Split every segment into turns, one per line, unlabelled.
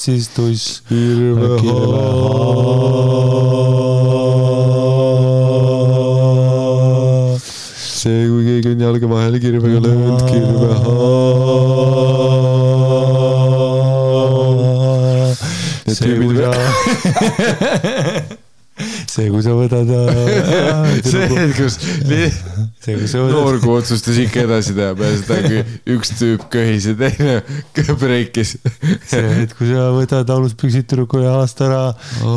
siis tuss
see, kui keegi on jalga vahele kirvega löönud,
see, kui sa võtad
noorgu otsustas ikka edasi teha peale seda, kui üks tüüp köhis ja teine breikis.
See, et kui sa võtad aluspüksid tüdruku jalast ära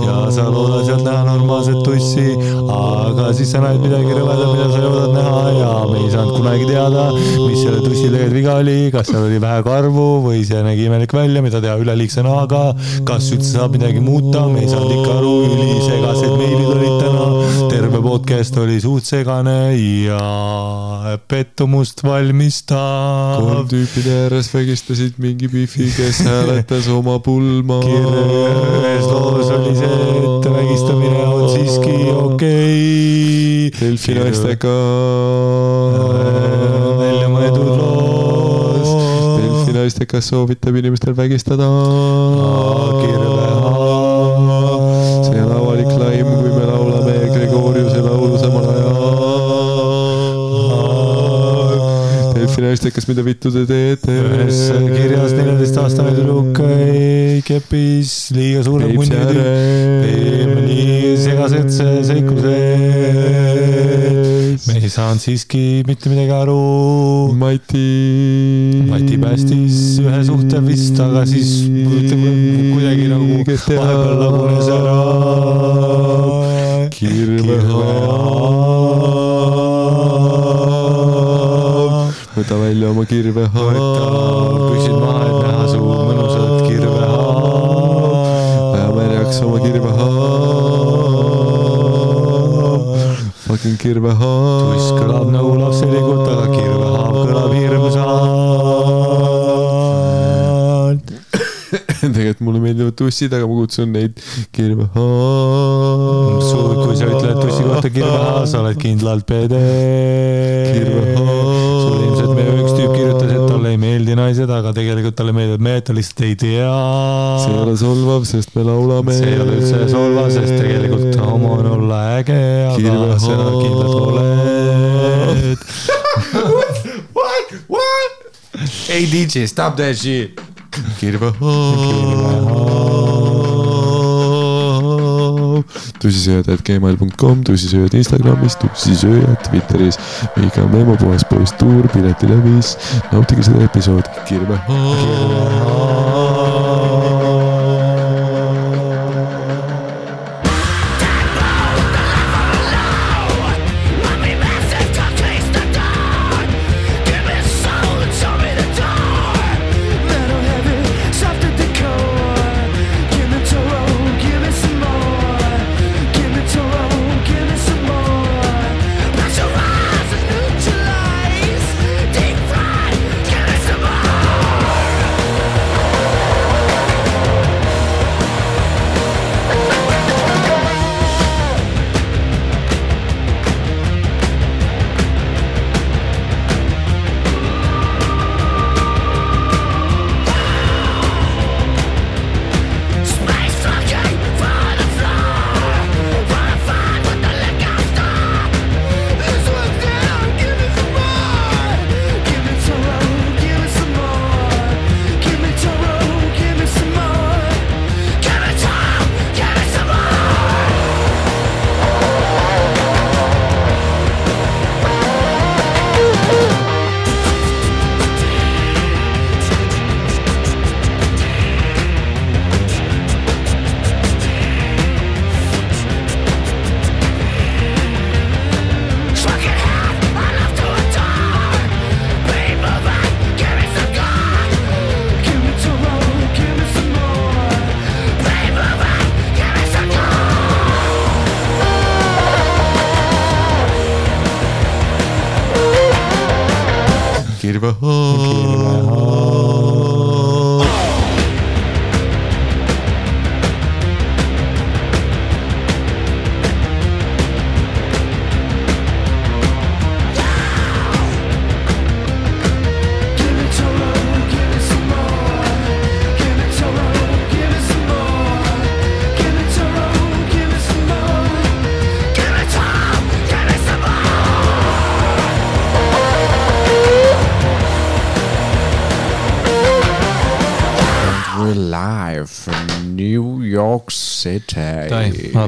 ja sa loodad sealt näha normaalset tussi, aga siis sa näed midagi rõvedam, mida sa loodad näha ja me ei saanud kunagi teada, mis selle tussi tegelikult viga oli, kas seal oli vähe karvu või see nägi imelik välja, mida teha üleliigse nahaga, kas üldse saab midagi muuta, me ei saanud ikka aru, ülisegased meilid olid täna, terve podcast oli suht segane ja pettumust valmistav.
3 tüüpide ääres vägistasid mingi bifi, kes hääletas oma pulma.
Ühes loos oli see, et vägistamine on siiski okei.
Delfi naistega
välja mõeldud loos.
Delfi naistega soovitab inimestel vägistada. See on avalik laim, kui me laulame Gregoriuse laulu samal ajal. Delfi naistekas, mida vittu te teete?
Ühes kirjas 14-aastane tüdruk kepis liiga suured munnid. Nii segased seiklused. Me ei saanud siiski mitte midagi aru. Mati päästis ühe suhte vist, aga siis kuidagi nagu vahepeal lagunes ära.
Võta välja oma kirvehaab.
Püksid maha, et näha su mõnusat kirvehaab.
Vähe märjaks oma kirvehaab. Fucking kirvehaab.
Tuss kõlab nagu lapselikult, aga kirvehaab kõlab hirmsalt.
Tegelikult mulle meeldivad tussid, aga ma kutsun neid kirvehaab.
Kui sa ütled tussi kohta kirvehaab, sa oled kindlalt pede. Sul ilmselt me üks tüüp kirjutas, et talle ei meeldi naised, aga tegelikult talle meeldivad mehed, ta lihtsalt ei tea.
See ei ole solvav, sest me laulame.
See ei ole üldse solvav, sest tegelikult homo on olla äge, aga sa kindlalt oled.
What? Hey DJ, stop that shit. tussisööjad@gmail.com, tussisööjad Instagramis, tussisööjad Twitteris, Miika Memo, puhas poiss tuur, piletilevis, nautige seda episoodi.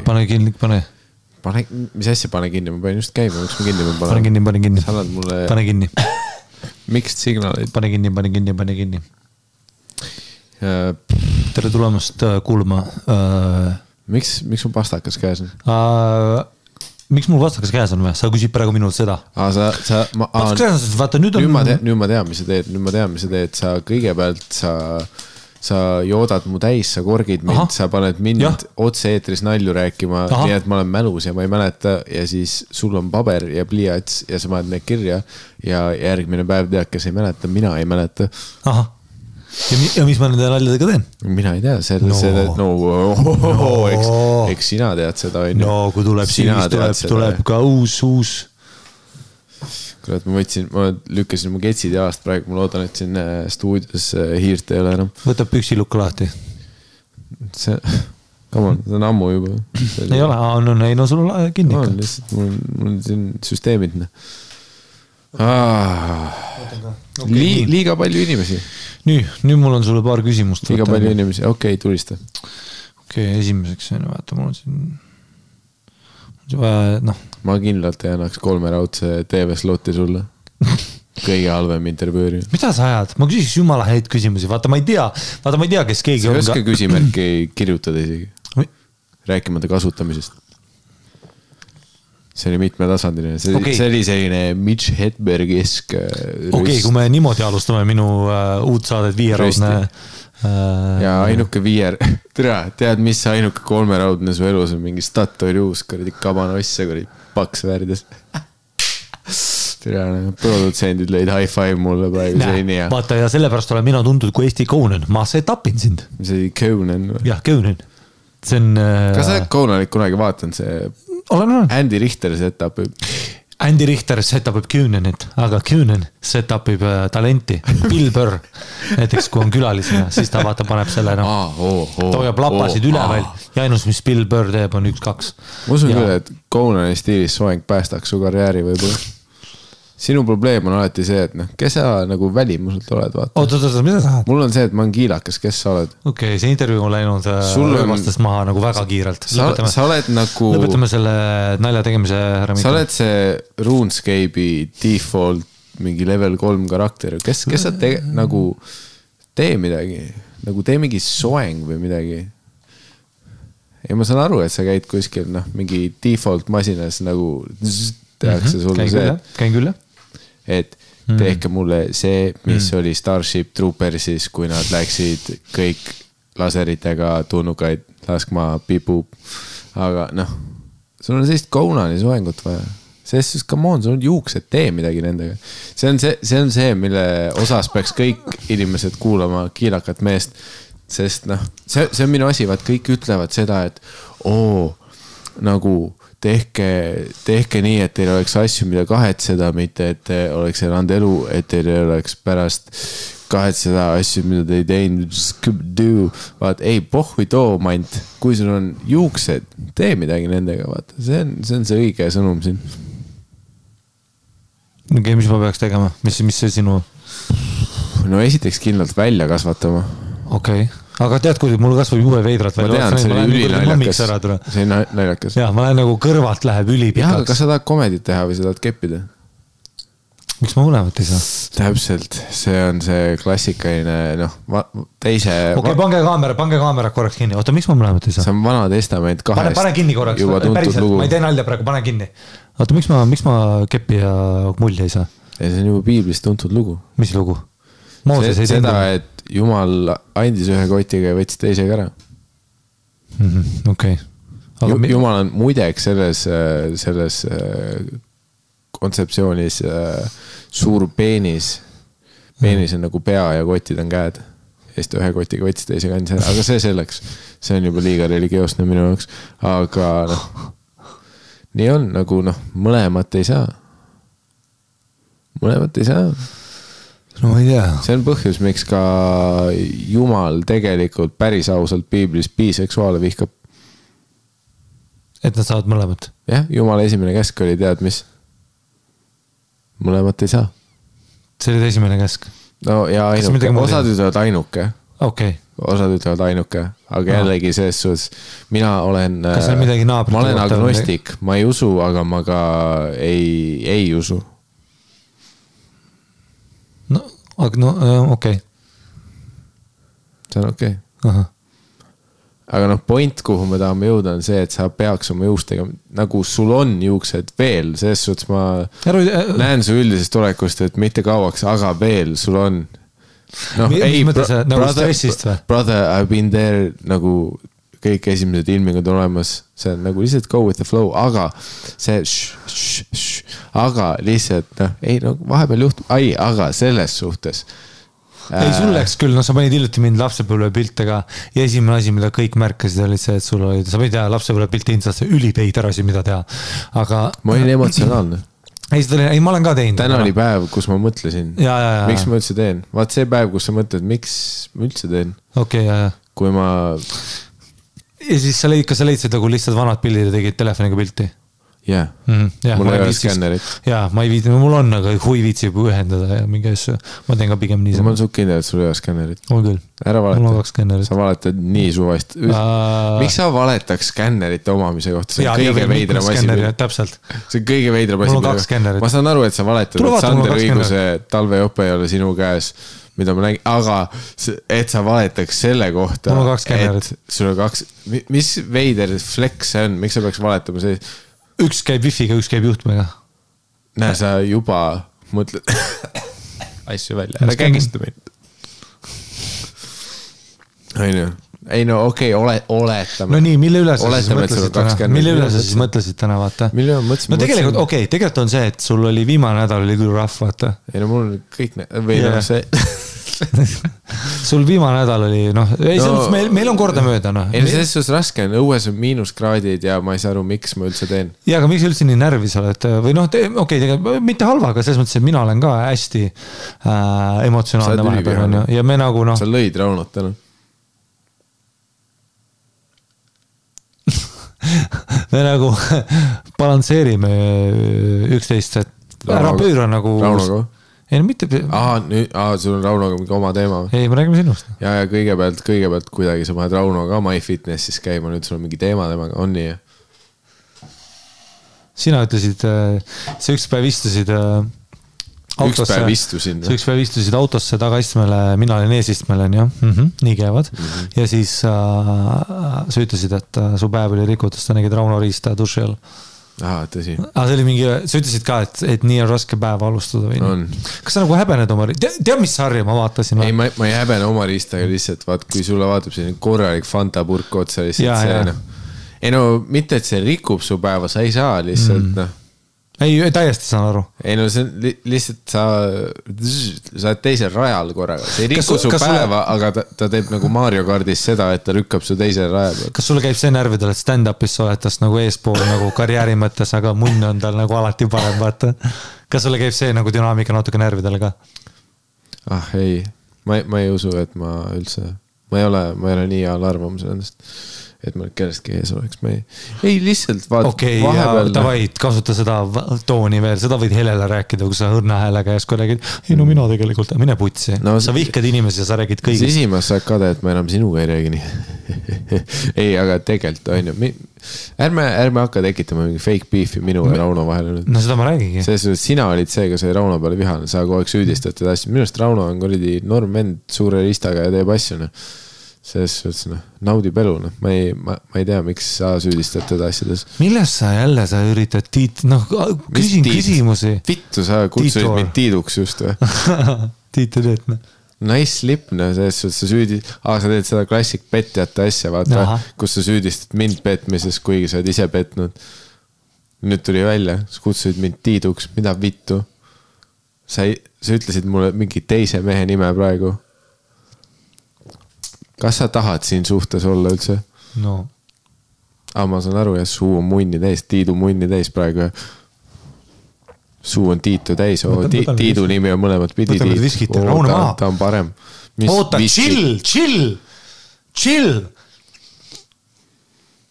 pane kinni, pane.
Mis asja pane kinni, ma panen just käima, miks ma kinni pean
panema? Pane kinni.
Sa annad mulle...
Pane kinni.
Miks signaalid?
Pane kinni. Tere tulemast kuulma.
Miks mul pastakas käes on?
Miks mul pastakas käes on või? Sa küsid praegu minult seda.
Pastakas
käes on, vaata nüüd on...
Nüüd ma tean, mis sa teed. Sa kõigepealt sa joodad mu täis, sa korgid mind, sa paned mind otse eetris nalju rääkima, nii et ma olen mälus ja ma ei mäleta ja siis sul on paber ja pliiats ja sa paned need kirja ja järgmine päev tead, kes ei mäleta, mina ei mäleta.
Ahah. Ja mis ma nende naljadega teen?
Mina ei tea, eks sina tead seda.
No, kui tuleb siis tuleb ka uus.
Kurat, ma lükkasin mu ketsid jalast praegu, ma loodan, et siin stuudios hiirt ei ole enam.
Võtab püksilukku lahti.
See on ammu juba.
Ei ole, no sul on kinni.
Mul on siin süsteemid. Liiga palju inimesi.
Nüüd mul on sulle paar küsimust.
Liiga palju inimesi, okei, tulista.
Okei, esimeseks, vaata, mul on siin... No.
Ma kindlalt ei annaks 3 raudse TV-slotti sulle. Kõige halvem intervjuuri.
Mida sa ajad? Ma küsiks jumala häid küsimusi. Vaata, ma ei tea, kes keegi
on. Sa ei oska küsimärki kirjutada isegi. Rääkimata kasutamisest. See oli mitmetasandiline. See oli selline Mitch Hedberg-esk
Okei, kui me niimoodi alustame minu uut saadet viieraudne...
Ja ainuke viier, tead, mis ainuke 3 raudne su elus on mingi Statoil uus, kuradi kabanosse, kuradi paks värdes. Produtsendid lõid high five mulle praegu, see ei nii hea.
Vaata, ja sellepärast olen mina tuntud kui Eesti Conan, ma setupin sind.
See oli Conan.
Jah, Conan. See on...
Kas sa Conanit kunagi vaatan, see Andy Richter setupib?
Andy Richter setupib Cunanit, aga Cunan setupib talenti. Bill Burr, näiteks kui on külalisena, siis ta vaata paneb selle hoiab lapasid üleval ja ainus, mis Bill Burr teeb, on 1-2.
Ma usun küll, et Conani stiilis soeng päästaks su karjääri võib-olla. Sinu probleem on alati see, et kes sa nagu välimuselt oled, vaata.
Oota, mida sa tahad?
Mul on see, et ma olen kiilakas, kes sa oled?
Okei, see intervjuu on läinud röövastest maha nagu väga kiirelt.
Sa oled nagu...
Lõpetame selle nalja tegemise ära.
Sa oled see RuneScape'i default mingi level 3 karakter. Kes sa nagu tee midagi? Nagu tee mingi soeng või midagi? Ja ma saan aru, et sa käid kuskil mingi default masinas nagu tehakse sulle see.
Käin küll, jah.
Et tehke mulle see, mis oli Starship Troopersis, kui nad läksid kõik laseritega tunnukaid laskma pipup. Aga sul on sellist Conani soengut vaja. Sest come on, sul on juuksed, tee midagi nendega. See on see, mille osas peaks kõik inimesed kuulama kiilakat meest. Sest see on minu asi, vaat kõik ütlevad seda, et nagu tehke nii, et teil oleks asju, mida kahetseda, mitte et te oleks elanud elu, et teil oleks pärast kahetseda asju, mida te ei teinud. Vaat, ei, pohhui too mant, kui sul on juuksed, tee midagi nendega, vaata. See on see õige sõnum siin.
Okei, mis ma peaks tegema? Mis see sinu?
No esiteks kindlalt välja kasvatama.
Okei. Aga tead, kui mul kasvab jube veidrat
välja. Ma tean, see oli ülinaljakas. See on naljakas.
Jah, ma lähen nagu kõrvalt läheb ülipikaks.
Jah, kas sa tahad komedit teha või sa tahad keppida?
Miks ma mõlemat ei saa?
Täpselt, see on see klassikaline, teise...
Okei, pange kaamera korraks kinni. Oota, miks ma mõlemat ei saa?
See on Vana Testament 2.
Pane kinni korraks, päriselt, ma ei tee nalja praegu, pane kinni. Oota, miks ma keppi ja mulli ei saa?
See on juba piiblist tuntud lugu.
Mis lugu?
Seda, et Jumal andis ühe kotiga ja võttis teisega ära.
Okei.
Jumal on muideks selles kontseptsioonis suur peenis peenis on nagu pea ja kotid on käed. Ja siis ta ühe kotiga võttis teise kandis ära, aga see selleks. See on juba liiga religioosne minu jaoks. Aga noh, nii on nagu noh, mõlemat ei saa. Mõlemat ei saa.
No ma ei tea.
See on põhjus, miks ka Jumal tegelikult päris ausalt piiblis biseksuaale vihkab.
Et nad saavad mõlemat.
Jah, Jumala esimene käsk oli tead mis? Mõlemat ei saa. See
oli esimene käsk?
No ja ainuke, osad ütlevad ainuke.
Okay.
Osad ütlevad ainuke, aga jällegi selles suhtes, mina olen, ma olen agnostik, ma ei usu, aga ma ka ei usu.
No, okei.
See on okei. Aga noh, point, kuhu me tahame jõuda on see, et sa peaks oma juustega, nagu sul on juuksed veel, selles suhtes ma näen su üldisest olekust, et mitte kauaks, aga veel sul on.
No, ei, nagu stressist või?
Brother, I've been there, nagu kõik esimesed ilmingud on olemas, see on nagu lihtsalt go with the flow, aga see aga lihtsalt, noh, ei, no vahepeal juhtub, aga selles suhtes
ei, sul läks küll, sa panid hiljuti mind lapsepõlve piltega ja esimene asi, mida kõik märkasid, oli see, et sul oli, sa võid teha lapsepõlve pilti instasse ülipeiter asi, mida teha, aga
ma olin emotsionaalne.
Ei, ma olen ka teinud.
Täna oli päev, kus ma mõtlesin, miks ma üldse teen. Vaat see päev, kus sa mõtled, miks ma üldse teen.
Okei,
kui ma...
Ja siis kas sa leidsid nagu lihtsalt vanad pildid ja tegid telefoniga pilti?
Jah, mul ei ole skännerit.
Jaa, ma ei viidi, mul on, aga hui viitsib ühendada ja mingi asju. Ma teen ka pigem nii.
Ma olen suht kindel, et sul ei ole skännerit.
Mul küll.
Ära valeta.
Sa
valetad nii suvast. Miks sa valetaks skännerite omamise kohta? See on kõige veidram asi.
Täpselt.
See on kõige veidram asi.
Mul on 2 skännerit.
Ma saan aru, et sa valetad, et Sander õiguse talvejope ei ole sinu käes, mida ma nägin, aga et sa valetaks selle kohta, et sul on 2, mis veider flex see on, miks sa peaks valetama see?
Üks käib wifiga, üks käib juhtmega.
Näe, sa juba mõtled asju välja, ära kägista meid. Ei no okei, oletame.
No nii, mille üle sa siis mõtlesid täna? Mille üle sa siis mõtlesid täna, vaata? No tegelikult, okei, tegelikult on see, et sul oli viimane nädal oli küll rahv, vaata.
Ei no mul on kõik, või no see...
Sul viimane nädal oli, meil on korda mööda,
Ei, selles suhtes raske on, õues on -kraadid ja ma ei saa aru, miks ma üldse teen.
Ja, aga miks üldse nii närvis oled? Või okei, tegelikult mitte halva, aga selles mõttes, et mina olen ka hästi emotsionaalne vahepeal. Ja me nagu,
Sa lõid Raunot täna.
Me nagu balansseerime üksteist, et ära pööra nagu...
Raunoga?
Ei, no mitte...
sul on Raunoga mingi oma teema.
Ei, me räägime sinust.
Ja kõigepealt kuidagi sa paned Raunoga MyFitnessis käima, nüüd sul on mingi teema temaga, on nii?
Sina ütlesid, sa üks päev istusid autosse. Üks päev istusid autosse tagaistmele, mina olin eesistmele, nii käivad. Ja siis sa ütlesid, et su päev oli rikutus, ta nägid Rauno riista duši all.
Tõsi.
See oli mingi, sa ütlesid ka, et nii on raske päeva alustada või nii. Kas sa nagu häbened oma riista? Tead, mis sarja ma vaatasin?
Ei, ma ei häbene oma riistaga lihtsalt, vaat kui sulle vaatab selline korralik Fanta purk otsa lihtsalt see, Ei no, mitte et see rikub su päeva, sa ei saa lihtsalt,
Ei, täiesti saan aru.
Ei no see on lihtsalt sa oled teisel rajal korraga. See ei riku su päeva, aga ta teeb nagu Mario Kardis seda, et ta rükkab su teisel rajal.
Kas sulle käib see närvidel, et stand-upis sa oled tast nagu eespool nagu karjääri mõttes, aga munn on tal nagu alati parem, vaata. Kas sulle käib see nagu dünaamika natuke närvidel ka?
Ei, ma ei usu, et ma üldse, ma ei ole nii hea arvamus endast. Et ma kellestki ees oleks, ei lihtsalt
Okei, davai, kasuta seda tooni veel, seda võid Helele rääkida, kui sa õrna häälega järsku räägid, ei no mina tegelikult, mine putsi, sa vihkad inimesi ja sa räägid kõigist.
Sisimas saad kade, et ma enam sinuga ei räägi nii. Ei, aga tegelikult on ju, ärme hakka tekitama mingi fake beefi minu ja Rauno vahele.
No seda ma räägigi.
Sina olid see, kes oli Rauno peale vihane, sa kogu aeg süüdistad teda asju. Minust Rauno on kuradi norm vend suure ristaga ja teeb asju, selles suhtes, naudib elu, ma ei tea, miks sa süüdistad teda asjades.
Milles sa üritad küsin küsimusi.
Vittu, sa kutsusid mind Tiiduks just või?
Tiitu teed,
Nice slip, selles suhtes sa süüdid, sa teed seda klassik petjate asja, vaata, kus sa süüdistad mind petmises, kuigi sa oled ise petnud. Nüüd tuli välja, sa kutsusid mind Tiiduks, mida vittu? sa ütlesid mulle mingi teise mehe nime praegu. Kas sa tahad siin suhtes olla üldse?
No.
Ma saan aru, ja suu on munni täis, Tiidu munni täis praegu. Suu on Tiitu täis. Tiidu nimi on mõlemad pidi. Ta on parem.
Oota, chill.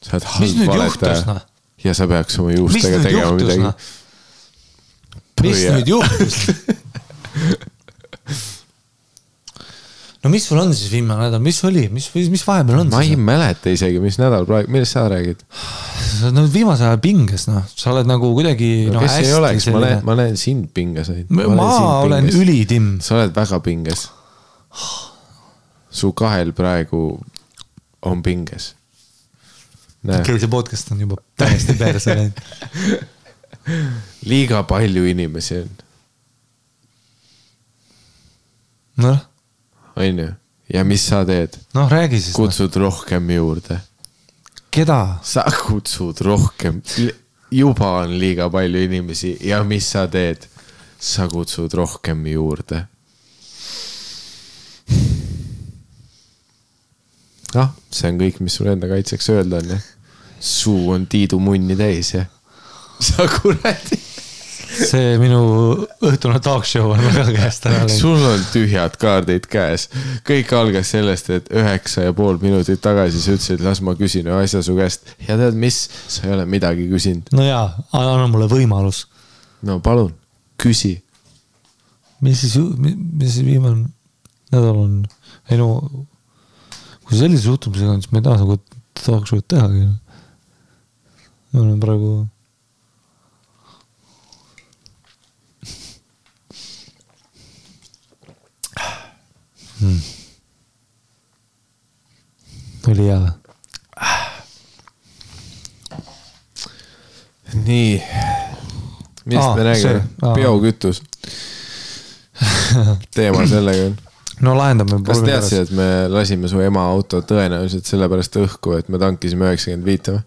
Sa oled halb valetaja. Ja sa peaks oma juustega tegema midagi.
Mis nüüd juhtus? No mis sul on siis viimane nädal? Mis oli? Mis vahepeal on?
Ma ei mäleta isegi, mis nädal praegu. Millest sa räägid?
No viimase ajal pinges, no. Sa oled nagu kuidagi
kes ei oleks? Ma näen sind pinges.
Ma olen ülitim.
Sa oled väga pinges. Su kahel praegu on pinges.
Okei, see podcast on juba täiesti perse läinud.
Liiga palju inimesi on.
Noh.
On ju? Ja mis sa teed?
Noh, räägi siis.
Kutsud rohkem juurde.
Keda?
Sa kutsud rohkem. Juba on liiga palju inimesi. Ja mis sa teed? Sa kutsud rohkem juurde. See on kõik, mis sul enda kaitseks öelda on, ja? Suu on Tiidu munni täis, ja? Sa kuradi.
See minu õhtune talk show on väga käest ära.
Sul on tühjad kaardid käes. Kõik algas sellest, et 9,5 minutit tagasi sa ütlesid, las ma küsin asja su käest. Ja tead mis? Sa ei ole midagi küsinud.
No jaa, anna mulle võimalus.
No palun, küsi.
Mis siis viimane nädal on? Ei no, kui sellise suhtumisega on, siis ma ei taha nagu talk show'd tehagi. Ma olen praegu... Oli hea.
Nii. Millest me räägime? Biokütus. Teema sellega on.
No lahendame.
Kas teadsid, et me lasime su ema auto tõenäoliselt sellepärast õhku, et me tankisime 95 või?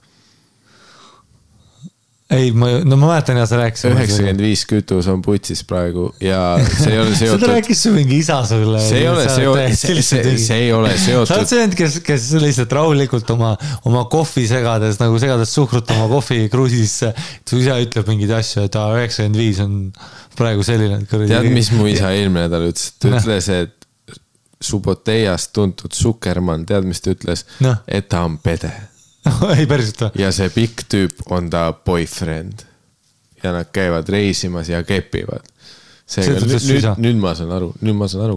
Ei, ma mäletan ja sa rääkisid.
95 kütus on putsis praegu ja see ei ole seotud.
Seda rääkis su mingi isa sulle.
See ei ole seotud.
Sa oled see, kes lihtsalt rahulikult oma kohvi segades suhkrut oma kohvi kruusisse. Su isa ütleb mingid asju, et 95 on praegu selline.
Tead, mis mu isa eelmine nädal ütles? Ta ütles, et Suboteiast tuntud Zuckerman, tead, mis ta ütles? Et ta on pede.
Ei päriselt või?
Ja see pikk tüüp on ta boyfriend. Ja nad käivad reisimas ja kepivad. Nüüd ma saan aru.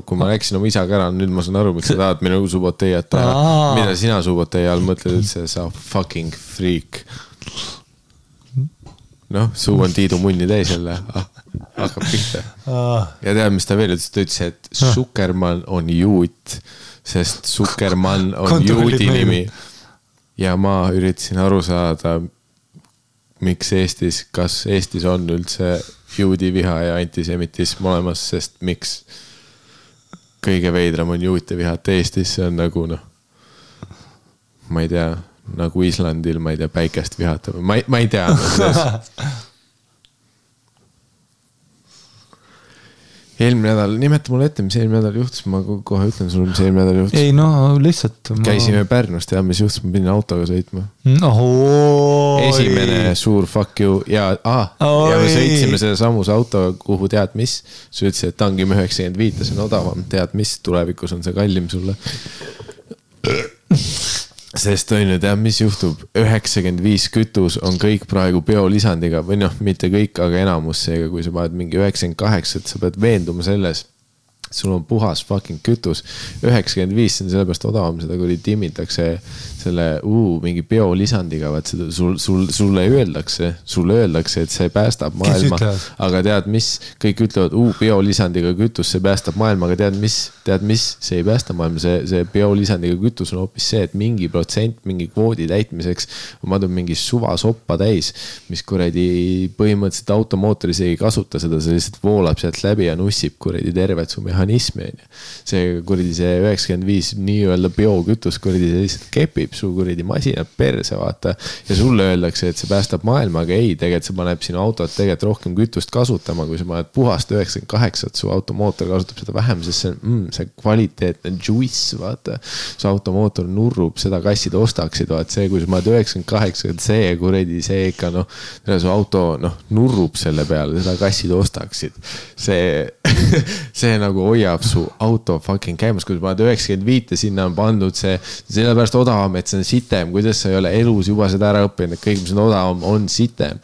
Kui ma rääkisin oma isaga ära, nüüd ma saan aru, miks sa tahad minu Suboteiat teha. Mida sina Suboteia all mõtled üldse, sa fucking freak. Noh, suu on Tiidu munni täis jälle. Hakkab pihta. Ja tead, mis ta veel ütles? Ta ütles, et Zuckerman on juut, sest Zuckerman on juudi nimi. Ja ma üritasin aru saada, miks kas Eestis on üldse juudi viha ja antisemitism olemas, sest miks kõige veidram on juute vihat Eestis, see on nagu ma ei tea, nagu Islandil, ma ei tea, päikest vihata, ma ei tea. Eelmine nädal, nimeta mulle ette, mis eelmine nädal juhtus, ma kohe ütlen sulle, mis eelmine nädal juhtus.
Ei no, lihtsalt
Käisime Pärnust ja mis juhtus, ma pidin autoga sõitma. Esimene suur fuck you ja me sõitsime selle samus autoga, kuhu tead mis. Sa ütlesid, et tangime 95, see on odavam, tead mis, tulevikus on see kallim sulle. Sest on ju, tead, mis juhtub? 95 kütus on kõik praegu biolisandiga või mitte kõik, aga enamus seega, kui sa paned mingi 98, et sa pead veenduma selles, sul on puhas fucking kütus. 95 on sellepärast odavam, seda kui timmitakse selle mingi biolisandiga, vaat seda sulle öeldakse, et see päästab maailma. Aga tead mis, kõik ütlevad, biolisandiga kütus, see päästab maailma, aga tead mis, see ei päästa maailma, see biolisandiga kütus on hoopis see, et mingi protsent, mingi kvoodi täitmiseks ma tulen mingi suva soppa täis, mis kuradi põhimõtteliselt automootoris ei kasuta seda, see lihtsalt voolab sealt läbi ja nussib kuradi tervet su mehhanismi. See kuradi see 95 nii-öelda biokütus kuradi see lihtsalt kepib su kuradi masinad perse, vaata. Ja sulle öeldakse, et see päästab maailma, aga ei, tegelikult see paneb sinu autot tegelikult rohkem kütust kasutama, kui sa paned puhast 98, su automootor kasutab seda vähem, sest see kvaliteetne juice, vaata. Su automootor nurrub, seda kassid ostaksid, vaata see, kui sa paned 98, see kuradi, see ikka su auto nurrub selle peale, seda kassid ostaksid. See nagu hoiab su auto fucking käimas, kui sa paned 95 sinna on pandud see, sellepärast odavam, et see on sitem, kuidas sa ei ole elus juba seda ära õppinud, et kõik, mis on odavam, on sitem.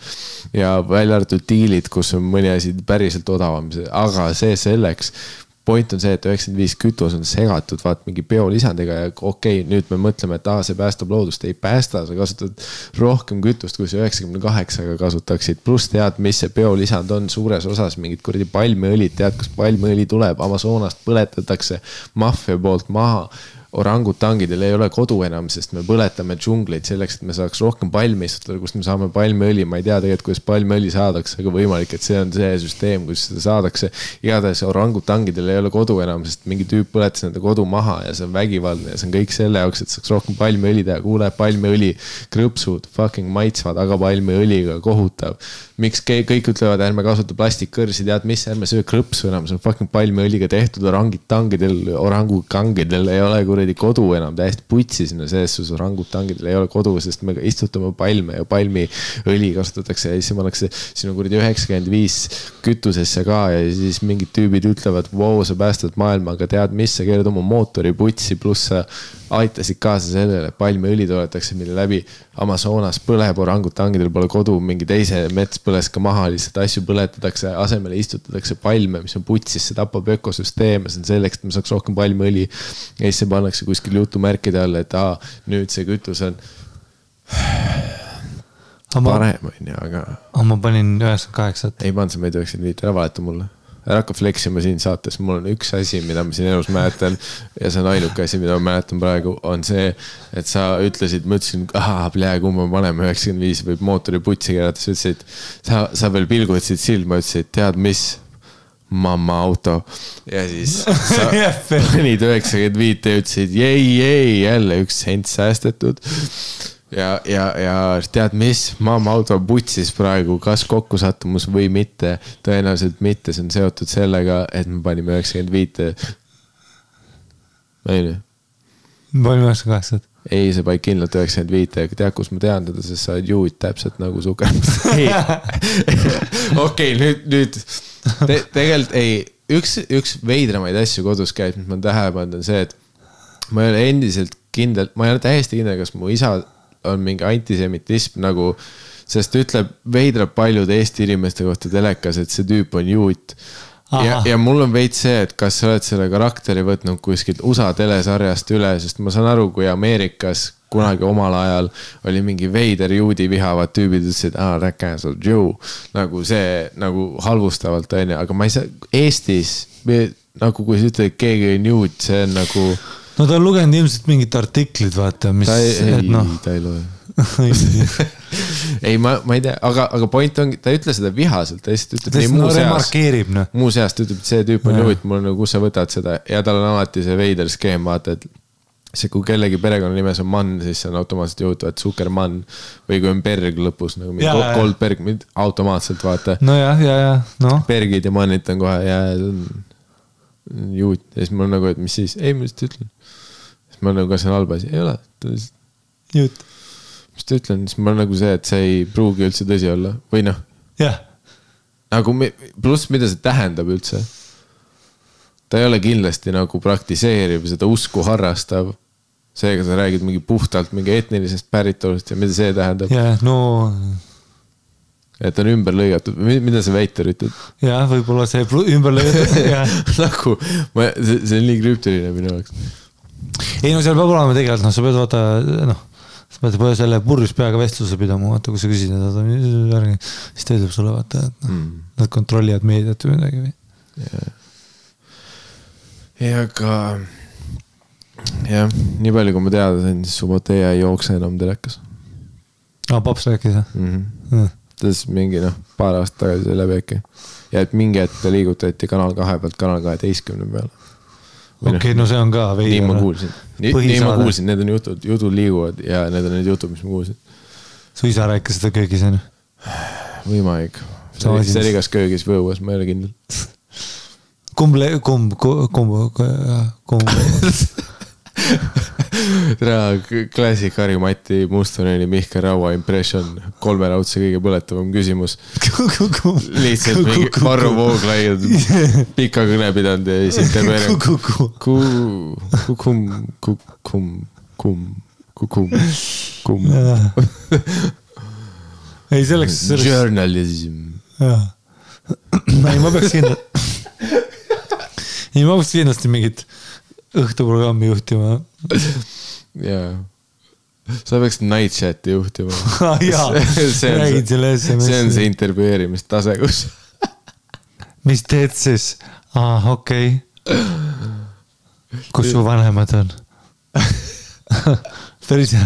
Ja välja arvatud diilid, kus on mõni asi päriselt odavam, aga see selleks. Point on see, et 95 kütus on segatud, vaat mingi biolisandiga ja okei, nüüd me mõtleme, et see päästab loodust, ei päästa, sa kasutad rohkem kütust, kui sa 98-ga kasutaksid, pluss tead, mis see biolisand on suures osas, mingid kuradi palmiõlid, tead, kus palmiõli tuleb, Amazonast põletatakse maffia poolt maha. Orangutangidel ei ole kodu enam, sest me põletame džungleid selleks, et me saaks rohkem palmi istutada, kust me saame palmiõli. Ma ei tea tegelikult, kuidas palmiõli saadakse, aga võimalik, et see on see süsteem, kus seda saadakse. Igatahes orangutangidel ei ole kodu enam, sest mingi tüüp põletas nende kodu maha ja see on vägivaldne ja see on kõik selle jaoks, et saaks rohkem palmiõli teha. Kuule, palmiõli krõpsud, fucking maitsvad, aga palmiõliga kohutav. Miks kõik ütlevad, ärme kasuta plastikkõrsi, tead mis, ärme söö krõpsu enam, see on fucking palmiõliga tehtud, orangutangidel ei ole kuradi kodu enam, täiesti putsi sinna sees, sus orangutangidel ei ole kodu, sest me istutame palme ja palmiõli kasutatakse ja siis pannakse sinu kuradi 95 kütusesse ka ja siis mingid tüübid ütlevad, wow, sa päästad maailma, aga tead mis, sa keerad oma mootori putsi, pluss sa aitasid kaasa sellele, palmiõli toodetakse, mille läbi Amazonas põleb, orangutangidel pole kodu, mingi teise mets põles ka maha, lihtsalt asju põletatakse, asemele istutatakse palme, mis on putsis, see tapab ökosüsteeme, see on selleks, et me saaks rohkem palmiõli ja siis see pannakse kuskil jutumärkide all, et nüüd see kütus on parem, aga...
Ma panin 98.
Ei pannud, sa meid 95, ära valeta mulle. Ära hakka fleksima siin saates, mul on üks asi, mida ma siin elus mäletan ja see on ainuke asi, mida ma mäletan praegu, on see, et sa ütlesid, ma ütlesin, kui ma paneme 95 võib mootori putsi keerata, sa ütlesid, sa veel pilgutasid silma, ütlesid, tead mis, mamma auto ja siis sa panid 95 ja ütlesid, jei, jälle üks sent säästetud. Ja tead mis, mamma auto putsis praegu, kas kokkusattumus või mitte, tõenäoliselt mitte, see on seotud sellega, et me panime 95. Võin?
Panime 98.
Ei, see paik kindlalt 95, aga tead, kus ma tean teda, sest sa oled juud täpselt nagu suker. Okei, nüüd tegelikult ei, üks veidramaid asju kodus käib, mis ma tähele pannud on see, et ma ei ole endiselt kindel, ma ei ole täiesti kindel, kas mu isa on mingi antisemitism nagu, sest ütleb veidrab paljude Eesti inimeste kohta telekas, et see tüüp on juut. Ja mul on veits see, et kas sa oled selle karakteri võtnud kuskilt USA telesarjast üle, sest ma saan aru, kui Ameerikas kunagi omal ajal oli mingi veider juudi vihavad tüübid, ütlesid, that cancel Jew, nagu see nagu halvustavalt on, aga ma ei saa, Eestis, nagu kui sa ütled, keegi on juut, see on nagu...
No ta on lugenud ilmselt mingid artiklid, vaata, mis...
Ta ei loe. Ei, ma ei tea, aga point on, ta ei ütle seda vihaselt, ta lihtsalt ütleb nii muu seast, ütleb, et see tüüp on juut, mul on, kus sa võtad seda ja tal on alati see veider skeem, vaata, et see, kui kellegi perekonna nimes on Mann, siis see on automaatselt juhtuvad Zuckermann või kui on Berg lõpus, nagu Goldberg, automaatselt, vaata.
No no.
Bergid ja Mannit on kohe ja see on juut ja siis mul nagu, et mis siis, ei, ma lihtsalt ütlen. Siis ma nagu, kas see on halb asi? Ei ole, ta lihtsalt...
Juut.
Mis ta ütlen, siis ma nagu see, et see ei pruugi üldse tõsi olla. Või noh.
Jah.
Nagu pluss, mida see tähendab üldse. Ta ei ole kindlasti nagu praktiseeriv, seda usku harrastav. Seega sa räägid mingi puhtalt mingi etnilisest päritolust ja mida see tähendab.
Jah, no...
Et on ümber lõigatud. Mida see väiter ütleb?
Jah, võib-olla see ümber lõigatud.
Nagu, see on nii krüptiline minu jaoks.
Ei, no seal peab olema tegelikult, sa pead vaata, sa pead selle purjus peaga vestluse pidama, vaata, kui sa küsid, siis ta ütleb sulle, vaata, et nad kontrollivad meediat või midagi või.
Ja ka nii palju, kui ma teada sain, siis Suboteja ei jookse enam telekas.
Paps rääkis, jah?
tas mingi paar aastat tagasi see läbi äkki. Ja et mingi hetk liigutati Kanal 2 pealt Kanal 12 peale.
Okei, no see on ka veidi.
Nii ma kuulsin. Nii ma kuulsin, need on jutud liiguvad ja need on need jutud, mis ma kuulsin.
Su isa rääkis seda köögis, on?
Võimalik. See oli kas köögis või õues, ma ei ole kindel.
Kumb.
Klassik Harri-Mati Mustoneni Mihkel Raua impression 3 laudse kõige põletavam küsimus. Lihtsalt mingi Varro Vooglaiad pika kõne pidanud ja siis intervjueerib. Kukum.
Ei, selleks...
Journalism.
Ei, ma peaks kindlasti mingit õhtuprogrammi juhtima.
Jaa. Sa peaks night chati juhtima.
Jaa, räägid selle SMS.
See on see intervjueerimistase, kus.
Mis teed siis? Okei. Kus su vanemad on? Päris hea.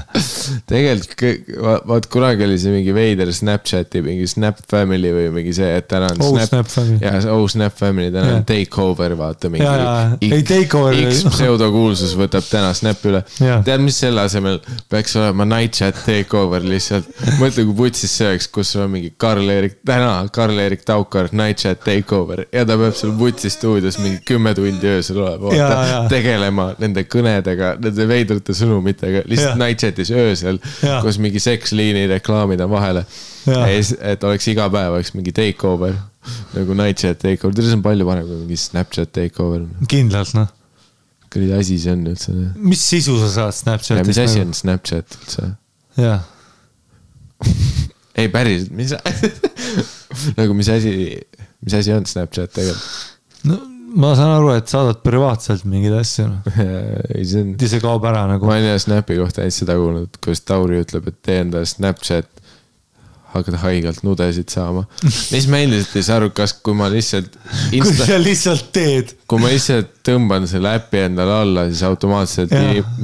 Tegelikult, vaat kunagi oli see mingi veider Snapchati, mingi Snap Family või mingi see, et täna on
Snap Family.
Ja Snap Family, täna on Takeover, vaata mingi
X
pseudokuulsus võtab täna Snap üle. Tead, mis selle asemel peaks olema Night Chat Takeover lihtsalt. Mõtle, kui putsis see oleks, kus on mingi Karl-Erik Taukar Night Chat Takeover ja ta peab seal putsi stuudios mingi 10 tundi öösel olema, tegelema nende kõnedega, nende veidrute sõnumitega, lihtsalt Night Chatis öösel, kus mingi seksliini reklaamid on vahele. Et oleks iga päev oleks mingi takeover, nagu Night Chat takeover. Teil on palju parem kui mingi Snapchat takeover.
Kindlalt, noh.
Kõrdi asi see on üldse.
Mis sisu sa saad Snapchatis?
Ja mis asi on Snapchat üldse?
Jaa.
Ei, päris, nagu mis asi on Snapchat tegelikult?
No, ma saan aru, et saadad privaatselt mingid asju. See kaob ära nagu.
Ma olen Snapi kohta ainult seda kuulnud, kus Tauri ütleb, et tee enda Snapchat hakkad haigalt nudesid saama. Mis ma endiselt ei saa aru, kas kui ma lihtsalt
kui sa lihtsalt teed.
Kui ma lihtsalt tõmban selle äppi endale alla, siis automaatselt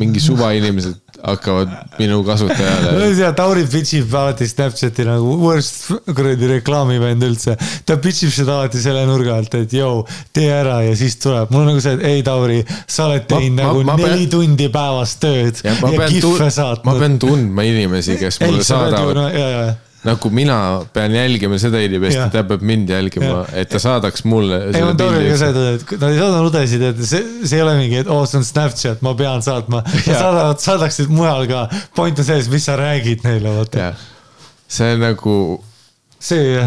mingi suva inimesed hakkavad minu kasutajale.
Tauri pitchib alati Snapchati nagu worst reklaamivend üldse. Ta pitchib seda alati selle nurga alt, et jõu, tee ära ja siis tuleb. Mul on nagu see, et ei Tauri, sa oled teinud nagu 4 tundi päevast tööd ja kiffe saatnud.
Ma pean tundma inimesi, kes mulle saadavad. Nagu mina pean jälgima seda inimest, et ta peab mind jälgima, et ta saadaks mulle
ei, ma Tauriga ka seda, et nad ei saada nudesid, et see ei ole mingi, et see on Snapchat, ma pean saatma. Saadaksid mujal ka. Point on sees, mis sa räägid neile.
See on nagu see,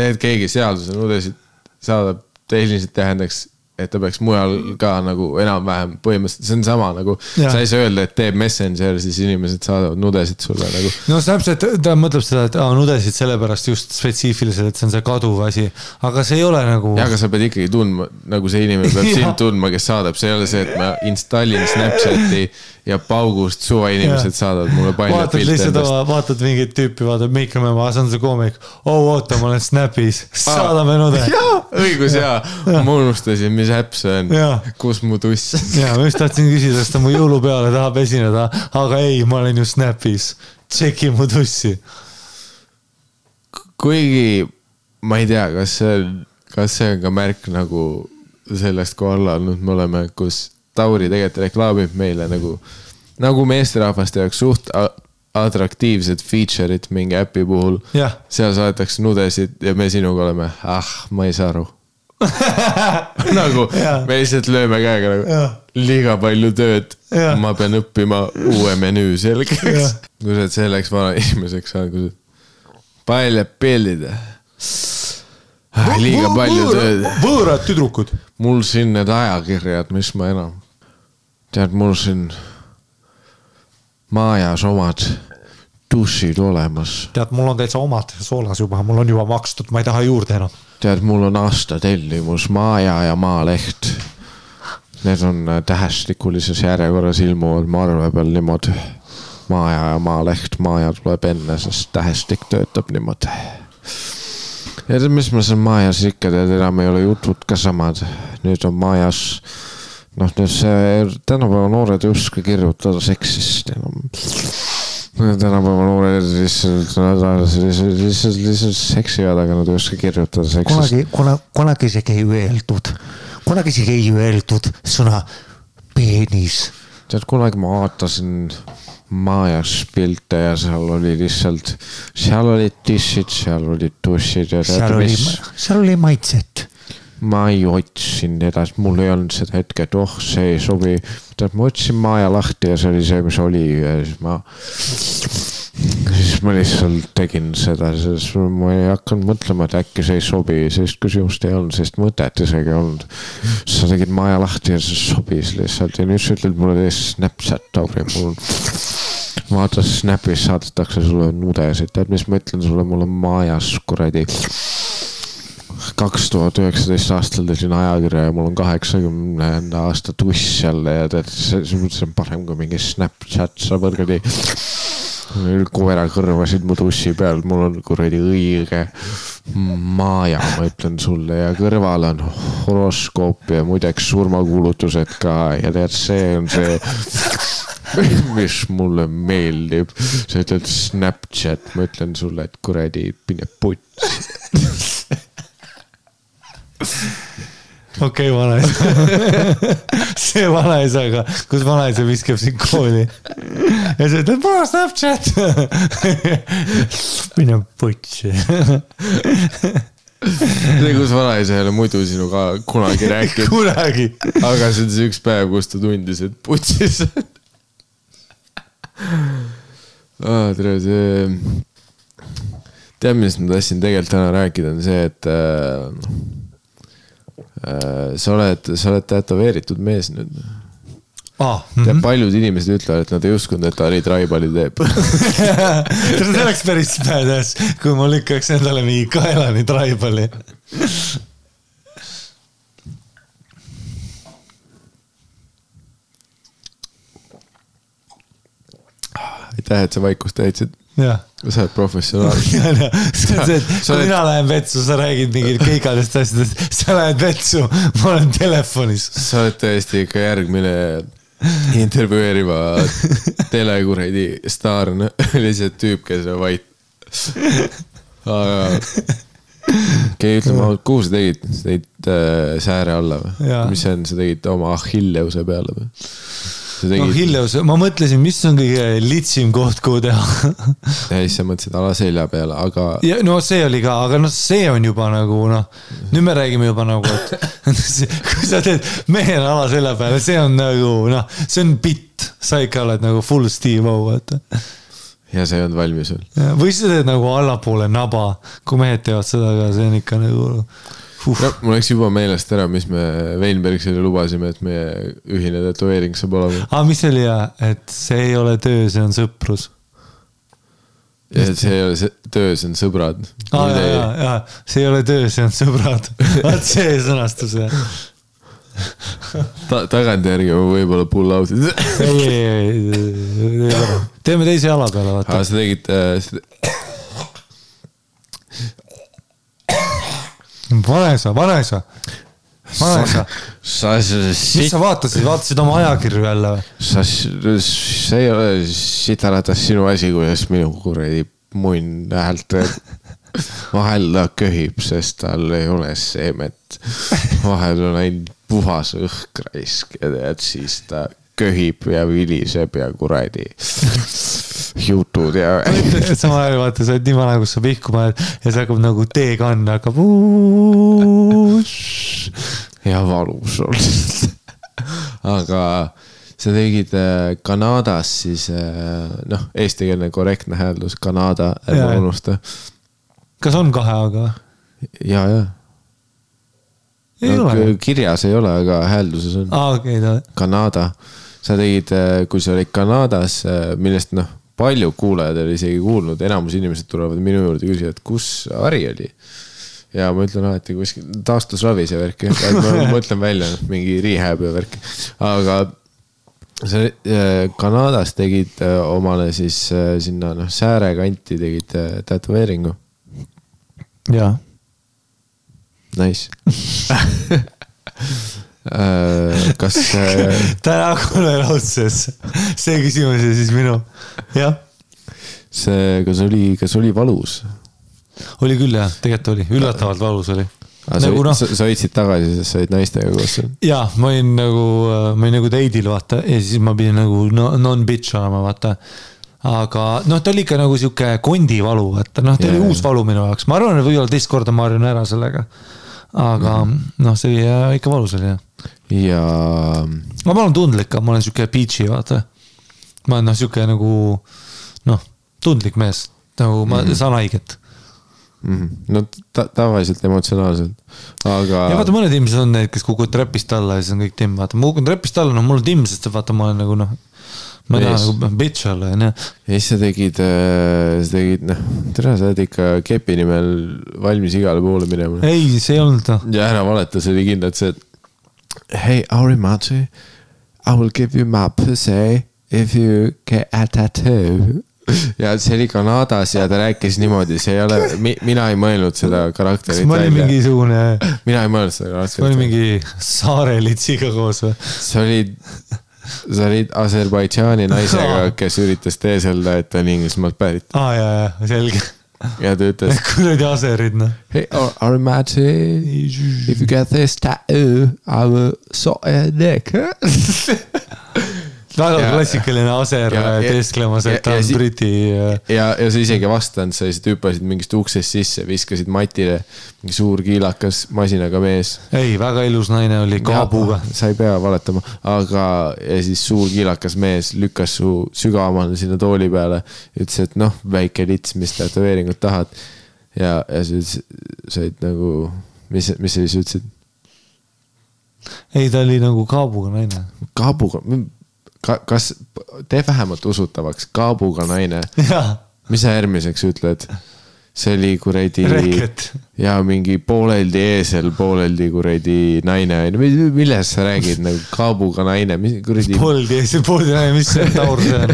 et keegi seaduse nudesid saadab, tehniliselt tähendaks, et ta peaks mujal ka nagu enam-vähem põhimõtteliselt, see on sama nagu, sa ei saa öelda, et teeb Messenger, siis inimesed saadavad nudesid sulle nagu.
No Snapchat, ta mõtleb seda, et nudesid sellepärast just spetsiifiliselt, et see on see kaduv asi, aga see ei ole nagu...
Ja, aga sa pead ikkagi tundma, nagu see inimene peab sind tundma, kes saadab, see ei ole see, et ma installin Snapchati ja paugust suva inimesed saadavad mulle palju pilte endast.
Vaatad mingit tüüpi, vaatad Meikame, ma saan see koomik, oota, ma olen Snapis, saadame nude.
Õigus, ma unustasin, mis äpp see on, kus mu tuss.
Ja, ma just tahtsin küsida, sest ta mu jõulupeale tahab esineda, aga ei, ma olen ju Snapis, tšeki mu tussi. Kuigi,
ma ei tea, kas see on ka märk nagu sellest, kui alla olnud me oleme, kus Tauri tegelikult reklaamib meile nagu meesterahvaste jaoks suht atraktiivsed feature'id mingi äpi puhul. Seal saadetakse nudesid ja me sinuga oleme, ma ei saa aru. Nagu me lihtsalt lööme käega nagu liiga palju tööd. Ma pean õppima uue menüü selgeks. Kui sa oled selleks vana inimeseks saanud, kui sa palju pillida. Liiga palju tööd.
Võõrad tüdrukud.
Mul siin need ajakirjad, mis ma enam. Tead, mul siin maajas omad dušid olemas.
Tead, mul on täitsa omad soolas juba, mul on juba makstud, ma ei taha juurde enam.
Tead, mul on aasta tellimus Maaja ja Maaleht. Need on tähestikulises järjekorras ilmuvad marve peal niimoodi. Maaja ja Maaleht, Maaja tuleb enne, sest tähestik töötab niimoodi. Ja mis ma seal Maajas ikka tead, enam ei ole jutud ka samad. Nüüd on Maajas, nüüd see tänapäeva noored ei uska kirjutada seksist. tänapäeva noored lihtsalt seksivad, aga nad ei oska kirjutada seksist.
Kunagi isegi ei öeldud sõna peenis.
Tead, kunagi ma vaatasin Majas pilte ja seal oli lihtsalt, seal olid tissid, seal olid tussid ja
seal oli maitset.
Ma ei otsin edasi, mul ei olnud seda hetke, et see ei sobi. Tead, ma otsin Maja lahti ja see oli see, mis oli ja siis ma lihtsalt tegin seda, sest ma ei hakanud mõtlema, et äkki see ei sobi, sellist küsimust ei olnud, sellist mõtet isegi olnud. Sa tegid Maja lahti ja see sobis lihtsalt ja nüüd sa ütled mulle tees Snapchat, Tauri, mul vaata Snapis saadetakse sulle nudesid, tead, mis ma ütlen sulle, mul on Majas kuradi 2019 aastal tegin ajakirja ja mul on 80 aasta tuss jälle ja tead, see on parem kui mingi Snapchat, sa võrgadi koera kõrvasid mu tussi peal, mul on kuradi õige Maja, ma ütlen sulle ja kõrval on horoskoop ja muideks surmakuulutused ka ja tead, see on see mis mulle meeldib, sa ütled Snapchat, ma ütlen sulle, et kuradi pine puts.
Okei, vanaisa. See vanaisaga, kus vanaisa viskab siin kooli. Ja see ütleb, mul on Snapchat. Mine putsi.
See, kus vanaisa ei ole muidu sinuga kunagi rääkinud.
Kunagi.
Aga see on see üks päev, kus ta tundis, et putsis. Tere, see... Tead, millest ma tahtsin tegelikult täna rääkida, on see, et sa oled tätoveeritud mees nüüd. Tead, paljud inimesed ütlevad, et nad ei uskunud, et Ari Traibali teeb.
See oleks päris badass, kui ma lükkaks endale mingi kaelani Traibali.
Aitäh, et sa vaikust täitsid.
Jah.
Sa oled professionaal.
Kui mina lähen vetsu, sa räägid mingid kõigadest asjadest, sa lähed vetsu, ma olen telefonis.
Sa oled tõesti ikka järgmine intervjueeriva telekuredi staarna. Oli see tüüp, kes on vait. Aga ütleme, kuhu sa tegid? Sa tegid sääre alla või? Mis see on? Sa tegid oma Achilleuse peale või?
Achilleus, ma mõtlesin, mis on kõige litsim koht, kuhu teha.
Ja siis sa mõtlesid ala selja peale, aga...
Ja, no see oli ka, aga see on juba nagu, nüüd me räägime juba nagu, et kui sa teed mehena ala selja peale, see on nagu, see on bitt. Sa ikka oled nagu full Steve O, vaata.
Ja see on valmis sul.
Või sa teed nagu allapoole naba, kui mehed teevad seda, aga see on ikka nagu...
No, mul oleks juba meelest ära, mis me Weinbergsile lubasime, et meie ühine tetoveering saab olema.
Mis oli et see ei ole töö, see on sõprus.
Ja see ei ole töö, see on sõbrad.
See ei ole töö, see on sõbrad. Vaat see sõnastus.
Tagantjärgi võib-olla pull out.
Ei. Teeme teise jala peale, vaata.
Sa tegid...
Vanaisa. Mis sa vaatasid? Vaatasid oma ajakirju jälle või?
See ei ole sitaratas sinu asi, kuidas minu kuradi munn häält vahel ta köhib, sest tal ei ole seemet. Vahel on ainult puhas õhkraisk ja tead, siis ta köhib ja viliseb ja kuradi jutud ja...
Sama ajal vaata, sa oled nii vana, kus sa pihku paned ja see hakkab nagu teekann hakkab
ja valus on. Aga sa tegid Kanadas siis, eestikeelne korrektne hääldus, Kanada, ärma unusta.
Kas on 2 aga?
Ja. Kirjas ei ole, aga häälduses on.
Okei.
Kanada. Sa tegid, kui sa olid Kanadas, millest palju kuulajad oli isegi kuulnud, enamus inimesed tulevad minu juurde küsida, et kus Ari oli. Ja ma ütlen alati kuskil taastusravis ja värki. Ma mõtlen välja mingi rehab ja värki. Aga sa Kanadas tegid omale siis sinna sääre kanti tegid tätoveeringu.
Jaa.
Nice. Kas
täna kuule raudses see küsimus ja siis minu jah
kas oli valus?
Oli küll jah, tegelikult oli, üllatavalt valus oli.
Nagu sa võitsid tagasi, sest sa olid naistega koos.
Jaa, ma olin nagu teidil, vaata, ja siis ma pidin nagu non-bitch olema, vaata. Aga ta oli ikka nagu siuke kondivalu, vaata, ta oli uus valu minu jaoks. Ma arvan, et võib-olla teist korda ma harjun ära sellega. Aga see oli ikka valus oli, jah.
Ja...
Ma olen tundlik, ma olen siuke peachy, vaata. Ma olen siuke nagu, tundlik mees, nagu ma saan haiget.
No tavaliselt emotsionaalselt, aga... Ja
vaata, mõned inimesed on need, kes kukud trepist alla ja siis on kõik timm, vaata. Ma kukun trepist alla, mul on timm, sest vaata, ma olen nagu, ma ei taha nagu bitch olla, ja
siis sa tegid, tere, sa oled ikka kepi nimel valmis igale poole minema.
Ei, see ei olnud.
Ja ära valeta, see oli kindlalt see, et hey, Aurimachi, I will give you my pussy if you get a tattoo. Ja see oli Kanadas ja ta rääkis niimoodi, see ei ole, mina ei mõelnud seda karakterit.
Ma olin mingisugune...
Mina ei mõelnud seda karakterit.
Ma olin mingi saarelitsiga koos või?
Sa olid Aserbaidžaani naisega, kes üritas teeselda, et ta on Inglismaalt pärit.
Jaa, selge.
Ja ta ütles...
Kuradi aserid,
Hey, Arimati, if you get this tattoo, I will sort your neck.
Väga klassikaline aser teesklemas, et ta on briti...
Ja sa isegi vastanud, sa lihtsalt hüppasid mingist uksest sisse, viskasid matile mingi suur kiilakas masinaga mees.
Ei, väga ilus naine oli kaabuga.
Sa ei pea valetama, aga ja siis suur kiilakas mees lükkas su sügavamale sinna tooli peale, ütles, et väike lits, mis tätoveeringut tahad. Ja sa olid nagu, mis sa siis ütlesid?
Ei, ta oli nagu kaabuga naine.
Kaabuga... Kas tee vähemalt usutavaks kaabuga naine? Mis sa järgmiseks ütled? See oli kuredi...
Reket.
Ja mingi pooleldi eesel, pooleldi kuredi naine. Milles sa räägid? Nagu kaabuga naine?
Pooleldi eesel, pooleldi naine, mis see taur see on?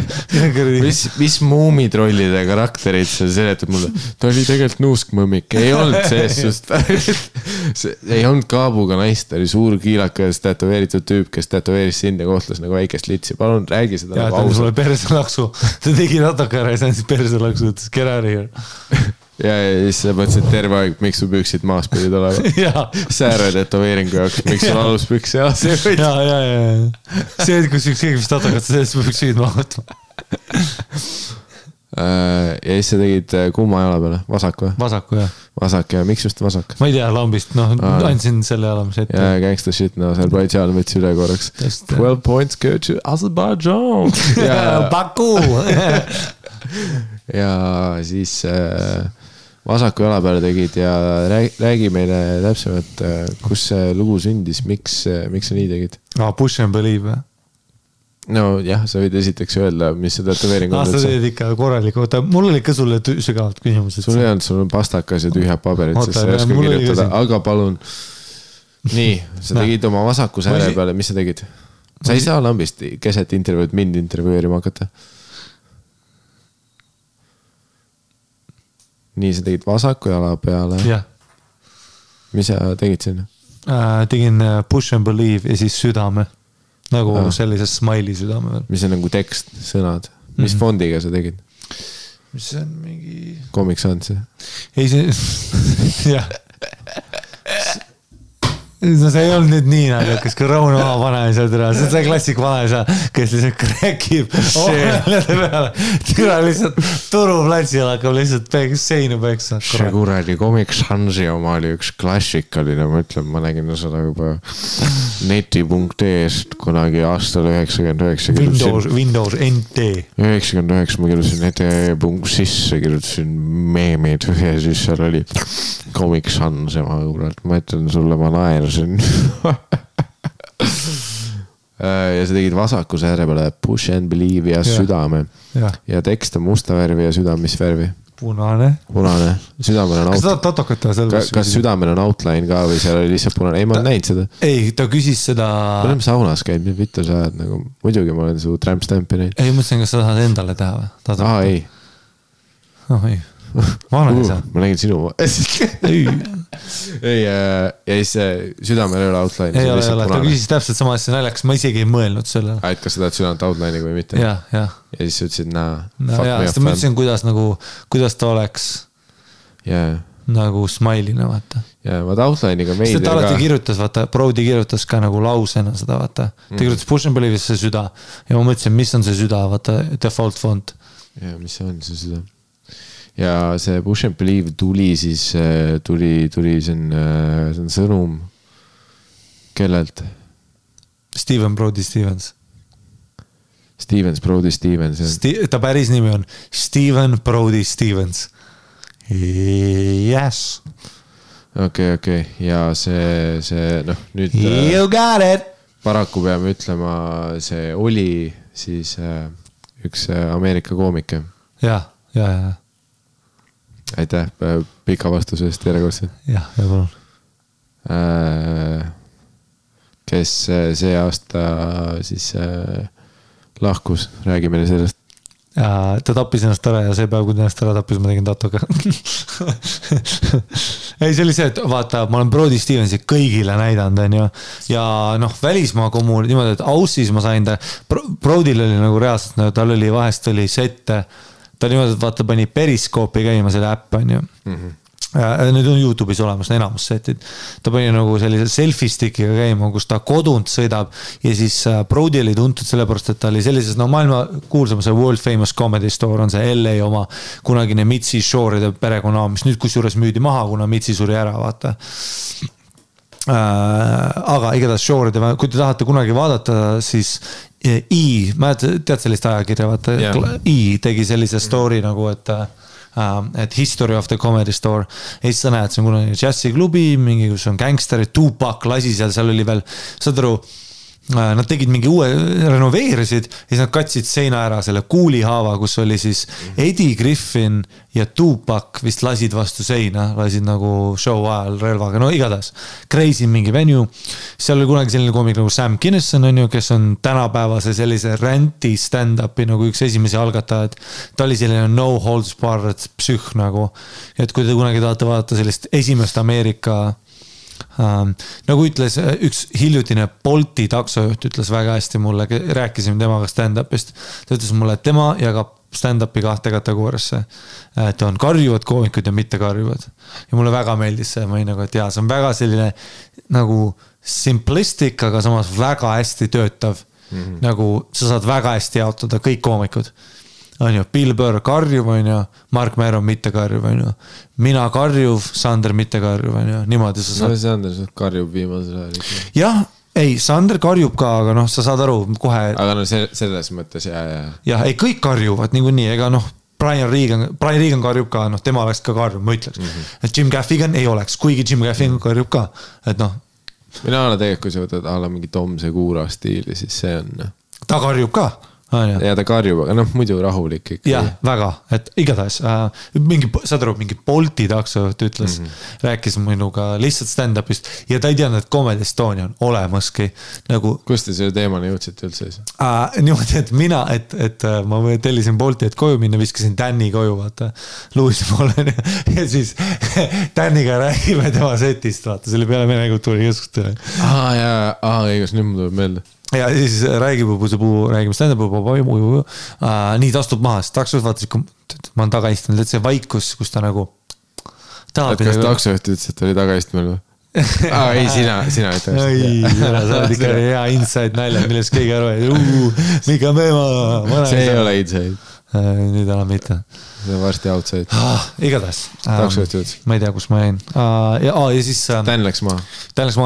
Mis muumitrollide karakterid sa seletad mulle? Ta oli tegelikult nuuskmõmmik. Ei olnud sees just. Ei olnud kaabuga naist. Ta oli suur kiilakas tätoveeritud tüüp, kes tätoveeris sind ja kohtlas nagu väikest litsi. Palun räägi seda
nagu ausalt. Ja ta sulle perselaksu. Ta tegi natuke ära ja see on siis perselaksu. Ütles, get out of here.
Ja siis sa mõtlesid terve aeg, miks su püksid maas pidid olema. Sääre tätoveeringu jaoks, miks sul alus püks ja see võid.
Ja. See, kus üks keegi vist tatakad, sellest püksid maha.
Ja siis sa tegid kumma jala peale, vasak või?
Vasaku, jah.
Vasak ja miks just vasak?
Ma ei tea, lambist, andsin selle jala, mis ette.
Ja gangsta shit, Aserbaidžaan võttis üle korraks. 12 points go to Aserbaidžaan.
Baku!
Ja siis vasaku jala peale tegid ja räägi meile täpsemalt, kus see lugu sündis, miks sa nii tegid?
Push and believe või?
No jah, sa võid esiteks öelda, mis see tätoveering on.
Sa teed ikka korraliku, mul oli ka sulle sügavalt küsimused.
Sul ei olnud, sul on pastakas ja tühjad paberid, sest sa ei oska kirjutada, aga palun. Nii, sa tegid oma vasaku sääre peale, mis sa tegid? Sa ei saa lambist keset intervjuud mind intervjueerima hakata. Nii, sa tegid vasaku jala peale.
Jah.
Mis sa tegid sinna?
Tegin push and believe ja siis südame. Nagu sellises smiley südame veel.
Mis on nagu tekst, sõnad. Mis fondiga sa tegid?
Mis see on mingi...
Comic Sans?
Ei, see... Jah. No see ei olnud nüüd nii naljakas, kui Rauno maha panemisel türa. See on see klassik vanaisa, kes lihtsalt kräkib ohmelede peale. Türa lihtsalt turuplatsil hakkab lihtsalt seinu peksa.
See kuradi Comic Sansi oma oli üks klassikaline, ma ütlen, ma nägin seda juba neti.ee-st kunagi aastal 99.
Windows NT.
99 ma kirjutasin neti.sisse, kirjutasin meemid ja siis seal oli Comic Sans ja ma ütlen sulle, ma naersin. Ja sa tegid vasaku sääre peale push and believe ja südame. Ja tekst on musta värvi ja südam mis värvi?
Punane.
Südamel on
kas
südamel on outline ka või seal oli lihtsalt punane? Ei, ma olen näinud seda.
Ei, ta küsis seda...
Me oleme saunas käinud, mis vittu sa ajad nagu... Muidugi ma olen su tramp-stampi näinud.
Ei, mõtlesin, kas sa tahad endale teha või?
Ei.
Ei. Ma olen ei saa.
Ma nägin sinu...
Ei.
ei, ja siis südamel ei ole outline.
Ei ole, ta küsis täpselt sama asja naljakas, ma isegi ei mõelnud selle.
Et kas sa tahad südamt outline'i või mitte?
Ja
siis sa ütlesid,
fuck me up. Ma ütlesin, kuidas ta oleks nagu smile'ina, vaata.
Ja vaata outline'iga meid.
Ta alati kirjutas, vaata, Brody kirjutas ka nagu lausena seda, vaata. Ta kirjutas Push and Believe'is see süda. Ja ma mõtlesin, mis on see süda, vaata, default font.
Ja mis see on see süda? Ja see Push and Believe tuli siis, tuli see on sõnum kellelt?
Brody Stevens.
Brody Stevens.
Ta päris nimi on Steven Brody Stevens. Yes.
Okei. Ja see nüüd
you got it!
Paraku peame ütlema, see oli siis üks Ameerika koomike. Ja. Aitäh pika vastusest järjekordselt.
Ja palun.
Kes see aasta siis lahkus, räägime sellest.
Ta tappis ennast ära ja see päev, kui ta ennast ära tappis, ma tegin tatoga. Ei, see oli see, et vaata, ma olen Brody Stevensi kõigile näidanud, ja välismaa kommuun, niimoodi, et Aussis ma sain ta, Brodyl oli nagu reaalselt, tal oli vahest oli sette, ta niimoodi, et vaata, pani periskoopi käima selle äpp, Need on YouTube'is olemas, enamus setid. Ta pani nagu sellise selfie stickiga käima, kus ta kodunt sõidab ja siis Brody oli tuntud sellepärast, et ta oli sellises, maailma kuulsama see World Famous Comedy Store on see LA oma kunagine Mitzi Shore'ide perekonna, mis nüüd kusjuures müüdi maha, kuna Mitzi suri ära, vaata. Aga igatahes Shore'ide, kui te tahate kunagi vaadata, siis tead sellist ajakirja, vaata, tegi sellise story nagu, et History of the Comedy Store. Ja siis sa näed, see on kunagi jazziklubi, mingi, kus on gangsterid, Tupac lasi seal oli veel, saad aru, nad tegid mingi uue, renoveerisid ja siis nad katsid seina ära selle kuulihaava, kus oli siis Eddie Griffin ja Tupac vist lasid vastu seina, lasid nagu show ajal relvaga, igatahes crazy mingi venue. Seal oli kunagi selline koomik nagu Sam Kinison, kes on tänapäevase sellise ränti stand-upi nagu üks esimesi algatajad. Ta oli selline no holds barred psühh nagu, et kui te kunagi tahate vaadata sellist esimest Ameerika nagu ütles üks hiljutine Bolti taksojuht ütles väga hästi mulle, rääkisime temaga stand-upist, ta ütles mulle, et tema jagab stand-upi 2 kategooriasse, et on karjuvad koomikud ja mitte karjuvad ja mulle väga meeldis see, ma olin nagu, et see on väga selline nagu simplistic, aga samas väga hästi töötav, nagu sa saad väga hästi jaotada kõik koomikud. Bill Burr karjuv, Mark Maron mitte karjuv, mina karjuv, Sander mitte karjuv, niimoodi sa saad.
Sander karjub viimasel ajal.
Jah, ei, Sander karjub ka, aga sa saad aru kohe.
Aga selles mõttes,
jah, ei, kõik karjuvad niikuinii, ega Brian Regan karjub ka, tema oleks ka karjub, ma ütleks. Et Jim Gaffigan ei oleks, kuigi Jim Gaffigan karjub ka, et
mina olen tegelikult, kui sa võtad mingi Tom Segura stiili, siis see on. Ta
karjub ka.
Ja ta karjub, aga muidu rahulik ikka.
Jah, väga, et igatahes saad aru, mingi Bolti taksojuht ütles, rääkis minuga lihtsalt stand-upist ja ta ei teadnud, et Comedy Estonia on olemaski nagu...
Kust te selle teemani jõudsite üldse?
Niimoodi, et mina, et ma tellisin Bolti, et koju minna, viskasin Danny koju, vaata, Luisi poole ja siis Danniga räägime tema setist, vaata, selle peale Vene kultuuri keskustele.
Õigus, nüüd mul tuleb meelde.
Ja siis räägime stand-up, nii ta astub maha, siis taksojuht vaatas, ma olen tagaistunud, et see vaikus, kus ta nagu
kas taksojuht ütles, et oli tagaistunud või? Ei, sina ütles.
Ei, sa oled ikka hea inside nalja, millest keegi aru, Mika Meema.
See ei ole inside.
Nüüd enam mitte.
See on varsti outside.
Igatahes.
Taksojuht ütles.
Ma ei tea, kus ma jäin. Ja siis...
Dan läks maha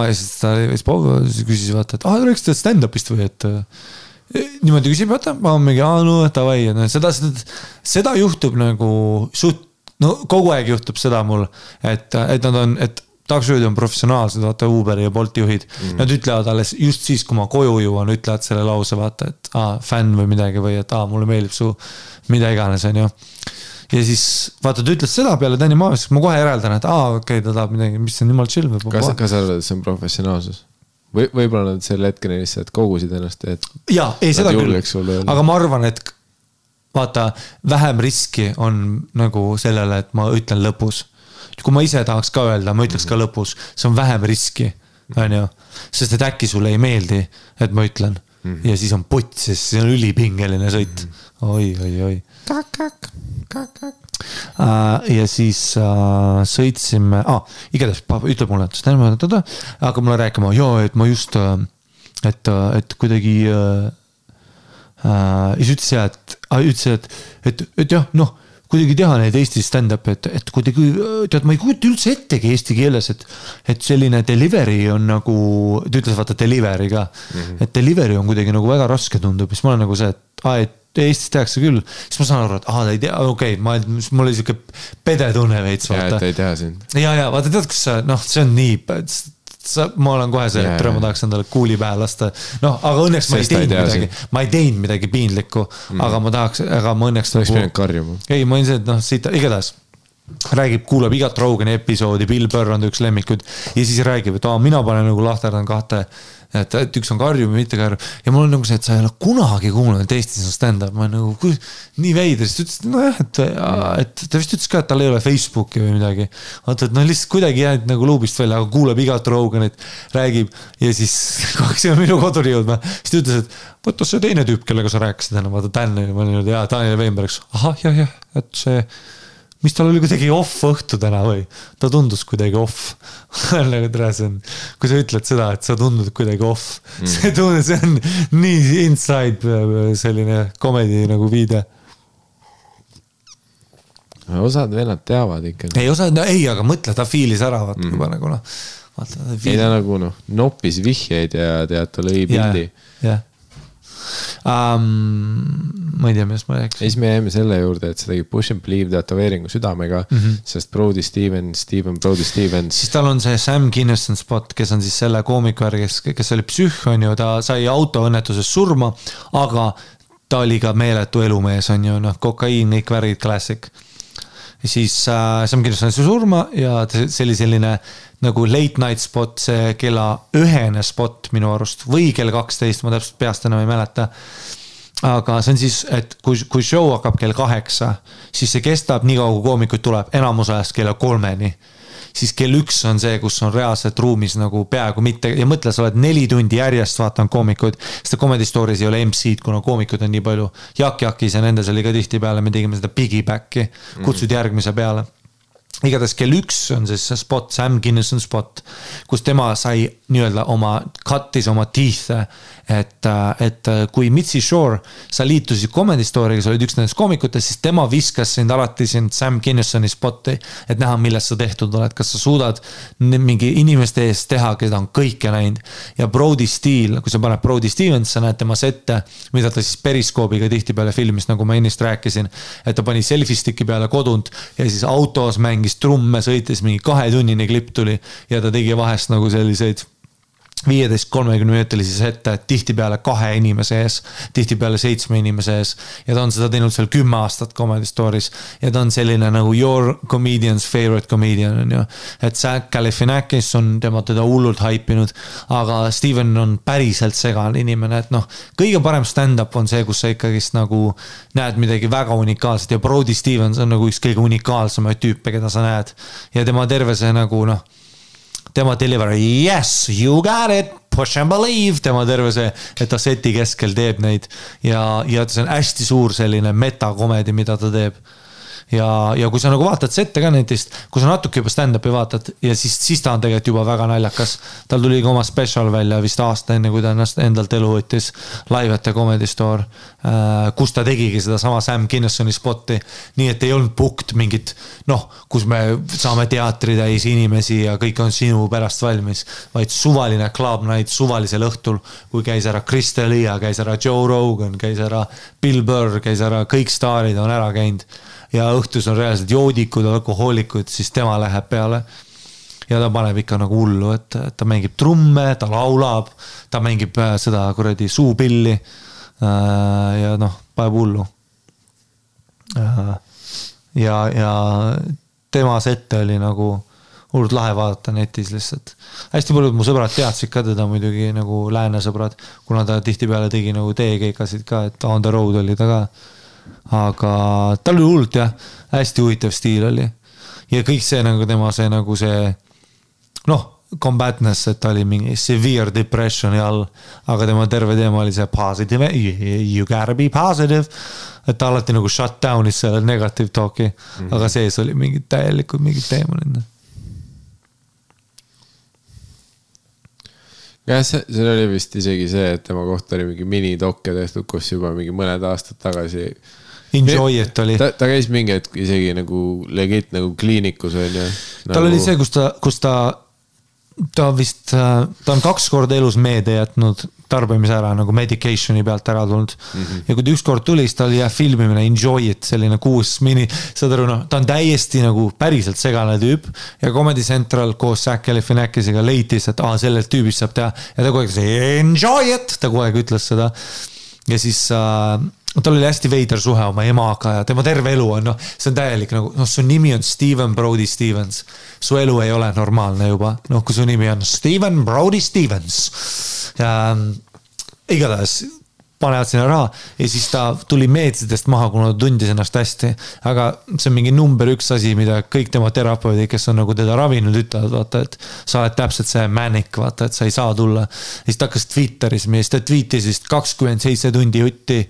ja siis ta küsis vaata, et rääkis ta stand-upist või, et niimoodi küsib, vaata, ma olen mingi, tavai, seda juhtub nagu kogu aeg juhtub seda mul, et nad on, et taksojuhid on professionaalsed, vaata Uberi ja Bolti juhid, nad ütlevad alles just siis, kui ma koju jõuan, ütlevad selle lause, vaata, et fänn või midagi või et mulle meeldib su mida iganes, on ju. Ja siis, vaata, ta ütles seda peale Danny Maavis, ma kohe järeldan, et okei, ta tahab midagi, mis on nimal chill või.
Kas arvad, et see on professionaalsus? Võib-olla nad selle hetkeni lihtsalt kogusid ennast, et
jaa, ei seda küll, aga ma arvan, et vaata, vähem riski on nagu sellele, et ma ütlen lõpus. kui ma ise tahaks ka öelda, ma ütleks ka lõpus, see on vähem riski, on ju, sest et äkki sulle ei meeldi, et ma ütlen ja siis on putt, sest see on ülipingeline sõit. Oi. Ja siis sõitsime, igatahes ütleb mulle, hakkab mulle rääkima, et ma just, et kuidagi ja siis ütles, et jah, noh, kuidagi teha neid Eesti stand-up, et kuidagi, tead, ma ei kujuta üldse ettegi eesti keeles, et selline delivery on nagu, ta ütles vaata delivery ka, et delivery on kuidagi nagu väga raske tundub, siis ma olen nagu see, et Eestis tehakse küll, siis ma saan aru, et ta ei tea, okei, mul oli siuke pedetunne veits, vaata.
Ja, et ei tea sind.
Ja, vaata, tead, kus see on nii, ma olen kohe see, et ma tahaks endale kuuli pähe lasta. Aga õnneks ma ei teinud midagi piinlikku, aga ma õnneks...
Oleks pidanud karjuma.
Ei, ma olin see, et siit igatahes räägib, kuulab igat Rogani episoodi, Bill Burr on üks lemmikud ja siis räägib, et mina panen nagu lahterdan kahte, et üks on karjum ja mitte karjum ja mul on nagu see, et sa ei ole kunagi kuulnud, et Eestis on stand-up, ma nagu nii veider, siis ta ütles, et ta vist ütles ka, et tal ei ole Facebooki või midagi, vaata, et lihtsalt kuidagi jäänud nagu luubist välja, aga kuulab igat Roganit, räägib ja siis kaks on minu koduri jõudma, siis ta ütles, et võtta see teine tüüp, kellega sa rääkisid enne, vaata Daniel, ma olin, Daniel Weinberg, jah, et see mis tal oli kuidagi off õhtu täna või? Ta tundus kuidagi off. Kui sa ütled seda, et sa tundud kuidagi off. See on nii inside selline komedi nagu viide.
Osad vennad teavad ikka.
Ei, aga mõtle, ta fiilis ära. Juba nagu,
ei ta nagu noppis vihjeid ja tead, ta lõi pildi.
Jah. Ma ei tea, mis ma rääks.
Siis me jäime selle juurde, et see tegi Push and Believe teatoveeringu südamega, sest Brody Stevens, siis
tal on see Sam Kinison spot, kes on siis selle koomiku järgi, kes oli psühh, on ju, ta sai autoõnnetuses surma, aga ta oli ka meeletu elumees, on ju, kokaiin, kõik värgid, klassik. Siis Sam Kinison sai surma ja see oli selline nagu late night spot, see kella 1 spot minu arust või kell 12, ma täpselt peast enam ei mäleta. Aga see on siis, et kui show hakkab kell 8, siis see kestab nii kaua, kui koomikuid tuleb enamus ajast kella 3-ni. Siis kell 1 on see, kus on reaalselt ruumis nagu peaaegu mitte ja mõtle, sa oled 4 tundi järjest vaatan koomikuid, sest Comedy Stories ei ole MC-d, kuna koomikud on nii palju. Jakis ja nendes oli ka tihti peale, me tegime seda piggybacki, kutsud järgmise peale. Igatahes kell 1 on siis see spot, Sam Kinison spot, kus tema sai nii-öelda kattis oma teeth, et kui Mitzi Shore, sa liitusid Comedy Story'ga, sa olid üks nendest koomikutest, siis tema viskas sind alati sind Sam Kinisoni spotti, et näha, millest sa tehtud oled, kas sa suudad mingi inimeste eest teha, keda on kõike näinud. Ja Brody Steele, kui sa paned Brody Stevens, sa näed tema sette, mida ta siis periskoobiga tihti peale filmis, nagu ma ennist rääkisin, et ta pani selfie-sticki peale kodunt ja siis autos mängis trumme, sõitis mingi 2-tunnine klipp tuli ja ta tegi vahest nagu selliseid 15-30 minutilisi sette, tihti peale 2 inimese ees, tihti peale 7 inimese ees ja ta on seda teinud seal 10 aastat Comedy Stories ja ta on selline nagu your comedian's favorite comedian on ju, et Zach Galifianakis on teda hullult haipinud, aga Steven on päriselt segane inimene, et kõige parem stand-up on see, kus sa ikkagist nagu näed midagi väga unikaalset ja Brody Stevens on nagu üks kõige unikaalsemaid tüüpe, keda sa näed ja tema terve see nagu tema delivery, yes, you got it, push and believe, tema terve see, et ta seti keskel teeb neid ja see on hästi suur selline metakomedi, mida ta teeb. Ja kui sa nagu vaatad sette ka nendest, kui sa natuke juba stand-upi vaatad ja siis ta on tegelikult juba väga naljakas. Tal tuli ka oma special välja vist aasta enne, kui ta ennast endalt elu võttis Live at the Comedy Store, kus ta tegigi seda sama Sam Kinisoni spotti, nii et ei olnud booked mingit, kus me saame teatri täis inimesi ja kõik on sinu pärast valmis, vaid suvaline club night suvalisel õhtul, kui käis ära Chris D'Elia, käis ära Joe Rogan, käis ära Bill Burr, käis ära kõik staarid on ära käinud ja õhtus on reaalselt joodikud, alkohoolikud, siis tema läheb peale ja ta paneb ikka nagu hullu, et ta mängib trumme, ta laulab, ta mängib seda kuradi suupilli ja paneb hullu. Ja tema sette oli nagu hullult lahe vaadata netis lihtsalt. Hästi paljud mu sõbrad teadsid ka teda muidugi nagu lääne sõbrad, kuna ta tihti peale tegi nagu teekeikasid ka, et on the road oli ta ka. Aga tal oli hullult jah, hästi huvitav stiil oli. ja kõik see nagu tema see nagu see noh, combatness, et ta oli mingi severe depressioni all, aga tema terve teema oli see positive, you gotta be positive, et ta alati nagu shut down'is selle negative talk'i, aga sees oli mingid täielikud mingid teemonid.
jah, seal oli vist isegi see, et tema kohta oli mingi minidokke tehtud, kus juba mingi mõned aastad tagasi
Enjoy it oli.
Ta käis mingi hetk isegi nagu legit nagu kliinikus on ju.
Tal oli see, kus ta vist, ta on 2 korda elus meede jätnud tarbimise ära, nagu medicationi pealt ära tulnud. Ja kui ta 1 kord tuli, siis ta oli filmimine Enjoy it, selline 6 mini, saad aru, ta on täiesti nagu päriselt segane tüüp ja Comedy Central koos Zac Galifianakisega leitis, et sellelt tüübist saab teha ja ta kogu aeg Enjoy it, ta kogu aeg ütles seda ja siis tal oli hästi veider suhe oma emaga ja tema terve elu on, see on täielik nagu, su nimi on Steven Brody Stevens. Su elu ei ole normaalne juba. Kui su nimi on Steven Brody Stevens. Ja igatahes panevad sinna raha ja siis ta tuli meetsidest maha, kuna ta tundis ennast hästi. Aga see on mingi number 1 asi, mida kõik tema terapeudid, kes on nagu teda ravinud, ütlevad, vaata, et sa oled täpselt see manic, vaata, et sa ei saa tulla. Ja siis ta hakkas Twitteris, mis ta tweetis vist 27 tundi jutti,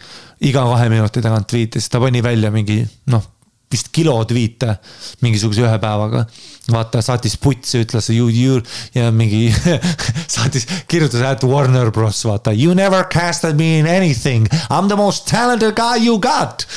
iga 2 minuti tagant tweetis, ta pani välja mingi, vist kilo tweete mingisuguse 1 päevaga. Vaata, saatis putsi, ütles ja mingi saatis, kirjutas at Warner Bros. Vaata, you never casted me in anything. I'm the most talented guy you got.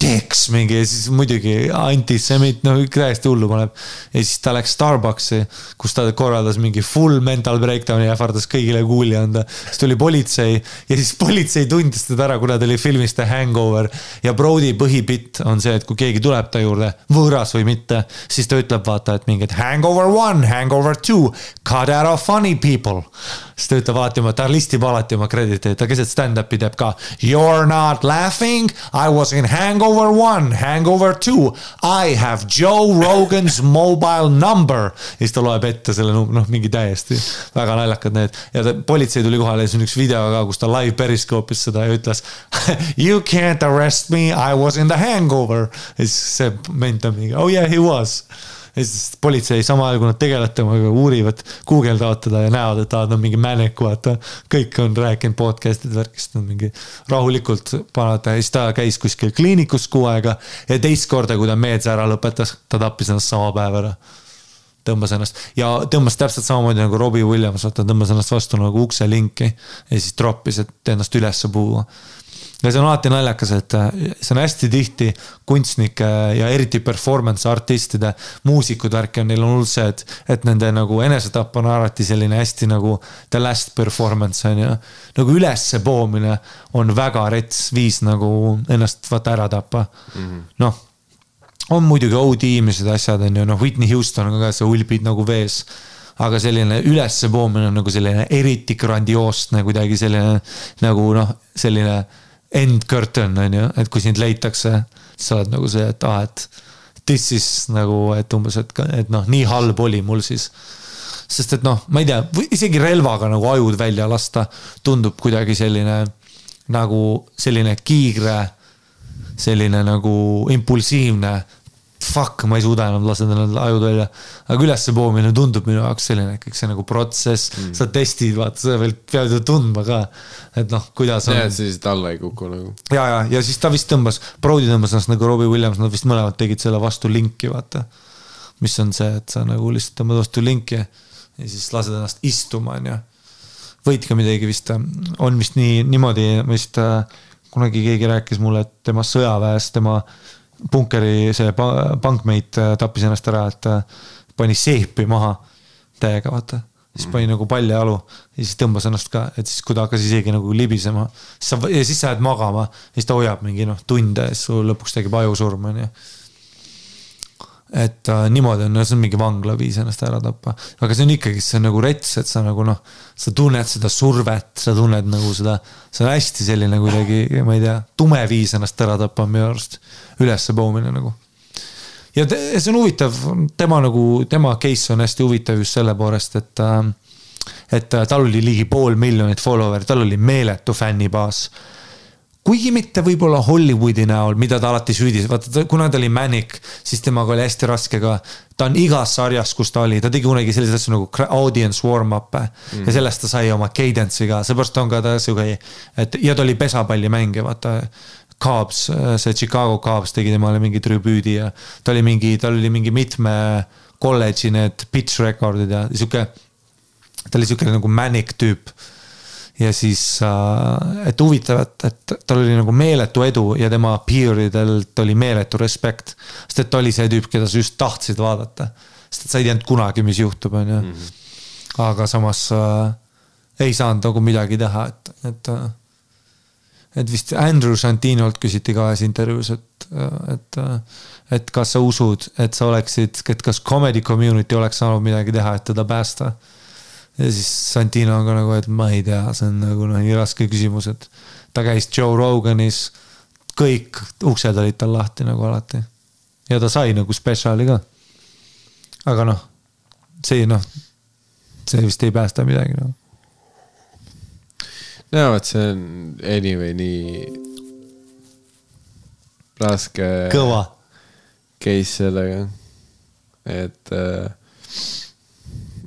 Dicks mingi, ja siis muidugi antisemit, täiesti hullu paneb. Ja siis ta läks Starbucksi, kus ta korraldas mingi full mental breakdowni ja ähvardas kõigile kuuli anda. Siis tuli politsei ja siis politsei tundis teda ära, kuna ta oli filmis The Hangover. Ja Brody põhipitt on see, et kui keegi tuleb ta juurde, võõras või mitte, siis ta ütleb vaata, et mingid Hangover 1, Hangover 2, cut out of funny people. Siis ta ütleb alati ta listib alati oma krediteid, ta keset stand-upi teeb ka You're not laughing, I was in Hangover 1, Hangover 2, I have Joe Rogan's mobile number. Ja siis ta loeb ette selle mingi täiesti väga naljakad need. Ja politsei tuli kohale ja see on üks video ka, kus ta live periskoopis seda ja ütles You can't arrest me, I was in the Hangover. Ja siis see ment on mingi, oh yeah, he was. Ja siis politsei sama ajal, kui nad tegelevad temaga, uurivad, guugeldavad teda ja näevad, et ta on mingi mänek, vaata. Kõik on rääkinud podcastid värkist, mingi rahulikult panata. Ja siis ta käis kuskil kliinikus 6 aega ja teist korda, kui ta meedse ära lõpetas, ta tappis ennast sama päev ära. Tõmbas ennast ja tõmbas täpselt samamoodi nagu Robbie Williams, vaata, tõmbas ennast vastu nagu ukse linki ja siis droppis, et ennast üles puua. Ja see on alati naljakas, et see on hästi tihti kunstnike ja eriti performance artistide muusikud värki on, neil on hull see, et nende nagu enesetapp on alati selline hästi nagu the last performance on ja nagu ülesse poomine on väga rets viis nagu ennast vaata ära tappa. On muidugi OD-mised asjad on ju, Whitney Houston on ka see ulbid nagu vees, aga selline ülesse poomine on nagu selline eriti grandioost kuidagi selline nagu selline end curtain on ju, et kui sind leitakse, sa oled nagu see, et this is nagu, et umbes, et nii halb oli mul siis. Sest et ma ei tea, isegi relvaga nagu ajud välja lasta tundub kuidagi selline nagu selline kiigre, selline nagu impulsiivne fuck, ma ei suuda enam laseda need ajud välja. Aga ülesse poomine tundub minu jaoks selline, kõik see nagu protsess, sa testid, vaata, sa veel pead ju tundma ka, et kuidas on.
Ja, siis alla ei kuku nagu.
Ja siis ta vist tõmbas, Brody tõmbas ennast nagu Robbie Williams, nad vist mõlemad tegid selle vastu linki, vaata. Mis on see, et sa nagu lihtsalt tõmbad vastu linki ja siis lased ennast istuma, on ju. Võid ka midagi vist, on vist niimoodi, vist kunagi keegi rääkis mulle, et tema sõjaväes, tema bunkeri see bankmeit tappis ennast ära, et pani seepi maha täiega, vaata. Siis pani nagu palli alu ja siis tõmbas ennast ka, et siis kui ta hakkas isegi nagu libisema ja siis sa jääd magama ja siis ta hoiab mingi tunde ja siis lõpuks tegib ajusurma. Et niimoodi on, see on mingi vangla viis ennast ära tappa. Aga see on ikkagi, see on nagu rets, et sa nagu sa tunned seda survet, sa tunned nagu seda, see on hästi selline kuidagi, ma ei tea, tume viis ennast ära tappa minu arust ülesse poomine nagu. Ja see on huvitav, tema case on hästi huvitav just selle poolest, et tal oli ligi 500 000 follower, tal oli meeletu fännibaas. kuigi mitte võib-olla Hollywoodi näol, mida ta alati süüdis, vaata, kuna ta oli Manic, siis temaga oli hästi raske ka, ta on igas sarjas, kus ta oli, ta tegi kunagi sellised asju nagu audience warm-up ja sellest ta sai oma cadence'iga, seepärast on ka ta siuke, et ja ta oli pesapalli mängija, vaata, Cubs, see Chicago Cubs tegi temale mingi tribüüdi ja tal oli mingi mitme kolledži need pitch recordid ja siuke, ta oli siuke nagu Manic tüüp. Ja siis, et huvitav, et tal oli nagu meeletu edu ja tema peeridelt oli meeletu respekt. Sest et ta oli see tüüp, keda sa just tahtsid vaadata. Sest et sa ei teadnud kunagi, mis juhtub. Aga samas ei saanud nagu midagi teha. Et vist Andrew Santinolt küsiti ka intervjuus, et kas sa usud, et sa oleksid, et kas comedy community oleks saanud midagi teha, et teda päästa. Ja siis Santino on ka nagu, et ma ei tea, see on nagu nii raske küsimus, et ta käis Joe Roganis, kõik uksed olid tal lahti nagu alati. Ja ta sai nagu spetsiaali ka. Aga see vist ei päästa midagi.
No, et see on anyway nii raske
kõva
case sellega, et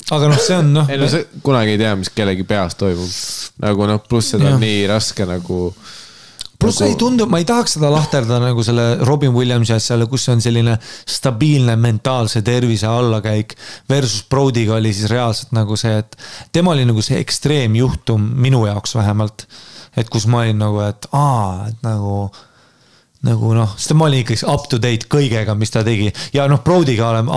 aga see on
ei, sa kunagi ei tea, mis kellegi peas toimub. Nagu pluss seda on nii raske nagu
pluss ei tundu, ma ei tahaks seda lahterda nagu selle Robin Williamsi asjale, kus on selline stabiilne mentaalse tervise allakäik versus Brodyga oli siis reaalselt nagu see, et tema oli nagu see ekstreemjuhtum minu jaoks vähemalt, et kus ma olin nagu, et sest ma olin ikkagi up to date kõigega, mis ta tegi ja Brodyga oleme,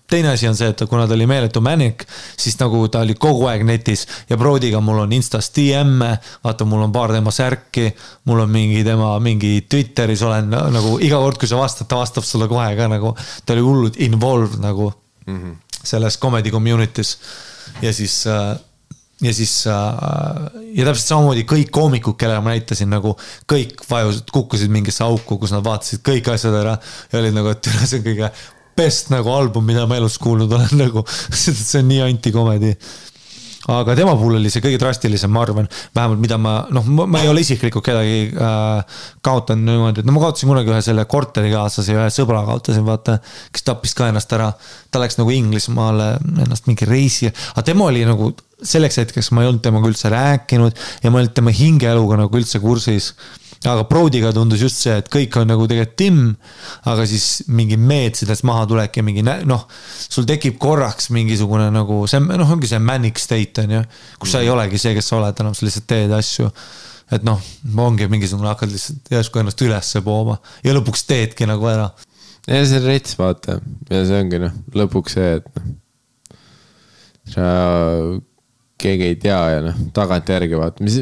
teine asi on see, et kuna ta oli meeletu Manic, siis nagu ta oli kogu aeg netis ja Brodyga mul on Instas DM, vaata mul on paar tema särki, mul on mingi Twitteris olen nagu iga kord, kui sa vastad, ta vastab sulle kohe ka nagu, ta oli hullud involved nagu selles comedy community's ja siis ja täpselt samamoodi kõik koomikud, kellele ma näitasin nagu kõik kukkusid mingisse auku, kus nad vaatasid kõik asjad ära ja olid nagu, et see on kõige best nagu album, mida ma elus kuulnud olen nagu, see on nii anti-comedy. Aga tema puhul oli see kõige drastilisem, ma arvan, vähemalt mida ma ei ole isiklikult kedagi kaotanud niimoodi, et ma kaotasin kunagi ühe selle korterikaaslase ja ühe sõbra kaotasin, vaata, kes tappis ka ennast ära, ta läks nagu Inglismaale ennast mingi reisi, aga tema oli nagu selleks hetkeks ma ei olnud temaga üldse rääkinud ja ma ei olnud tema hingeeluga nagu üldse kursis. Aga Brodyga tundus just see, et kõik on nagu tegelikult timm, aga siis mingi meetsidest maha tulek ja mingi, sul tekib korraks mingisugune nagu, see ongi see manic state, kus sa ei olegi see, kes sa oled, enam sa lihtsalt teed asju. Et ongi mingisugune hakkad lihtsalt järsku ennast ülesse pooma ja lõpuks teedki nagu ära.
Ja see on rets, vaata. Ja see ongi lõpuks see, et sa keegi ei tea ja tagant järgi vaata, mis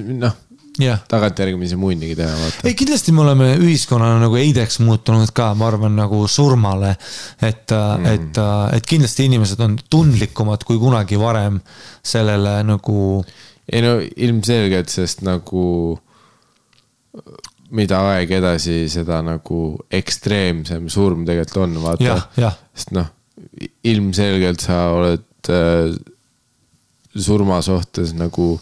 tagant järgi mis munnigi teha vaata.
Ei, kindlasti me oleme ühiskonnana nagu eideks muutunud ka, ma arvan nagu surmale, et kindlasti inimesed on tundlikumad kui kunagi varem sellele nagu
ei ilmselgelt, sest nagu mida aeg edasi seda nagu ekstreemsem surm tegelikult on vaata, sest ilmselgelt sa oled surma suhtes nagu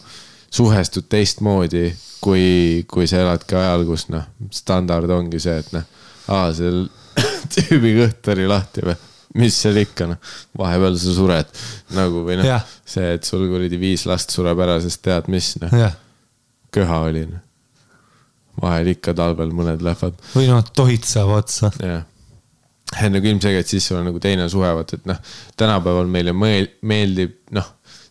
suhestud teistmoodi, kui sa eladki ajal, kus standard ongi see, et seal tüübi kõht oli lahti või, mis seal ikka, vahepeal sa sured nagu või see, et sul kuridi 5 last sureb ära, sest tead mis, köha oli. Vahel ikka talvel mõned lähevad.
Või tohid saab otsa.
Jah. Nagu ilmselgelt siis sul on nagu teine suhevat, et tänapäeval meile meeldib,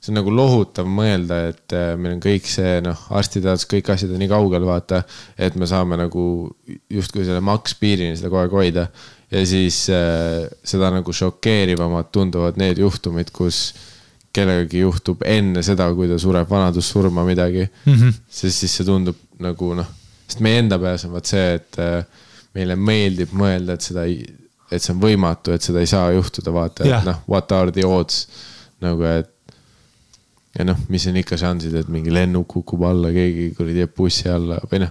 see on nagu lohutav mõelda, et meil on kõik see, arstiteadus, kõik asjad on nii kaugel vaata, et me saame nagu justkui selle makspiirini seda kogu aeg hoida ja siis seda nagu šokeerivamad tunduvad need juhtumid, kus kellegagi juhtub enne seda, kui ta sureb vanadussurma midagi, sest siis see tundub nagu sest meie enda peas on see, et meile meeldib mõelda, et see on võimatu, et seda ei saa juhtuda vaata, et what are the odds nagu, et ja mis on ikka šansid, et mingi lennuk kukub alla, keegi teeb bussi alla või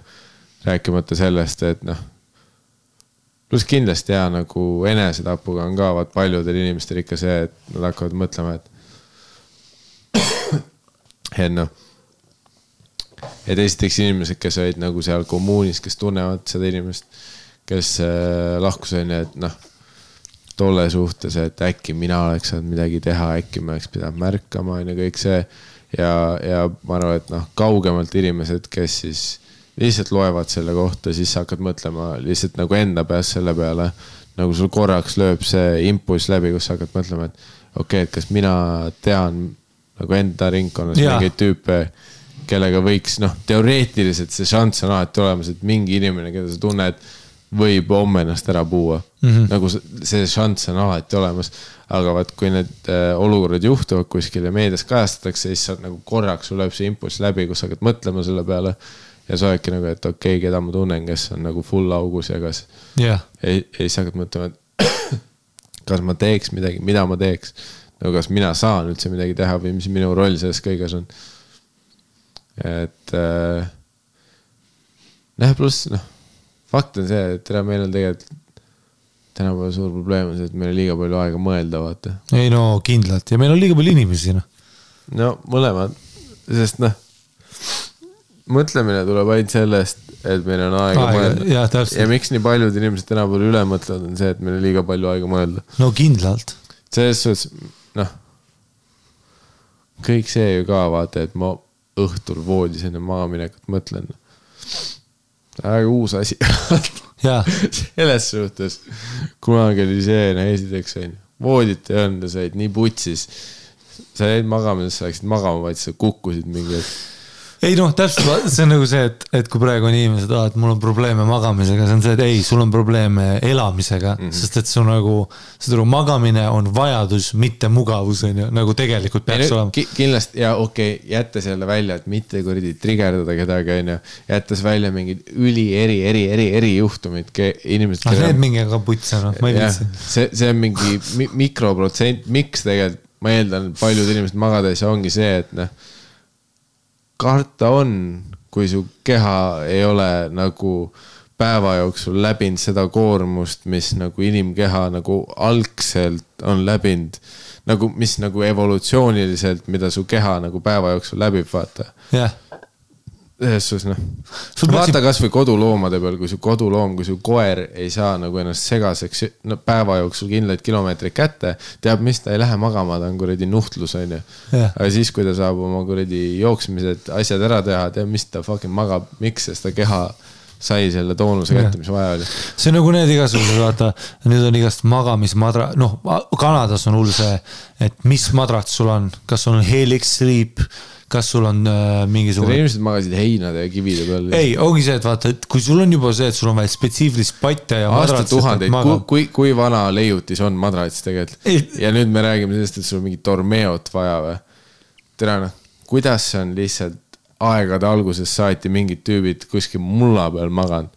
rääkimata sellest, et pluss kindlasti nagu enesetapuga on ka paljudel inimestel ikka see, et nad hakkavad mõtlema, et esiteks inimesed, kes olid nagu seal kommuunis, kes tunnevad seda inimest, kes lahkus on, et noh, tolle suhtes, et äkki mina oleks saanud midagi teha, äkki me oleks pidanud märkama ja kõik see ja ma arvan, et noh, kaugemalt inimesed, kes siis lihtsalt loevad selle kohta, siis hakkad mõtlema lihtsalt nagu enda peas selle peale, nagu sul korraks lööb see impulss läbi, kus hakkad mõtlema, et okei, et kas mina tean nagu enda ringkonnas mingeid tüüpe, kellega võiks, noh, teoreetiliselt see šanss on alati olemas, et mingi inimene, keda sa tunned, võib homme ennast ära puua. Nagu see šanss on alati olemas, aga vaat kui need olukorrad juhtuvad kuskil ja meedias kajastatakse, siis saad nagu korraks sul lööb see impulss läbi, kus hakkad mõtlema selle peale ja sa oledki nagu, et okei, keda ma tunnen, kes on nagu full augus ja kas ei sa hakkad mõtlema, et kas ma teeks midagi, mida ma teeks, nagu kas mina saan üldse midagi teha või mis minu roll selles kõiges on. Et pluss, fakt on see, et meil on tegelikult tänapäeva suur probleem on see, et meil on liiga palju aega mõelda, vaata.
Ei no kindlalt ja meil on liiga palju inimesi.
No mõlemad, sest mõtlemine tuleb ainult sellest, et meil on aega mõelda. Ja miks nii paljud inimesed tänapäeval üle mõtlevad on see, et meil on liiga palju aega mõelda.
No kindlalt.
Selles suhtes, kõik see ju ka vaata, et ma õhtul voodis enne maaminekut mõtlen. Väga uus asi. Selles suhtes, kunagi oli see, esiteks on voodit ei olnud, sa olid nii putsis. Sa jäid magama, sa läksid magama, vaid sa kukkusid mingi.
Ei täpselt, see on nagu see, et kui praegu on inimesed, et mul on probleeme magamisega, see on see, et ei, sul on probleeme elamisega, sest et see on nagu, see magamine on vajadus, mitte mugavus, nagu tegelikult peaks olema.
Kindlasti, ja okei, jättes jälle välja, et mitte kuridi trigerdada kedagi, jättes välja mingid eri juhtumid, inimesed.
Need mingi ka putsa, ma ei viitsi.
See on mingi mikroprotsent, miks tegelikult, ma eeldan, paljud inimesed magades ongi see, et karta on, kui su keha ei ole nagu päeva jooksul läbinud seda koormust, mis nagu inimkeha nagu algselt on läbinud, nagu mis nagu evolutsiooniliselt, mida su keha nagu päeva jooksul läbib, vaata. Jesus, vaata kas või koduloomade peal, kui su koduloom, kui su koer ei saa nagu ennast segaseks päeva jooksul kindlaid kilomeetreid kätte, teab, mis ta ei lähe magama, ta on kuradi nuhtlus, on ju. Aga siis, kui ta saab oma kuradi jooksmised asjad ära teha, teab, mis ta fucking magab, miks, sest ta keha sai selle toonuse kätte, mis vaja oli.
See on nagu need igasugused, vaata, nüüd on igast magamismadra, Kanadas on hull see, et mis madrat sul on, kas sul on Helix Sleep, kas sul on mingisugune...
Inimesed magasid heinade ja kivide peal.
Ei, ongi see, et vaata, et kui sul on juba see, et sul on vaja spetsiifilist patte ja madrats...
Aastatuhandeid, kui vana leiutis on madrats tegelikult? Ja nüüd me räägime sellest, et sul on mingi tormeot vaja või? Tere, kuidas see on lihtsalt aegade alguses saati mingid tüübid kuskil mulla peal maganud?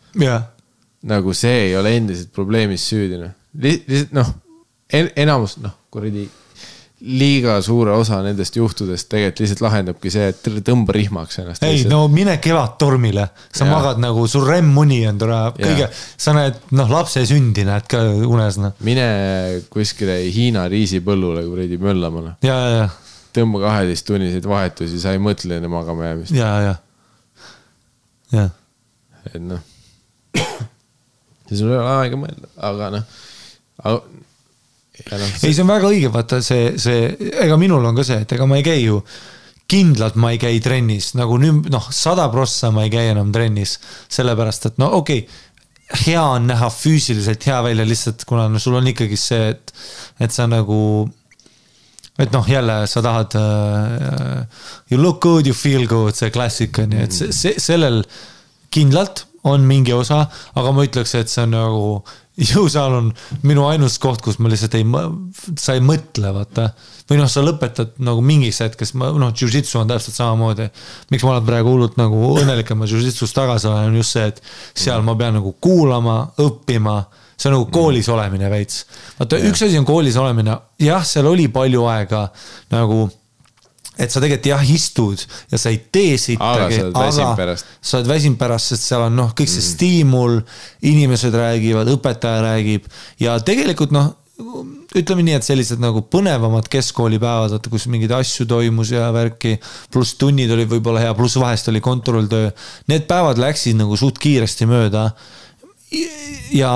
Nagu see ei ole endiselt probleemis süüdine. Lihtsalt, enamus, kuradi... liiga suure osa nendest juhtudest tegelikult lihtsalt lahendabki see, et tõmba rihmaks ennast.
Ei, mine kevad tormile. Sa magad nagu, sul remmuni on kõige, sa näed, lapse sündi näed ka unes.
Mine kuskile Hiina riisipõllule kuradi möllamana. Tõmba 12 tunniseid vahetusi, sa ei mõtle enne magama jäämist. Et see sul ei ole aega mõelda, aga
ei, see on väga õige, vaata ega minul on ka see, et ega ma ei käi ju kindlalt ma ei käi trennis, nagu nüüd 100% ma ei käi enam trennis, sellepärast, et okei, hea on näha füüsiliselt hea välja lihtsalt, kuna sul on ikkagi see, et sa nagu, et jälle sa tahad you look good, you feel good, see klassika, nii et sellel kindlalt on mingi osa, aga ma ütleks, et see on nagu jõusaal on minu ainus koht, kus ma lihtsalt sa ei mõtle, vaata. Või sa lõpetad nagu mingis hetkes, jiu-jitsu on täpselt samamoodi. Miks ma olen praegu hullult nagu õnnelik, et ma jiu-jitsus tagasi olen, on just see, et seal ma pean nagu kuulama, õppima. See on nagu koolis olemine veits. Vaata, üks asi on koolis olemine. Jah, seal oli palju aega nagu... et sa tegelikult istud ja sa ei tee sittagi, aga sa oled väsinud pärast, sest seal on kõik see stiimul, inimesed räägivad, õpetaja räägib ja tegelikult ütleme nii, et sellised nagu põnevamad keskkoolipäevad, kus mingid asju toimus ja värki, pluss tunnid oli võib-olla hea, pluss vahest oli kontrolltöö. Need päevad läksid nagu suht kiiresti mööda. Ja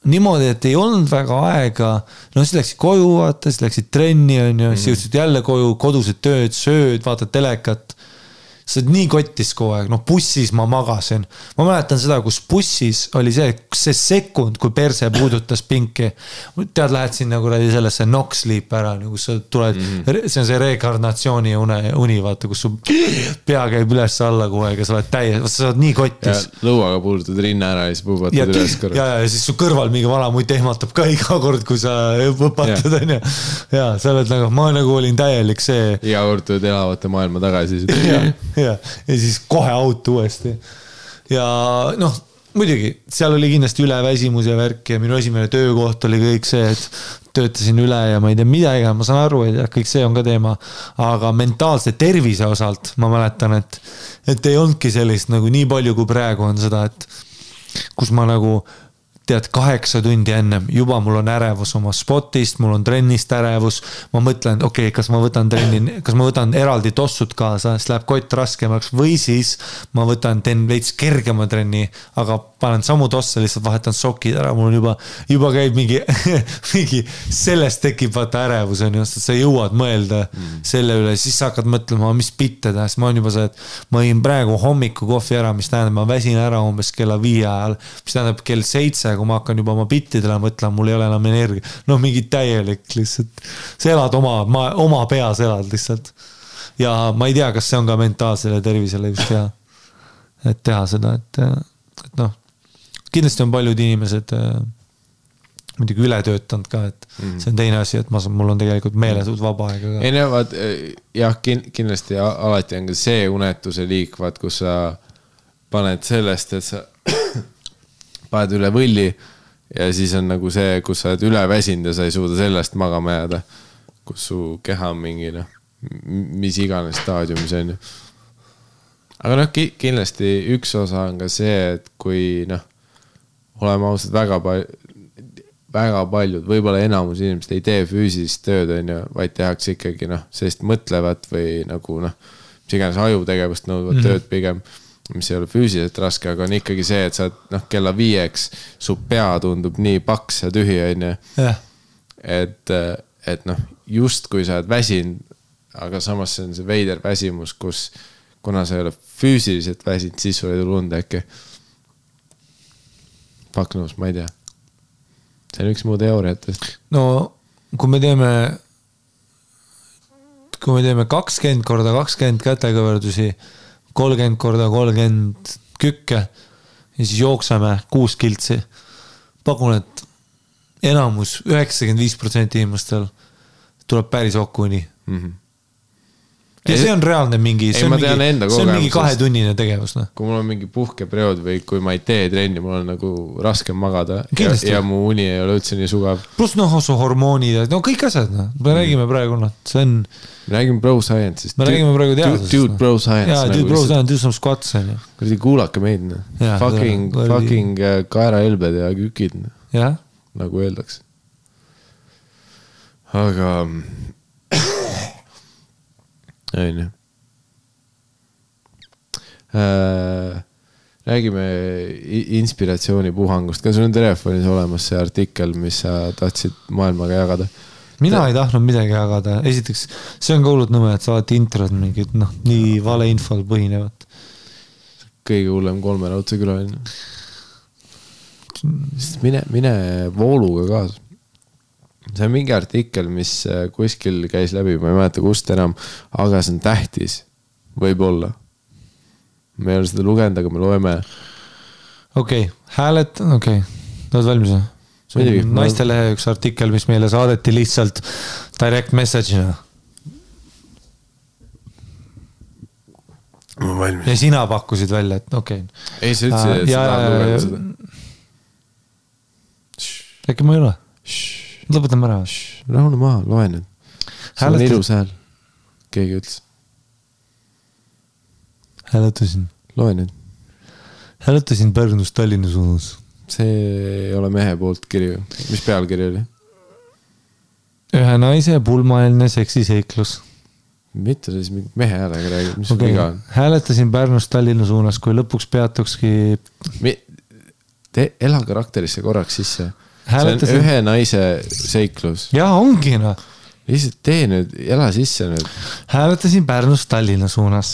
niimoodi, et ei olnud väga aega, no siis läksid koju, vaata, siis läksid trenni, siis jõudsid jälle koju, kodused tööd, sööd, vaatad telekat. See on nii kottis kogu aeg, bussis ma magasin. Ma mäletan seda, kus bussis oli see sekund, kui perse puudutas pinki. Tead, lähed siin nagu sellesse knock sleep ära, kus sa tuled, see on see rekarnatsiooni uni, vaata, kus su pea käib üles alla kogu aeg ja sa oled täies, sa oled nii kottis.
Ja lõuaga puudutad rinna ära ja siis puubatad üles korra.
Ja siis su kõrval mingi vana muid ehmatab ka iga kord, kui sa õpatad. Ja sa oled nagu, ma nagu olin täielik see.
Iga kord tuled elavate maailma tagasi.
Ja siis kohe auto uuesti. Ja muidugi, seal oli kindlasti üleväsimus ja värk ja minu esimene töökoht oli kõik see, et töötasin üle ja ma ei tea midagi, ma saan aru, et kõik see on ka teema, aga mentaalse tervise osalt ma mäletan, et ei olnudki sellist nagu nii palju kui praegu on seda, et kus ma nagu tead 8 tundi ennem, juba mul on ärevus oma spotist, mul on trennist ärevus, ma mõtlen, okei, kas ma võtan eraldi tossud kaasa, siis läheb kott raskemaks või siis ma teen veits kergema trenni, aga panen samu tosse, lihtsalt vahetan sokid ära, mul on juba käib mingi sellest tekib vaata ärevus, sa jõuad mõelda selle üle, siis sa hakkad mõtlema, mis bitte teha, siis ma on juba see, et ma jõin praegu hommiku kohvi ära, mis tähendab, ma väsin ära umbes kella 5 ajal, mis tähendab kell 7, kui ma hakkan juba oma bittidele mõtlema, mul ei ole enam energia. Mingi täielik lihtsalt. Sa elad oma peas elad lihtsalt. Ja ma ei tea, kas see on ka mentaalsele tervisele just hea. Et teha seda, et kindlasti on paljud inimesed muidugi üle töötanud ka, et see on teine asi, et mul on tegelikult meeletult vaba aega ka.
Ei näevad, jah, kindlasti alati on ka see unetuse liik, vaat, kus sa paned sellest, et sa paned üle võlli ja siis on nagu see, kus sa oled üle väsinud ja sa ei suuda sellest magama jääda, kus su keha on mingi, mis iganes staadiumis on. Aga kindlasti üks osa on ka see, et kui oleme ausad väga paljud, võib-olla enamus inimesed ei tee füüsilist tööd, vaid tehakse ikkagi, sest mõtlevad või nagu, mis iganes ajutegevust nõudvad tööd pigem, mis ei ole füüsiliselt raske, aga on ikkagi see, et sa kella 5 su pea tundub nii paks ja tühi, et just kui sa oled väsinud, aga samas see on see veider väsimus, kus kuna sa ei ole füüsiliselt väsinud, siis sul ei tule und äkki. Paknus, ma ei tea. See on üks muu teooriatest.
Kui me teeme 20 korda 20 kätekõverdusi, 30 korda 30 kükke ja siis jookseme 6 kiltsi. Pakun, et enamus 95% inimestel tuleb päris okuni. Ja see on reaalne mingi, see on mingi 2-tunnine tegevus.
Kui mul on mingi puhkeperiood või kui ma ei tee trenni, mul on nagu raske magada ja mu uni ei ole üldse nii sugav.
Plus su hormoonid, kõik asjad. Me räägime praegu, see on...
Me räägime bro science'ist.
Me räägime praegu teadusest.
Dude bro science.
Jaa, dude bro science, do some squats.
Kuradi kuulake meid. Fucking kaeraelbed ja kükid. Nagu öeldaks. Aga... Aine. Räägime inspiratsioonipuhangust. Kas sul on telefonis olemas see artikkel, mis sa tahtsid maailmaga jagada?
Mina ei tahtnud midagi jagada. Esiteks, see on ka hullult nõme, et sa oled introd mingid, nii vale infol põhinevat.
Kõige hullem 3 raudse külaline. Mine vooluga kaasa. See on mingi artikkel, mis kuskil käis läbi, ma ei mäleta kust enam, aga see on tähtis, võib-olla. Me ei ole seda lugenud, aga me loeme.
Okei, hääled, oled valmis? Naistelehe üks artikkel, mis meile saadeti lihtsalt direct message'ina.
Ma valmis.
Ja sina pakkusid välja, et okei.
Ei, sa ütlesid, et sa tahad lugeda seda.
Äkki ma ei ole? Lõpetame ära.
Rahune maha, loe nüüd. See on ilus hääl. Keegi ütles.
Hääletasin.
Loe nüüd.
Hääletasin Pärnus Tallinna suunas.
See ei ole mehe poolt kirju. Mis pealkiri oli?
ühe naise pulmaeelne seksiseiklus.
Mitte siis mehe häälega räägib, mis okay. Viga on?
Hääletasin Pärnust Tallinna suunas, kui lõpuks peatukski...
Ela karakterisse korraks sisse. Hääletasin... See on ühe naise seiklus.
Jaa, ongi no.
Lihtsalt tee nüüd, ela sisse nüüd.
Hääletasin Pärnust Tallinna suunas,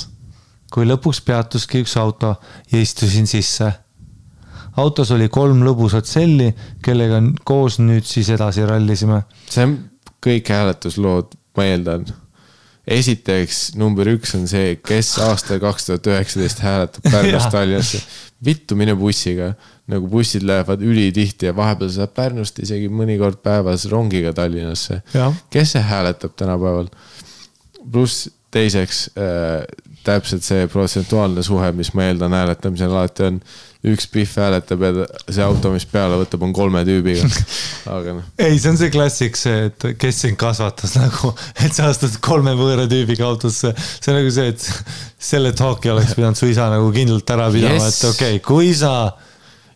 kui lõpuks peatuski üks auto ja istusin sisse. Autos oli 3 lõbusat selli, kellega koos nüüd siis edasi rallisime.
See on kõik hääletuslood, ma eeldan. Esiteks, number 1 on see, kes aastal 2019 hääletab Pärnust Tallinnasse. Vittu mine bussiga, nagu bussid lähevad ülitihti ja vahepeal saab Pärnust isegi mõnikord päevas rongiga Tallinnasse. Ja. Kes see hääletab tänapäeval? Pluss teiseks, täpselt see protsentuaalne suhe, mis ma eeldan hääletamisel alati on, üks pihv hääletab ja see auto, mis peale võtab, on 3 tüübiga. Aga no.
Ei, see on see klassik see, et kes sind kasvatas nagu, et sa astud 3 võõra tüübiga autosse. See on nagu see, et selle talki oleks pidanud su isa nagu kindlalt ära pidama, yes. Et okei, kui sa...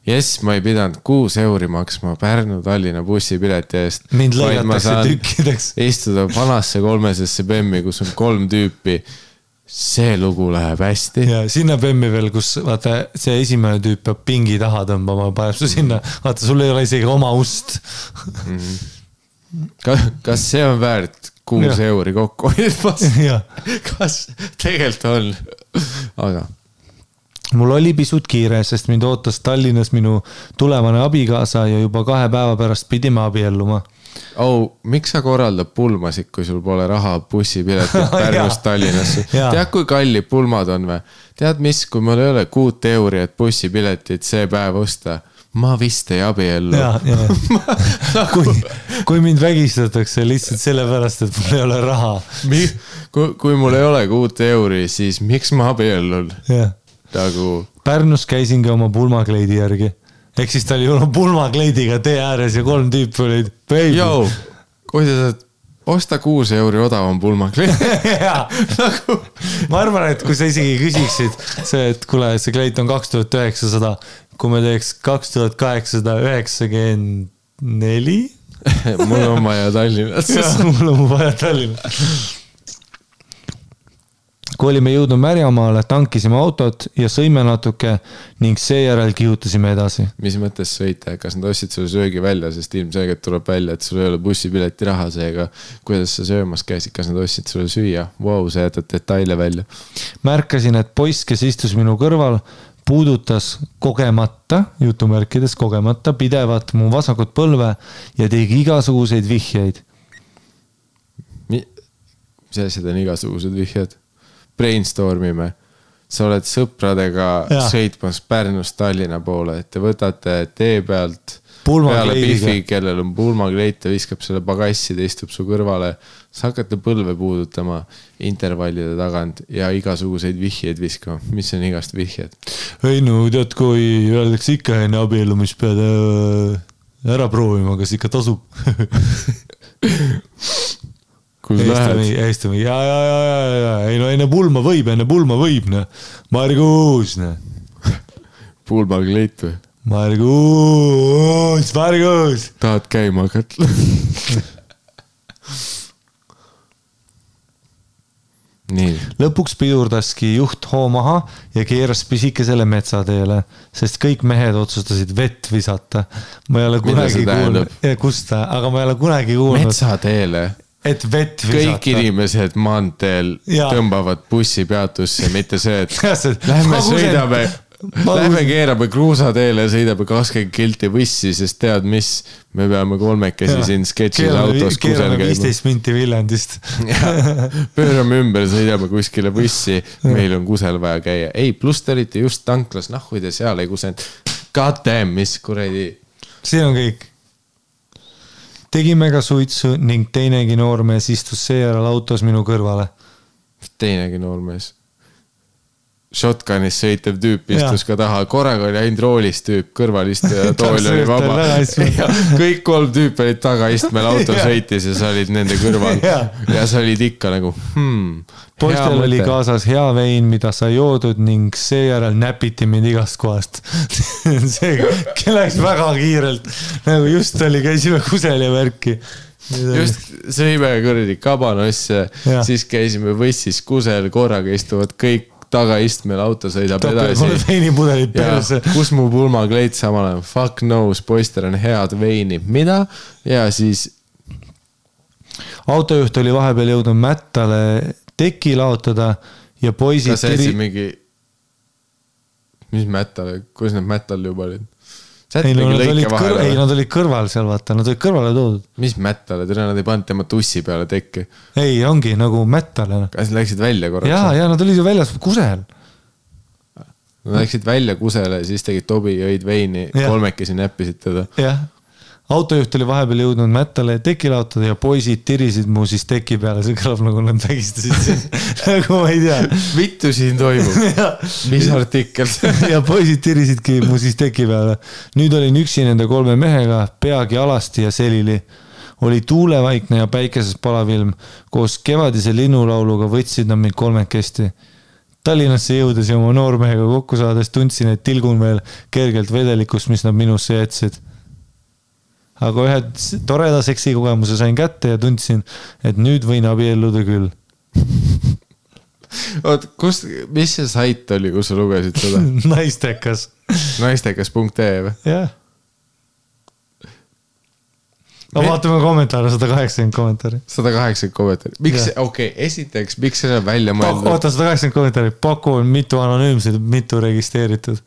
Yes, ma ei pidanud 6 euri maksma Pärnu-Tallinna bussipileti eest.
Mind lõigatakse tükkideks.
Istuda vanasse 3-sesse BEM-i, kus on 3 tüüpi. See lugu läheb hästi.
Ja sinna BEM-i veel, kus vaata, see esimene tüüp peab pingi taha tõmbama, paneb su sinna. Vaata, sul ei ole isegi oma ust.
Kas see on väärt 6 euri kokku? Kas tegelikult on? Aga...
Mul oli pisut kiire, sest mind ootas Tallinnas minu tulevane abikaasa ja juba 2 päeva pärast pidime abielluma.
Miks sa korraldab pulmasid, kui sul pole raha bussipiletit Pärnust Tallinnasse? Tead, kui kallid pulmad on või? Tead mis, kui mul ei ole 6 euri, et bussipiletit see päev osta, ma vist ei abiellu.
Kui mind vägistatakse lihtsalt sellepärast, et mul ei ole raha.
Kui mul ei ole 6 euri, siis miks ma abiellun?
Pärnus käisingi oma pulmakleidi järgi. Ehk siis ta oli olnud pulmakleidiga tee ääres ja 3 tüüpi olid baby.
Jou, kui sa saad osta 6 euri odavam pulmakleidi.
Ma arvan, et kui sa isegi küsiksid see, et kuule, see kleit on 2900, kui me teeks 2894.
Mul on vaja Tallinnas.
Mul on vaja Tallinnas. Kui olime jõudnud Märjamaale, tankisime autot ja sõime natuke ning seejärel kihutasime edasi.
Mis mõttes sõite? Kas nad ostsid sulle söögi välja, sest ilmselgelt tuleb välja, et sul ei ole bussipileti raha seega. Kuidas sa söömas käisid? Kas nad ostsid sulle süüa? Wow, sa jätad detaile välja.
Märkasin, et poiss, kes istus minu kõrval, puudutas kogemata, jutumärkides kogemata, pidevat mu vasakut põlve ja tegi igasuguseid vihjeid.
Mis asjad on igasugused vihjed? Brainstormime. Sa oled sõpradega sõitmas Pärnust Tallinna poole, et te võtate tee pealt peale Biffi, kellel on pulmakleit ja viskab selle pagassi, ta istub su kõrvale. Sa hakkate põlve puudutama intervallide tagant ja igasuguseid vihjeid viskama. Mis on igast vihjed?
Ei no, tead, kui öeldakse ikka enne abielu, mis pead ära proovima, kas ikka tasub? Eestami, ja, ei no enne pulma võib, ne. Margus, ne.
Pulmakleit või?
Margus.
Tahad käima hakata? Nii.
Lõpuks pidurdaski juht hoo maha ja keeras pisikesele metsateele, sest kõik mehed otsustasid vett visata. Ma ei ole kunagi kuulnud. Kusta, aga ma ei ole kunagi kuulnud.
Metsateele? Et vett visata. Kõik inimesed maanteel tõmbavad bussi peatusse, mitte see, et lähme keerame kruusateele ja sõidame 20 kilti bussi, sest tead mis, me peame 3 siin sketšis autos kusel käima.
15 minti Viljandist.
Pöörame ümber, sõidame kuskile bussi, meil on kusel vaja käia. Ei, pluss te olite just tanklas, nahhuid ja seal ei kusend. God damn, mis kuradi.
See on kõik. Tegime ka suitsu ning teinegi noormees istus seejärel autos minu kõrvale.
Teinegi noormees. Shotgunis sõitev tüüp istus ka taha. Korraga oli ainult roolis tüüp, kõrvalist ja tool oli vaba. Ja kõik 3 tüüp olid taga istmel auto sõitis ja sa olid nende kõrval. Ja sa olid ikka nagu,
Poistel oli kaasas hea vein, mida sa joodud ning seejärel näpiti mind igast kohast. See läks väga kiirelt. Nagu just oli, käisime kusel ja värki.
just sõime kuradi kabanosse, siis käisime võssis kusel, korraga istuvad kõik tagaistmel, auto sõidab edasi.
Veinipudelid perse.
Kus mu pulmakleit samal ajal? Fuck knows, poister on head veini. Mida? Ja siis...
Autojuht oli vahepeal jõudnud mättale teki laotada ja poisid...
Kas see mingi... Mis mättale? Kus need mättal juba olid?
Ei, nad olid kõrval seal, vaata, nad olid kõrvale toodud.
Mis mättale? Nad ei pannud tema tussi peale tekki.
Ei, ongi nagu mättale.
Kas läksid välja korraks?
Ja nad olid ju väljas kusel.
Nad läksid välja kusele, siis tegid tobi, jõid veini, kolmekesi näppisid teda.
Jah. Autojuht oli vahepeal jõudnud mättale teki laotada ja poisid tirisid mu siis teki peale. See kõlab nagu nad vägistasid siin. Nagu ma ei tea.
Vittu siin toimub. Mis artikkel?
Ja poisid tirisidki mu siis teki peale. Nüüd olin üksi nende 3 mehega, peagi alasti ja selili. Oli tuulevaikne ja päikeses palavilm. Koos kevadise linnulauluga võtsid nad mind 3 kesti. Tallinnasse jõudes ja oma noormehega kokku saades tundsin, et tilgun veel kergelt vedelikust, mis nad minusse jätsid. Aga ühe toreda seksi kogemuse sain kätte ja tundsin, et nüüd võin abielluda küll.
Oot, mis see sait oli, kus sa lugesid seda?
Naistekas.
Naistekas.ee või?
Jah. No vaatame kommentaare, 180 kommentaari.
180 kommentaari. Miks, esiteks, miks see on välja mõeldud?
Oota, 180 kommentaari. Paku on mitu anonüümsed, mitu registreeritud.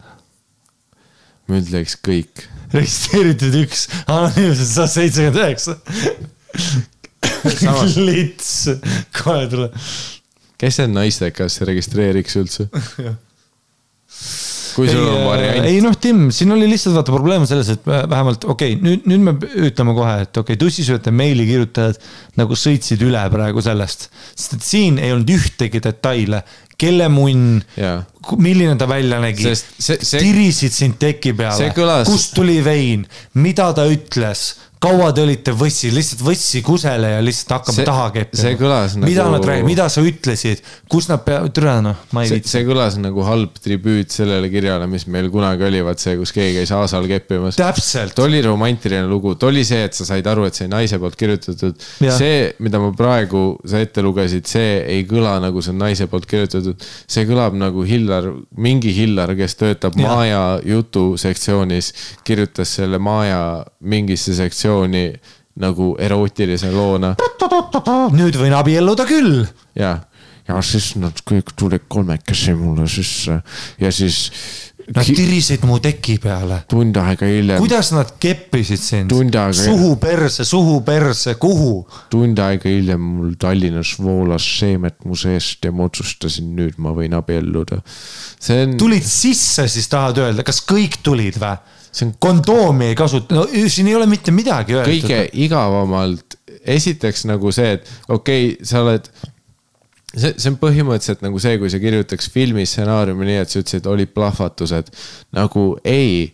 Ma ütleks kõik.
Registreeritud 1, anonüümsed 179. Lits, kohe tule.
Kes see naistekas registreeriks üldse? Kui sul on variant?
Ei Tim, siin oli lihtsalt vaata probleem selles, et vähemalt, nüüd me ütleme kohe, et tussisööte meili kirjutajad nagu sõitsid üle praegu sellest. Sest et siin ei olnud ühtegi detaile, kelle munn, milline ta välja nägi, tirisid sind teki peale, kust tuli vein, mida ta ütles, kaua te olite võssi, lihtsalt võssi kusele ja lihtsalt hakkame taha keppima.
See kõlas nagu...
Mida sa ütlesid, kus nad ma ei viitsi.
See kõlas nagu halb tribüüt sellele kirjale, mis meil kunagi oli, vaat see, kus keegi käis aasal keppimas.
Täpselt.
Ta oli romantiline lugu, ta oli see, et sa said aru, et see naise poolt kirjutatud. See, mida ma praegu sa ette lugesid, see ei kõla nagu see naise poolt kirjutatud. See kõlab nagu mingi Hillar, kes töötab Maaja jutu sektsioonis, kirjutas selle Maaja mingisse sektsiooni nagu erootilise loona.
Nüüd võin abielluda küll.
Ja siis nad kõik tulid 3 mulle sisse ja siis...
Nad tirisid mu teki peale.
Tund aega hiljem.
Kuidas nad keppisid sind? Suhu perse, kuhu?
Tund aega hiljem mul Tallinnas voolas seemet mu seest ja ma otsustasin nüüd ma võin abielluda.
Tulid sisse siis tahad öelda, kas kõik tulid või? Kondoomi ei kasuta, no siin ei ole mitte midagi öelda.
Kõige igavamalt, esiteks nagu see, et sa oled... See on põhimõtteliselt nagu see, kui sa kirjutaks filmi stsenaariumi nii, et sa ütlesid, oli plahvatused. Nagu ei,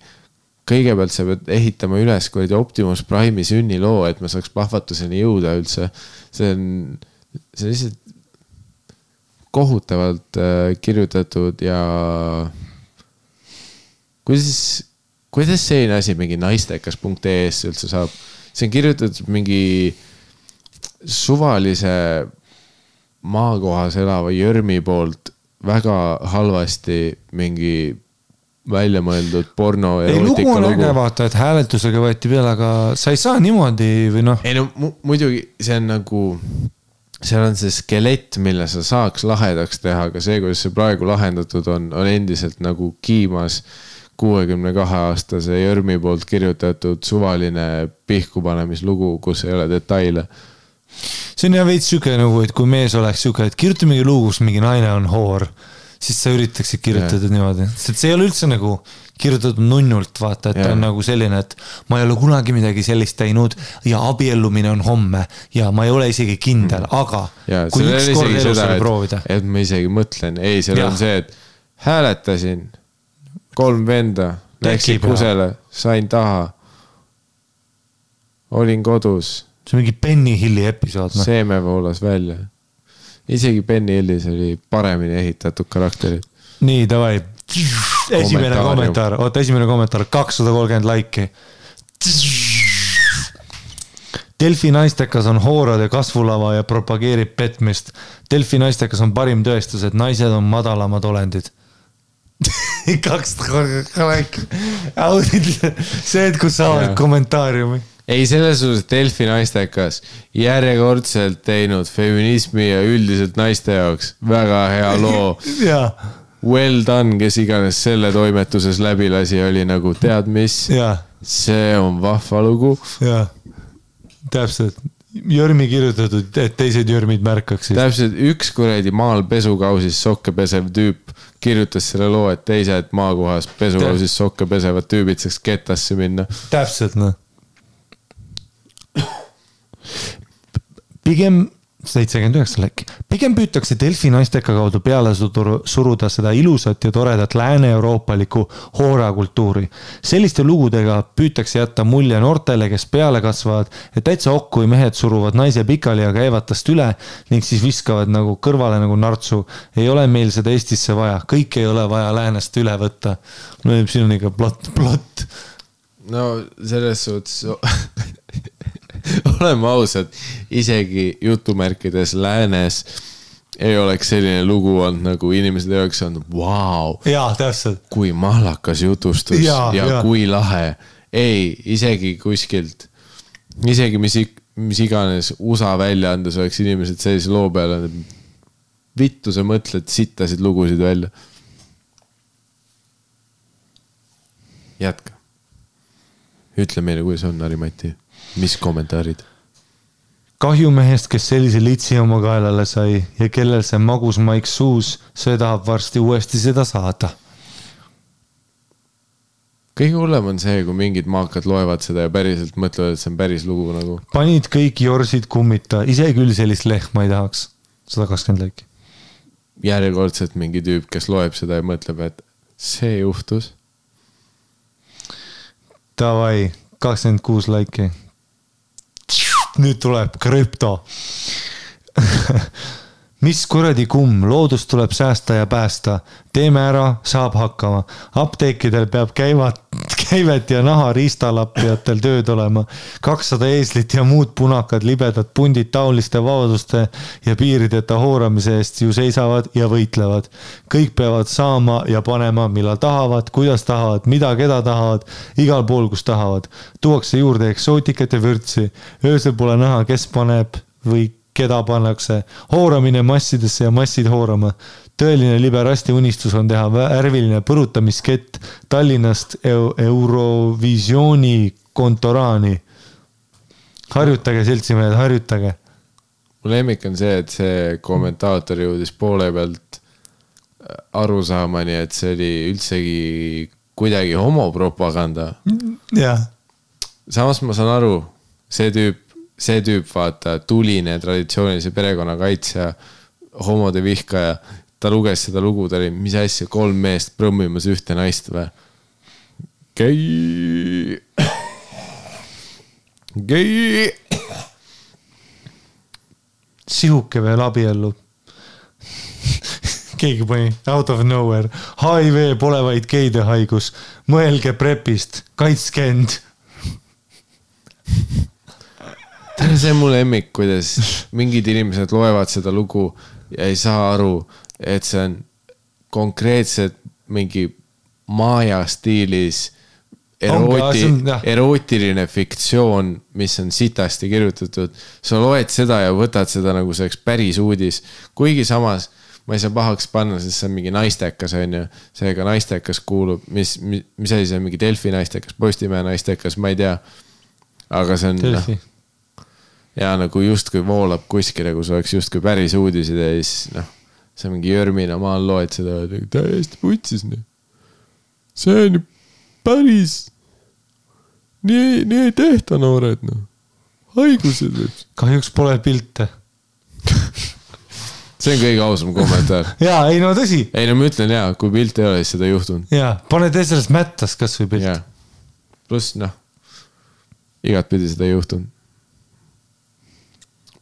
kõigepealt sa pead ehitama üles Optimus Prime'i sünniloo, et ma saaks plahvatuseni jõuda üldse. See on lihtsalt kohutavalt kirjutatud ja kuidas selline asi mingi naistekas.ee-s üldse saab? See on kirjutatud mingi suvalise maakohas elava Jörmi poolt väga halvasti mingi välja mõeldud porno erootika lugu.
Lugu on äge vaata, et hääletusega võeti peale, aga sa ei saa niimoodi või noh?
Ei no muidugi see on nagu, seal on see skelett, mille sa saaks lahedaks teha, aga see, kuidas see praegu lahendatud on endiselt nagu kiimas 62-aastase Jörmi poolt kirjutatud suvaline pihkupanemislugu, kus ei ole detaile.
See on ja veits süke nagu, et kui mees oleks süke, et kirjuta mingi lugu, kus mingi naine on hoor, siis sa üritaksid kirjutada niimoodi. Sest see ei ole üldse nagu kirjutatud nunnult, vaata, et on nagu selline, et ma ei ole kunagi midagi sellist teinud ja abiellumine on homme ja ma ei ole isegi kindel, aga kui üks kord elus oli proovida.
Et ma isegi mõtlen, ei, seal on see, et hääletasin 3 venda, läksin kusele, sain taha, olin kodus.
See on mingi Benny Hilli episood.
Seeme voolas välja. Isegi Benny Hillis oli paremini ehitatud karakterid.
Nii, davai. Esimene kommentaar. Oota, esimene kommentaar. 230 laiki. Delfi naistekas on hoorade kasvulava ja propageerib petmist. Delfi naistekas on parim tõestus, et naised on madalamad olendid. 2 see, et kus saavad kommentaariumi.
Ei, selles suhtes Delfi naistekas järjekordselt teinud feminismi ja üldiselt naiste jaoks väga hea loo. Well done, kes iganes selle toimetuses läbi lasi, oli nagu tead mis, see on vahva lugu.
Täpselt, Jörmi kirjutatud, et teised Jörmid märkaksid.
Täpselt, üks kuradi maal pesukausis sokke pesev tüüp kirjutas selle loo, et teised maakohas pesukausis sokke pesevad tüübid saaks ketasse minna.
Täpselt, noh. Pigem 79 läkki. Pigem püütakse Delfi naisteka kaudu peale suruda seda ilusat ja toredat lääne-euroopalikku hoorakultuuri. Selliste lugudega püütakse jätta mulje noortele, kes peale kasvavad, et täitsa okku kui mehed suruvad naise pikali ja käivad tast üle ning siis viskavad nagu kõrvale nagu nartsu. Ei ole meil seda Eestisse vaja. Kõik ei ole vaja läänest üle võtta. No siin on ikka plott.
No selles suhtes... oleme ausad, isegi jutumärkides läänes ei oleks selline lugu olnud, nagu inimesed ei oleks olnud, vau, kui mahlakas jutustus ja kui lahe. Ei, isegi kuskilt, isegi mis iganes USA väljaandes oleks inimesed sellise loo peale, vittu sa mõtled sittasid lugusid välja. Jätka. Ütle meile, kuidas on, Ari-Mati. Mis kommentaarid?
Kahjumehest, kes sellise litsi oma kaelale sai ja kellel see magus maik suus, see tahab varsti uuesti seda saada.
Kõige hullem on see, kui mingid maakad loevad seda ja päriselt mõtlevad, et see on päris lugu nagu.
Panid kõik jorsid kummita, ise küll sellist lehma ei tahaks. 120 läiki.
Järjekordselt mingi tüüp, kes loeb seda ja mõtleb, et see juhtus.
Davai, 26 läiki. Nüüd tuleb krüpto. Mis kuradi kumm, loodust tuleb säästa ja päästa. Teeme ära, saab hakkama. Apteekidel peab käivet ja naha riistalappijatel tööd olema. 200 eeslit ja muud punakad libedad pundid taoliste vabaduste ja piirideta hooramise eest ju seisavad ja võitlevad. Kõik peavad saama ja panema, millal tahavad, kuidas tahavad, mida keda tahavad, igal pool, kus tahavad. Tuuakse juurde eksootikat ja vürtsi. Öösel pole näha, kes paneb või keda pannakse. Hooramine massidesse ja massid hoorama. Tõeline liberasti unistus on teha värviline põrutamiskett Tallinnast Eurovisiooni kontoraani. Harjutage, seltsimehed, harjutage.
Mu lemmik on see, et see kommentaator jõudis poole pealt aru saamani, et see oli üldsegi kuidagi homopropaganda. Samas ma saan aru, see tüüp vaata tuline traditsioonilise perekonna kaitsja, homode vihkaja, ta luges seda lugu, ta oli, mis asja, 3 meest prõmmimas ühte naist või? Gei!
Sihuke veel abiellu. Keegi pani out of nowhere. HIV pole vaid geide haigus. Mõelge prepist. Kaitske end.
See on mu lemmik, kuidas mingid inimesed loevad seda lugu ja ei saa aru, et see on konkreetselt mingi maaja stiilis erootiline fiktsioon, mis on sitasti kirjutatud. Sa loed seda ja võtad seda nagu see päris uudis. Kuigi samas ma ei saa pahaks panna, sest see on mingi naistekas, on ju. Seega naistekas kuulub, mis asi see on mingi Delfi naistekas, Postimehe naistekas, ma ei tea. Aga see on... Ja nagu justkui voolab kuskile, kus oleks justkui päris uudisid ja siis see mingi Jörmina maal loed seda täiesti putsis. See on päris nii ei tehta noored. Haigused.
Kahjuks pole pilte.
See on kõige ausam kommentaar.
Jaa, ei no tõsi.
Ei no ma ütlen jaa, kui pilt ei ole, siis seda ei juhtunud.
Jaa, pane tee sellest mättas kas või pilt.
Pluss igat pidi seda ei juhtunud.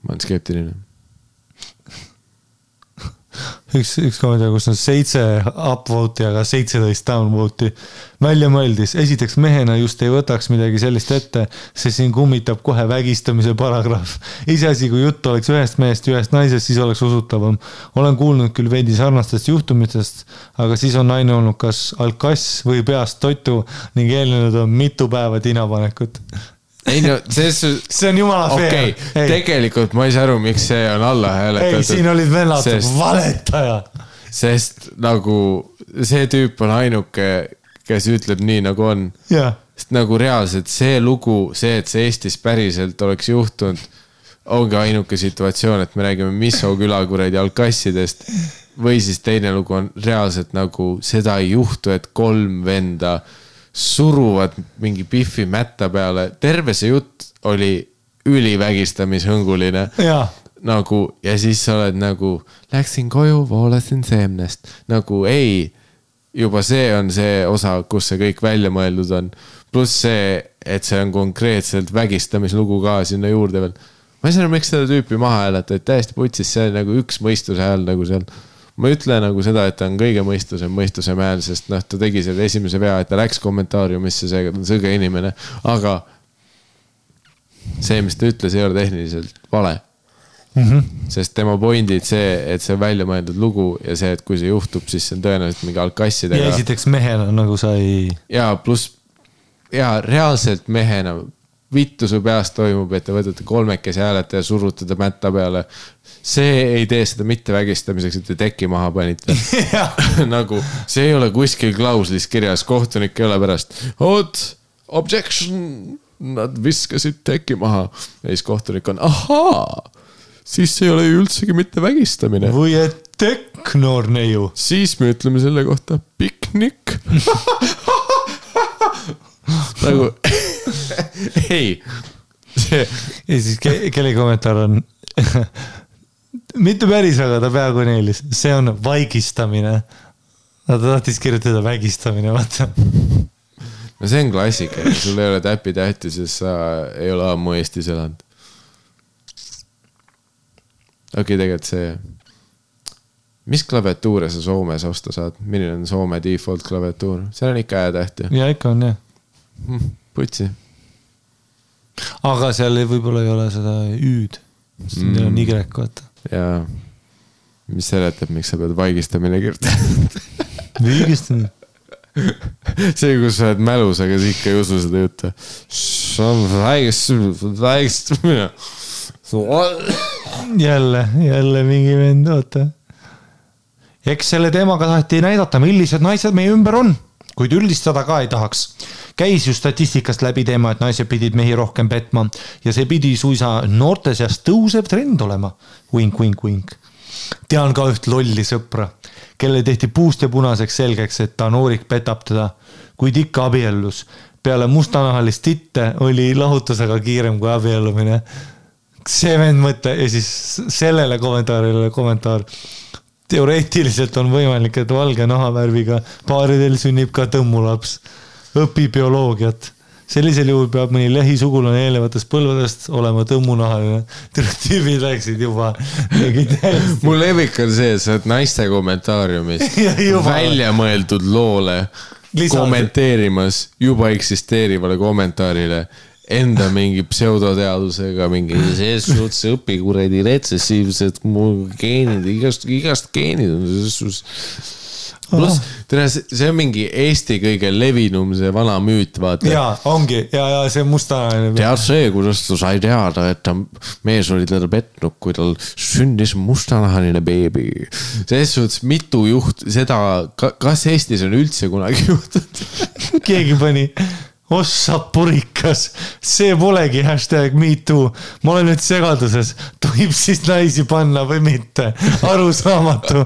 Ma olen skeptiline.
üks kommentaar, kus on 7 upvote'i, aga 17 downvote'i. Välja mõeldis, esiteks mehena just ei võtaks midagi sellist ette, sest siin kummitab kohe vägistamise paragrahv. Iseasi, kui jutt oleks ühest mehest ja ühest naisest, siis oleks usutavam. Olen kuulnud küll veidi sarnastest juhtumitest, aga siis on naine olnud kas alkass või peast toitu ning eelnenud on mitu päeva tinapanekut.
Ei no, see
on jumala fair.
Okay. Tegelikult ma ei saa aru, miks see on alla hääletatud.
Ei, siin olid vennad, valetaja.
Sest nagu see tüüp on ainuke, kes ütleb nii nagu on.
Ja.
Sest nagu reaalselt see lugu, see, et see Eestis päriselt oleks juhtunud, ongi ainuke situatsioon, et me räägime Misso külakuredi alkassidest või siis teine lugu on reaalselt nagu seda ei juhtu, et 3 venda suruvad mingi piffi mätta peale. Terve see jutt oli ülivägistamishõnguline.
Ja.
Nagu, ja siis sa oled nagu, läksin koju, voolasin seemnest. Nagu ei, juba see on see osa, kus see kõik välja mõeldud on. Pluss see, et see on konkreetselt vägistamislugu ka sinna juurde veel. Ma ei saa aru, miks seda tüüpi maha hääleta, et täiesti putsis, see on nagu üks mõistuse hääl nagu seal. Ma ütle nagu seda, et ta on kõige mõistuse hääl, sest noh, ta tegi selle esimese vea, et ta läks kommentaariumisse, seega ta on sõge inimene, aga see, mis ta ütles, ei ole tehniliselt vale. Sest tema pointid see, et see on välja mõeldud lugu ja see, et kui see juhtub, siis see on tõenäoliselt mingi alkassidega.
Ja esiteks mehena nagu sa ei...
Ja pluss, ja reaalselt mehena vittu su peast toimub, et te võtate 3 hääleta ja surutada mätta peale. See ei tee seda mitte vägistamiseks, et te teki maha panite. Nagu, see ei ole kuskil klauslis kirjas, kohtunik ei ole pärast. Objection, nad viskasid teki maha. Ja siis kohtunik on, ahaa, siis see ei ole üldsegi mitte vägistamine.
Või et teknoor neiu.
Siis me ütleme selle kohta piknik. Nagu... ei
ja siis kelle kommentaar on mitte päris, aga ta peaaegu neelis, see on vaigistamine. Ta tahtis kirjutada vägistamine, vaata.
No see on klassika, sul ei ole täppi tähti, sest sa ei ole ammu Eestis elanud. Okei, tegelikult see, mis klaviatuure sa Soomes osta saad? Milline on Soome default klaviatuur? See on ikka tähti.
Ja ikka on, jah.
Putsi.
Aga seal võib-olla ei ole seda üüd. Siin on Y, vaata.
Jaa. Mis seletab, miks sa pead vaigistamine kirjutama?
Vaigistamine?
See, kus sa oled mälus, aga sa ikka ei usu seda juttu. See on vaigistamine.
Jälle mingi vend, oota. Eks selle teemaga taheti näidata, millised naised meie ümber on, kuid üldistada ka ei tahaks. Käis ju statistikast läbi teema, et naised pidid mehi rohkem petma ja see pidi suisa noorte seas tõusev trend olema. Wink. Tean ka üht lolli sõpra, kelle tehti puust ja punaseks selgeks, et ta noorik petab teda, kuid ikka abiellus. Peale mustanahalist titte oli lahutusega kiirem kui abiellumine. See vend mõte ja siis sellele kommentaar. Teoreetiliselt on võimalik, et valge nahavärviga paaridel sünnib ka tõmmulaps. Õpi bioloogiat. Sellisel juhul peab mõni lähisugulane eelnevatest põlvedest olema tõmmunahaline. Tüübid läksid juba.
Mul levik on see, et sa oled naiste kommentaariumis välja mõeldud loole kommenteerimas juba eksisteerivale kommentaarile enda mingi pseudoteadusega, mingi sees suhtes õpikuredi retsessiivsed geenid, igast geenid on see. Plus, see on mingi Eesti kõige levinum, see vana müüt, vaata.
Jaa, ongi, ja see mustanahaline.
Tead see, kuidas ta sai teada, et ta mees oli teda petnud, kui tal sündis mustanahaline beebi. Selles suhtes mitu juht, seda, kas Eestis on üldse kunagi juhtud?
Keegi pani... Ossa purikas, see polegi #MeToo. Ma olen nüüd segaduses. Tohib siis naisi panna või mitte? Arusaamatu.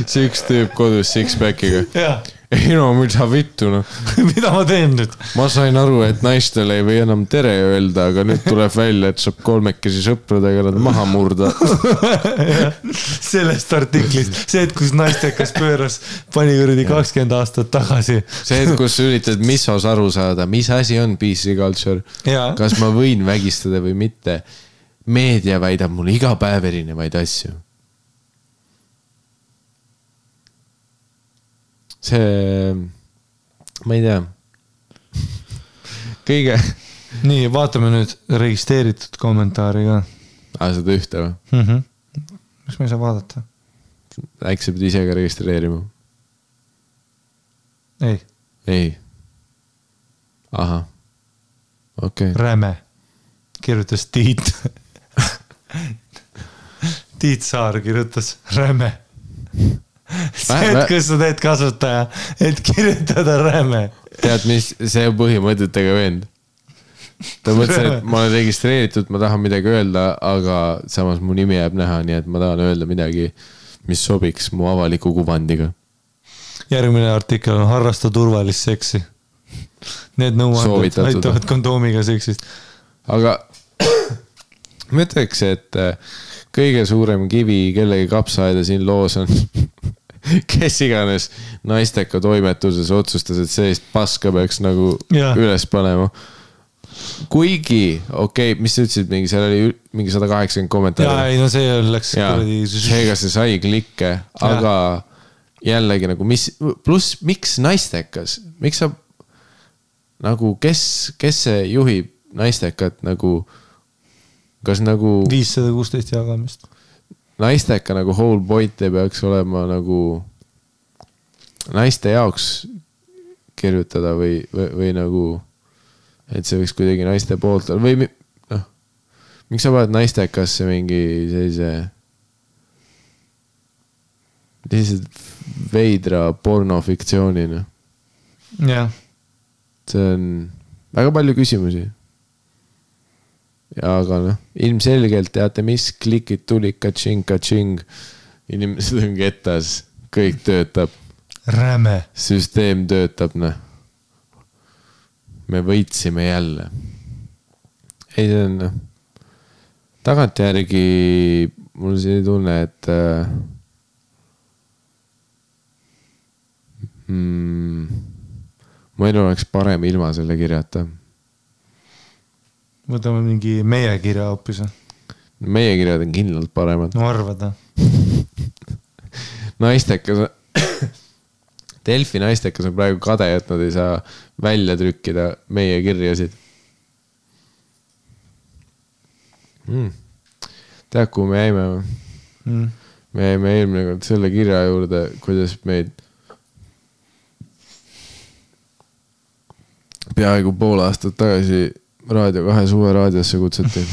See üks tüüp kodus six-packiga.
Jah.
Ei no, mida vittu, no.
Mida ma teen nüüd?
Ma sain aru, et naistele ei või enam tere öelda, aga nüüd tuleb välja, et saab 3 sõpradega nad maha murda.
Sellest artiklist. See, et kus naistekas pööras pani kuradi 20 aastat tagasi.
See, et kus üritad Missos aru saada, mis asi on PC culture.
Ja.
Kas ma võin vägistada või mitte. Meedia väidab mulle iga päev erinevaid asju. see, ma ei tea. Kõige.
Nii, vaatame nüüd registreeritud kommentaari ka.
Seda ühte või?
Miks ma ei saa vaadata?
Äkki sa pead ise ka registreerima? Ei. Aha. Okay.
Räme. Kirjutas Tiit. Tiit Saar kirjutas Räme. See, et kus sa teed kasutaja, et kirjutada Räme.
Tead, mis see põhimõtetega vend? Ta mõtles, et ma olen registreeritud, ma tahan midagi öelda, aga samas mu nimi jääb näha, nii et ma tahan öelda midagi, mis sobiks mu avaliku kuvandiga.
Järgmine artikkel on harrasta turvalist seksi. Need nõuanded aitavad kondoomiga seksist.
Aga ma ütleks, et kõige suurem kivi kellegi kapsaaeda siin loos on kes iganes naisteka toimetuses otsustas, et sellist paska peaks nagu üles panema. Kuigi, mis sa ütlesid, seal oli mingi 180 kommentaari.
Ei, no see läks
seega see sai klikke, aga jällegi nagu pluss miks naistekas? Miks sa nagu, kes see juhib naistekat nagu, kas nagu
516 jagamist?
Naisteka nagu whole point ei peaks olema nagu naiste jaoks kirjutada või nagu, et see võiks kuidagi naiste poolt või noh, miks sa paned naistekasse mingi sellise veidra pornofiktsioonina?
Jah.
See on väga palju küsimusi. Aga noh, ilmselgelt teate mis, klikid tuli, katsing. Inimesed on ketas, kõik töötab.
Räme.
Süsteem töötab, noh. Me võitsime jälle. Ei, see on, noh. Tagantjärgi mul see tunne, et mu elu oleks parem ilma selle kirjata.
Võtame mingi meie kirja hoopis.
Meie kirjad on kindlalt paremad.
No arvada.
Naistekas Delfi naistekas on praegu kade, et nad ei saa välja trükkida meie kirjasid. Tead, kuhu me jäime? Me jäime eelmine kord selle kirja juurde, kuidas meid peaaegu pool aastat tagasi Raadio 2 suve raadiosse kutsuti.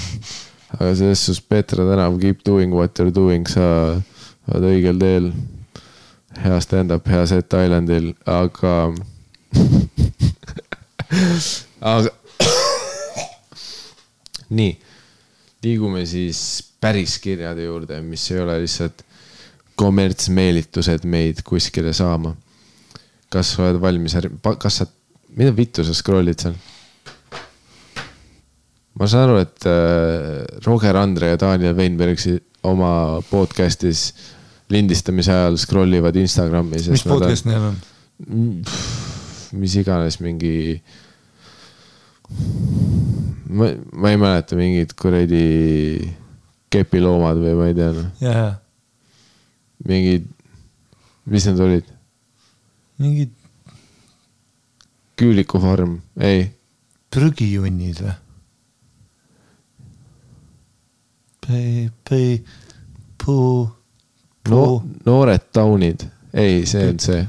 Aga selles sus Petra tänav keep doing what you're doing, sa oled õigel teel. Hea stand-up, hea set Islandil, aga nii, liigume siis päris kirjade juurde, mis ei ole lihtsalt kommertsmeelitused meid kuskile saama. Kas sa oled valmis? Mida vittu sa scrollid seal? Ma saan aru, et Roger Andre ja Daniel Weinbergsi oma podcastis lindistamise ajal scrollivad Instagrami.
Mis podcast neil on?
Mis iganes mingi... Ma ei mäleta mingid kuradi kepiloomad või ma ei tea.
Jaa.
Mingid... Mis need olid?
Mingid...
Küülikufarm, ei.
Prügijunnid või?
Noored taunid. Ei, see on see.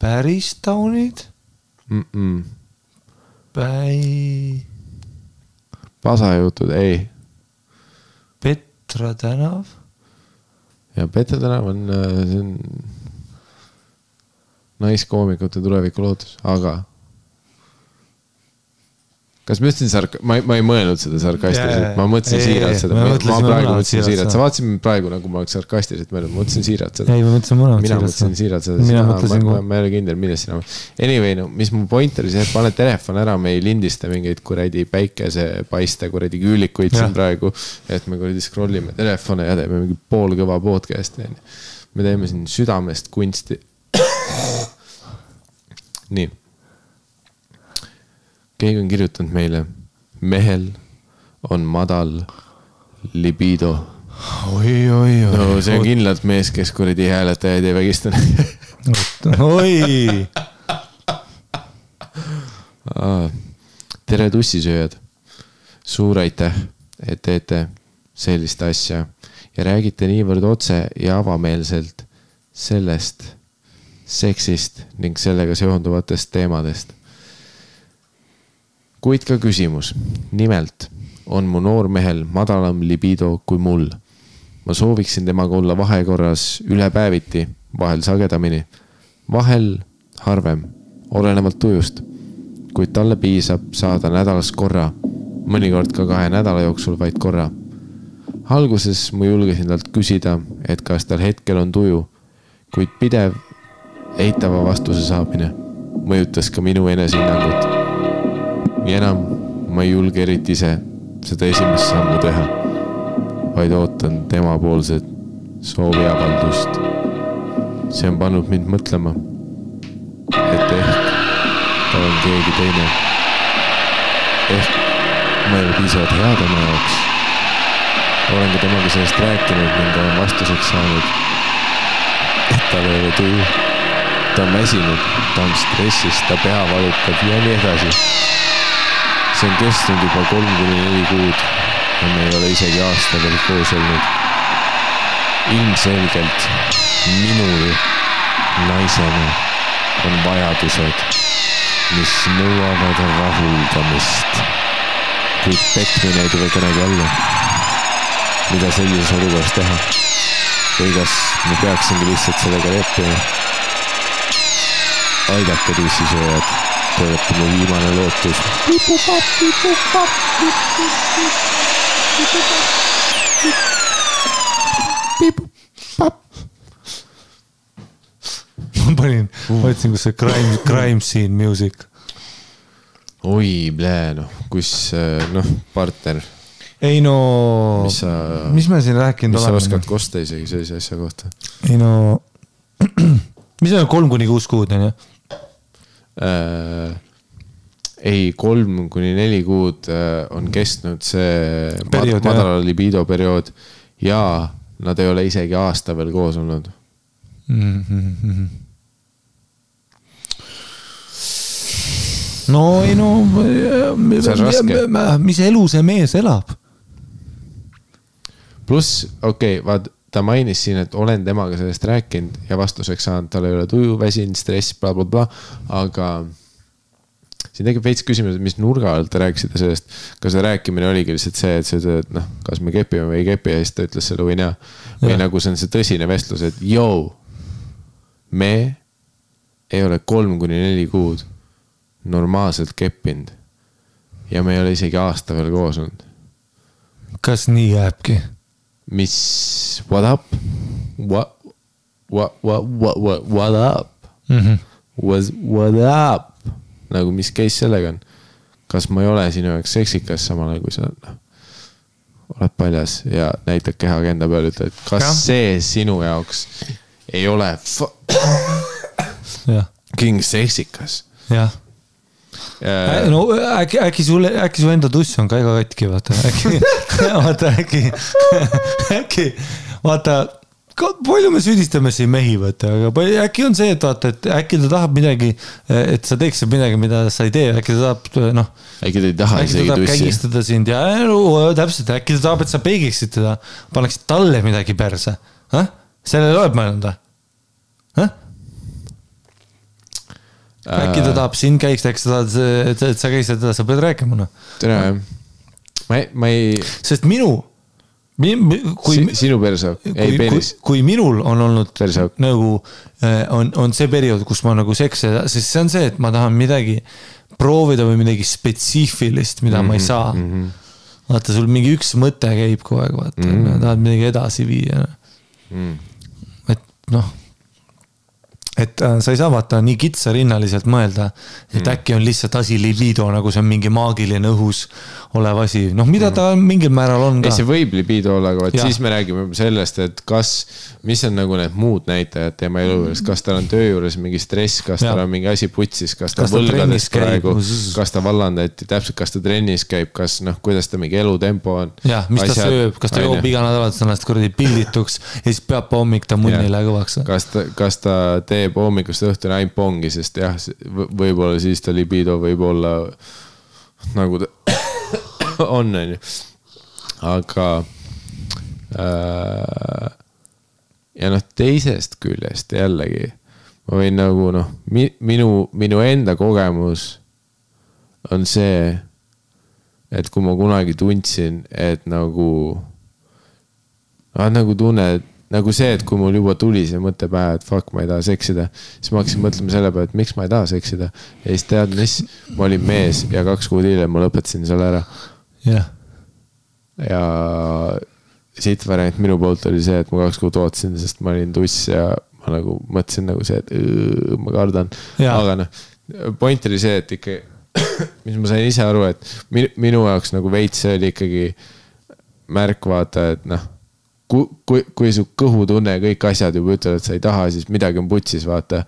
Päris taunid?
Pasajutud, ei.
Petra tänav?
Ja Petra tänav on naiskoomikute tuleviku lootus, aga kas ma ütlesin ma ei mõelnud seda sarkastiliselt, ma mõtlesin siiralt seda, ma praegu mõtlesin siiralt, sa vaatasid praegu nagu ma oleks sarkastiliselt mõelnud, ma mõtlesin siiralt seda.
Ei, ma
mõtlesin siiralt seda, ma ei ole kindel, milles sina. Anyway, no, mis mu point oli see, et pane telefon ära, me ei lindista mingeid kuradi päikesepaiste, kuradi küülikuid siin praegu, et me kuradi scrollime telefone ja teeme mingi poolkõva podcasti. Me teeme siin südamest kunsti. Nii. Keegi on kirjutanud meile, mehel on madal libido.
Oi.
No see on kindlalt mees, kes kuradi hääletajaid ei vägistanud.
Oi.
Tere tussisööjad. Suur aitäh, et teete sellist asja ja räägite niivõrd otse ja avameelselt sellest seksist ning sellega seonduvatest teemadest. Kuid ka küsimus. Nimelt on mu noormehel madalam libido kui mul. Ma sooviksin temaga olla vahekorras üle päeviti, vahel sagedamini, vahel harvem, olenevalt tujust, kuid talle piisab saada nädalas korra, mõnikord ka 2 nädala jooksul vaid korra. Alguses ma julgesin talt küsida, et kas tal hetkel on tuju, kuid pidev eitava vastuse saamine mõjutas ka minu enesehinnangut. Ja enam ma ei julge eriti ise seda esimest sammu teha, vaid ootan tema poolset sooviavaldust. See on pannud mind mõtlema, et ehk ta on keegi teine. Ehk ma ei ole piisavalt hea tema jaoks. Olen ka temaga sellest rääkinud ning olen vastuseks saanud, et tal ei ole tuju. Ta on väsinud, ta on stressis, ta pea valutab ja nii edasi. See on kestnud juba 3-4 kuud ja me ei ole isegi aasta veel koos olnud. Ilmselgelt minul naisena on vajadused, mis nõuavad rahuldamist. Kuid petmine ei tule kõnegi alla. Mida sellises olukorras teha? Või kas me peaksingi lihtsalt sellega leppima? Aidake tussisööjad. Te olete mu viimane lootus.
Ma panin, võtsin, kus see crime scene music.
Oi, noh, kus, partner.
Ei no, mis me siin rääkinud
oleme? Mis sa oskad kosta isegi sellise asja kohta?
Ei no, mis on 3-6 kuud, on ju?
Ei, 3-4 kuud on kestnud see periood, madala libido periood ja nad ei ole isegi aasta veel koos olnud. No ei no,
mis elu see mees elab?
Pluss, vaat ta mainis siin, et olen temaga sellest rääkinud ja vastuseks saanud, tal ei ole tuju, väsin, stress, blablabla, aga siin tegib veits küsimus, mis nurga alt te rääkisite sellest, kas see rääkimine oligi lihtsalt see, et see, kas me kepime või ei kepi ja siis ta ütles selle või näe. Või nagu see on see tõsine vestlus, et me ei ole 3-4 kuud normaalselt keppinud ja me ei ole isegi aasta veel koos olnud.
Kas nii jääbki?
Mis, what up? What up? What up? Nagu mis case sellega on? Kas ma ei ole sinu jaoks seksikas samal kui sa oled paljas ja näitad kehaga enda peal, ütled, et kas see sinu jaoks ei ole king seksikas?
Jah. No äkki su enda tuss on ka ega katki, vaata, palju me süüdistame siin mehi, aga äkki on see, et äkki ta tahab midagi, et sa teeksid midagi, mida sa ei tee, äkki ta tahab,
äkki ta ei taha isegi tussi.
Kägistada sind ja täpselt, äkki ta tahab, et sa peegiksid teda, paneksid talle midagi perse. Sellele oled mõelnud? Äkki ta tahab sind käiks, äkki ta tahab, et sa käisid teda, sa pead rääkima.
Tere, ma ei...
Sest
sinu persauk, ei penis.
Kui minul on olnud nagu, on see periood, kus ma nagu sekse, sest see on see, et ma tahan midagi proovida või midagi spetsiifilist, mida ma ei saa. Vaata, sul mingi üks mõte käib kogu aeg, vaata, tahad midagi edasi viia. Et et sa ei saa vaata nii kitsarinnaliselt mõelda, et äkki on lihtsalt asi libido, nagu see on mingi maagiline õhus olev asi. Noh, mida ta mingil määral on ka.
Ei, see võib libido olla, aga siis me räägime sellest, et mis on nagu need muud näitajad tema elu juures, kas tal on töö juures mingi stress, kas tal on mingi asi putsis, kas ta võlgades praegu, kas ta vallandati, täpselt kas ta trennis käib, kas kuidas ta mingi elutempo on.
Ja, mis ta sööb, kas ta joob iga nädalat ennast kuradi pildituks ja siis peab hommik ta munnile kõvaks.
Kas ta teeb hommikust õhtuni ainult pongi, sest jah, võib-olla siis ta libido võib-olla nagu ta on. Aga ja teisest küljest jällegi ma võin nagu minu enda kogemus on see, et kui ma kunagi tundsin, et nagu tunned nagu see, et kui mul juba tuli see mõte pähe, et fuck, ma ei taha seksida, siis ma hakkasin mõtlema selle peale, et miks ma ei taha seksida. Ja siis tead, mis? Ma olin mees ja 2 kuud hiljem ma lõpetasin selle ära.
Yeah.
Ja siit variant minu poolt oli see, et ma 2 kuud ootasin, sest ma olin tuss ja ma nagu mõtlesin nagu see, et ma kardan. Yeah. Aga point oli see, et ikka, mis ma sain ise aru, et minu jaoks nagu veits see oli ikkagi märk vaata, et kui su kõhutunne ja kõik asjad juba ütlevad, et sa ei taha, siis midagi on putsis, vaata.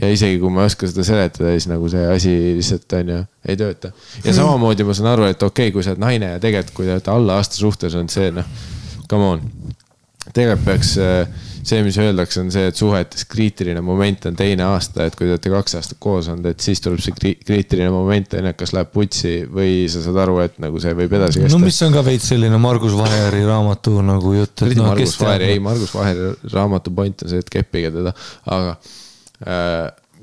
Ja isegi kui ma oskan seda seletada, siis nagu see asi lihtsalt on ja ei tööta. Ja samamoodi ma saan aru, et okei, kui sa oled naine ja tegelikult, kui te olete alla aasta suhtes on see, come on. Tegelikult peaks see, mis öeldakse, on see, et suhetes kriitiline moment on 2 aasta, et kui te olete 2 aastat koos on, et siis tuleb see kriitiline moment, kas läheb putsi või sa saad aru, et nagu see võib edasi kesta.
No mis on ka veits selline Margus Vaheri raamatu nagu jutt.
Margus Vaheri raamatu point on see, et keppige teda, aga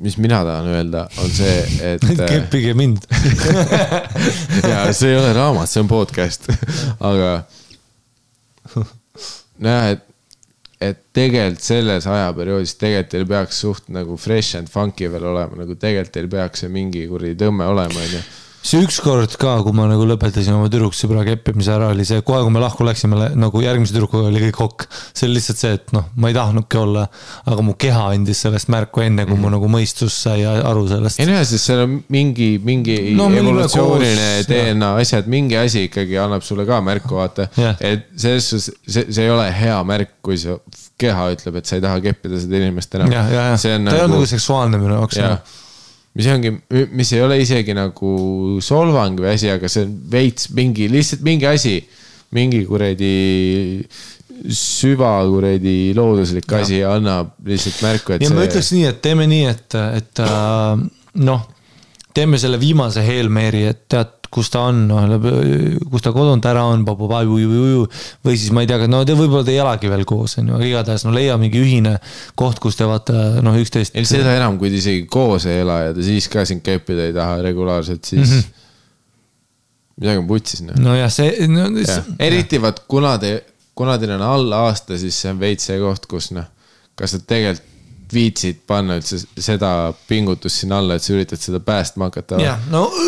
mis mina tahan öelda, on see, et
keppige mind.
ja see ei ole raamat, see on podcast, aga näe, et tegelikult selles ajaperioodis tegelikult teil peaks suht nagu fresh and funky veel olema, nagu tegelikult teil peaks see mingi kuradi tõmme olema.
See ükskord ka, kui ma nagu lõpetasin oma tüdruksõbra keppimise ära, oli see, kohe kui me lahku läksime, nagu järgmise tüdrukuga oli kõik hokk. See oli lihtsalt see, et ma ei tahnudki olla, aga mu keha andis sellest märku enne, kui mu nagu mõistus sai aru sellest.
Ei näe, sest seal on mingi evolutsiooniline DNA asjad, mingi asi ikkagi annab sulle ka märku, vaata. Et see ei ole hea märk, kui see keha ütleb, et sa ei taha keppida seda inimest enam.
Ta ei ole nagu seksuaalne minu jaoks.
Mis ei ole isegi nagu solvang või asi, aga see on veits lihtsalt mingi asi, mingi kuredi süva kuredi looduslik asi annab lihtsalt märku, et
ja ma ütleks nii, et teeme nii, et teeme selle viimase Hail-Mary, et tead, kus ta on, kus ta kodunt ära on, või siis ma ei tea, te võib-olla te ei elagi veel koos, igatahes leia mingi ühine koht, kus te vaata üksteist.
Seda enam, kui te isegi koos ei ela ja te siis ka siin keppida ei taha regulaarselt, siis midagi on putsis.
No jah, see...
Eriti vaat, kuna teil on alla aasta, siis see on veits see koht, kus kas te tegelikult viitsid panna üldse seda pingutust siin alla, et sa üritad seda päästma hakata.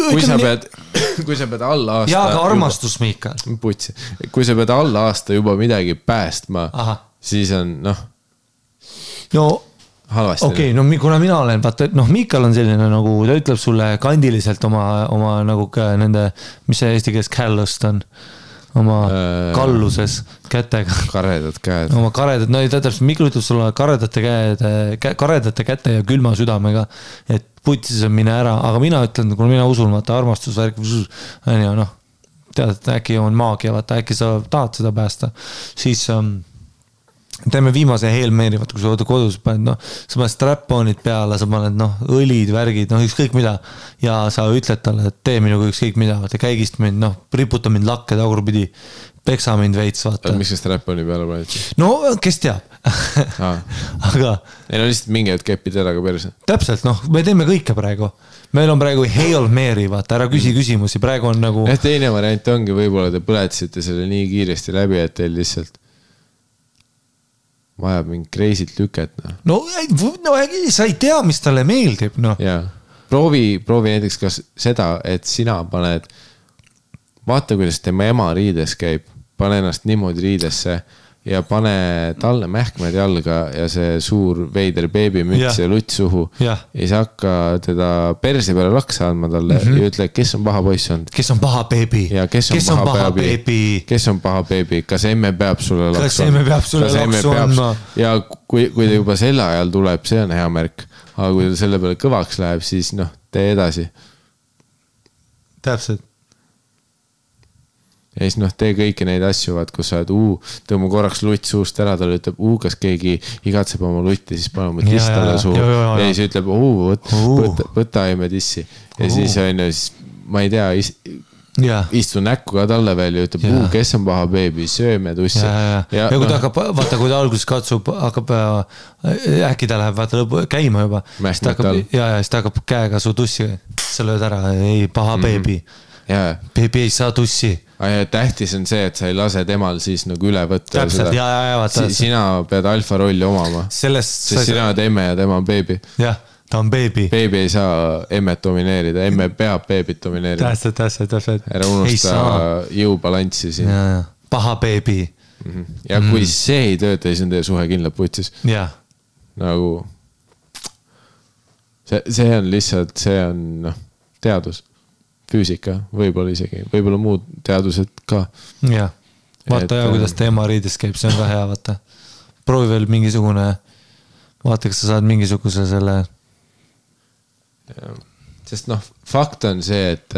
Kui sa pead alla aasta...
Ja ka armastus, Miikal.
Putsi. Kui sa pead alla aasta juba midagi päästma, siis on, halvasti.
Okei, kuna mina olen, vaata, Miikal on selline nagu, ta ütleb sulle kandiliselt oma nagu nende, mis see eesti keeles callust on, oma kalluses kätega.
Karedad käed.
Oma karedad, täpselt, Mikkel ütleb sulle karedate käte ja külma südamega, et putsis on mine ära, aga mina ütlen, kui mina usun, vaata, armastusvärk, tead, et äkki on maagia, vaata, äkki sa tahad seda päästa, siis teeme viimase Hail-Mary, vaata, kui sa kodus paned, sa paned strap-onid peale, sa paned, õlid, värgid, ükskõik mida, ja sa ütled talle, et tee minuga ükskõik mida, vaata, käigist mind, riputa mind lakke tagurpidi, peksa mind veits, vaata.
Miks see strap-oni peale paned?
No, kes teab. Aga...
Ei, lihtsalt mingi hetk kepid ära ka perse.
Täpselt, me teeme kõike praegu. Meil on praegu Hail-Mary, vaata, ära küsimusi, praegu on nagu...
Teine variant ongi, võib-olla te põletasite selle nii kiiresti läbi, et teil lihtsalt vajab mingi kreisit lüket.
Sa ei tea, mis talle meeldib,
Jaa. Proovi näiteks kas seda, et sina paned, vaata, kuidas tema ema riides käib, pane ennast niimoodi riidesse ja pane talle mähkmed jalga ja see suur veider beebimüts ja lutt suhu. Ja siis hakka teda perse peale laksa andma talle ja ütle, kes on paha poiss olnud.
Kes on paha beebi?
Ja kes on paha beebi? Kes on paha beebi? Kas emme peab sulle laksu andma? Ja kui ta juba selle ajal tuleb, see on hea märk. Aga kui ta selle peale kõvaks läheb, siis tee edasi.
Täpselt.
Ja siis tee kõiki neid asju, kus sa oled, tõmba korraks lutt suust ära, talle ütleb, kas keegi igatseb oma lutti, siis pane oma tiss talle suhu. Ja siis ütleb, võta emme tissi. Ja siis on ju, ma ei tea, istu näkku ka talle veel ja ütleb, kes on paha beebi, sööme tussi.
Ja kui ta hakkab, vaata, kui ta alguses katsub, hakkab, äkki ta läheb, vaata, käima juba. Ja siis ta hakkab käega su tussi, sa lööd ära, ei, paha beebi. Beebi ei saa tussi.
Tähtis on see, et sa ei lase temal siis nagu üle võtta.
Täpselt, vaata.
Sina pead alfa rolli omama. Sest sina oled emme ja tema on beebi.
Jah, ta on beebi.
Beebi ei saa emmet domineerida, emme peab beebit domineerida.
Täpselt.
Ära unusta jõubalanssi siin.
Paha beebi.
Ja kui see ei tööta, siis on teie suhe kindlalt putsis. Nagu see on lihtsalt, see on teadus. Füüsika, võib-olla isegi, võib-olla muud teadused ka.
Jah, vaata kuidas teema riides käib, see on ka hea, vaata. Proovi veel mingisugune, vaata, kas sa saad mingisuguse selle.
Sest fakt on see, et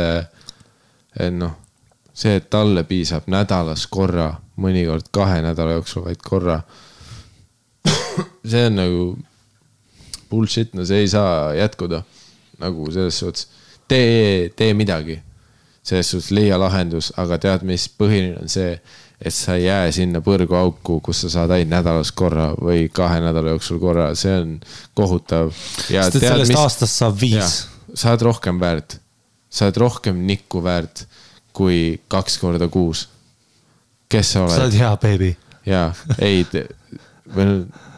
see, et talle piisab nädalas korra, mõnikord 2 nädala jooksul vaid korra. See on nagu bullshit, see ei saa jätkuda nagu selles suhtes. Tee midagi, selles suhtes leia lahendus, aga tead, mis põhiline on see, et sa ei jää sinna põrgu auku, kus sa saad ainult nädalas korra või 2 nädala jooksul korra, see on kohutav.
Sest et sellest aastast saab 5.
Sa oled rohkem väärt, sa oled rohkem nikku väärt kui 2 korda kuus. Kes sa oled?
Sa oled hea beebi.
Jaa, ei,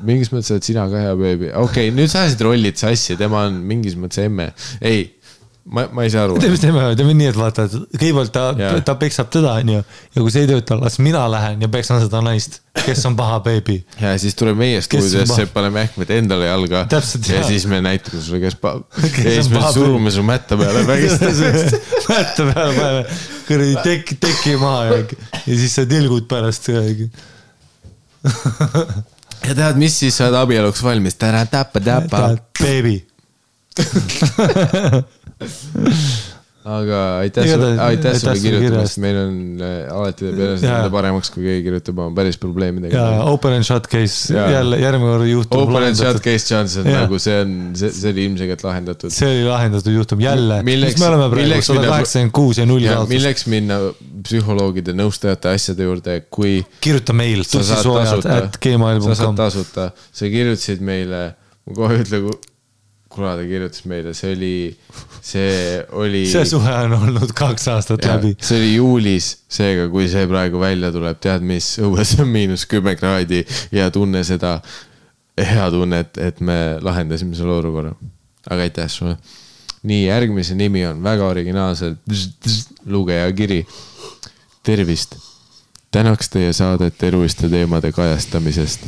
mingis mõttes oled sina ka hea beebi. Okei, nüüd sa ajasid rollid sassi, tema on mingis mõttes emme. Ei, ma ei saa aru.
Teeme nii, et vaata, kõigepealt ta peksab teda, ja kui see ei tööta, las mina lähen ja peksan seda naist, kes on paha beebi.
Ja siis tuleb meie stuudiosse, paneme ähkmed endale jalga.
Täpselt,
ja siis me näitame sulle, kes paha. Ja siis me surume su mätta peale vägistasest.
Mätta peale paneme, kõrdi teki maha ja siis sa tilgud pärast.
Ja tead, mis siis sa oled abieluks valmis? Täpa.
Beebi.
Aga aitäh sulle kirjutamast, meil on alati peale seda paremaks, kui keegi kirjutab oma päris probleemidega.
Ja open and shut case jälle järgmine kord juhtum.
Open and shut case Johnson, nagu see oli ilmselgelt lahendatud.
See oli lahendatud juhtum jälle. Mis me oleme praegu 186 ja 0 saadus.
Milleks minna psühholoogide nõustajate asjade juurde, kui
kirjuta meil tussisoojad@gmail.com.
Sa saad tasuta, sa kirjutasid meile, ma kohe ütle, kuna ta kirjutas meile, see oli
see suhe on olnud 2 aastat läbi.
See oli juulis, seega kui see praegu välja tuleb, tead mis, õues on -10 kraadi ja tunne seda hea tunnet, et me lahendasime selle olukorra. Aga aitäh sulle. Nii, järgmise nimi on väga originaalselt lugeja kiri. Tervist. Tänaks teie saadet eluliste teemade kajastamisest.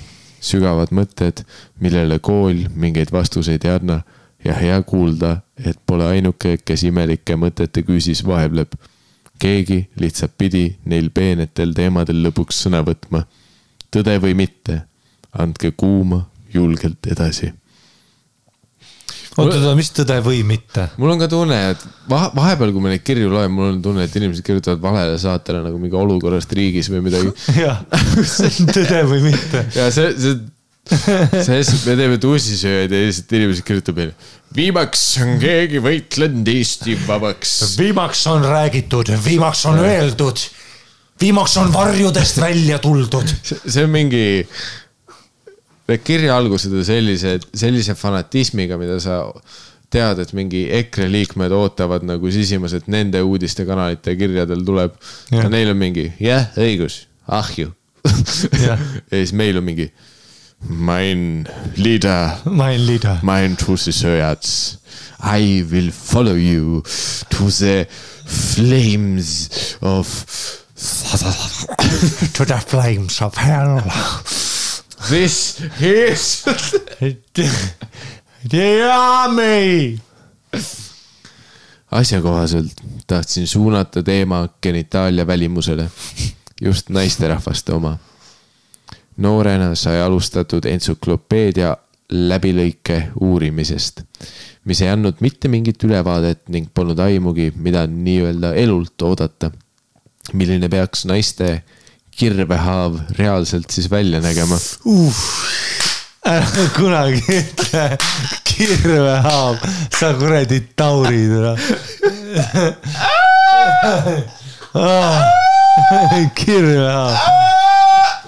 Sügavad mõtted, millele kool mingeid vastuseid ei anna ja hea kuulda, et pole ainuke, kes imelike mõtete küüsis vahebleb. Keegi lihtsalt pidi neil peenetel teemadel lõpuks sõna võtma. Tõde või mitte, andke kuuma julgelt edasi.
Oota, mis tõde või mitte?
Mul on ka tunne, et vahepeal, kui me neid kirju loen, mul on tunne, et inimesed kirjutavad valele saatele nagu mingi olukorrast riigis või midagi.
Jah, tõde või mitte.
Ja me teeme tussisööjaid ja inimesed kirjutab meile. Viimaks on keegi võitlenud Eesti vabaks.
Viimaks on räägitud, viimaks on öeldud, viimaks on varjudest välja tuldud.
See on mingi... kirja algused on sellise fanatismiga, mida sa tead, et mingi EKRE liikmed ootavad nagu sisimas, et nende uudiste kanalite kirjadel tuleb. Ja neil on mingi, õigus, ahju. Ja siis meil on mingi mein leader, mein tussisööjats, I will follow you to the flames of
to the flames of hell.
This is
the army.
Asjakohaselt tahtsin suunata teema genitaalia välimusele, just naisterahvaste oma. Noorena sai alustatud entsüklopeedia läbilõike uurimisest, mis ei andnud mitte mingit ülevaadet ning polnud aimugi, mida nii-öelda elult oodata. Milline peaks naiste kirvehaav reaalselt siis välja nägema?
Ära kunagi ütle kirvehaav, sa kuradi taurid. Kirvehaav.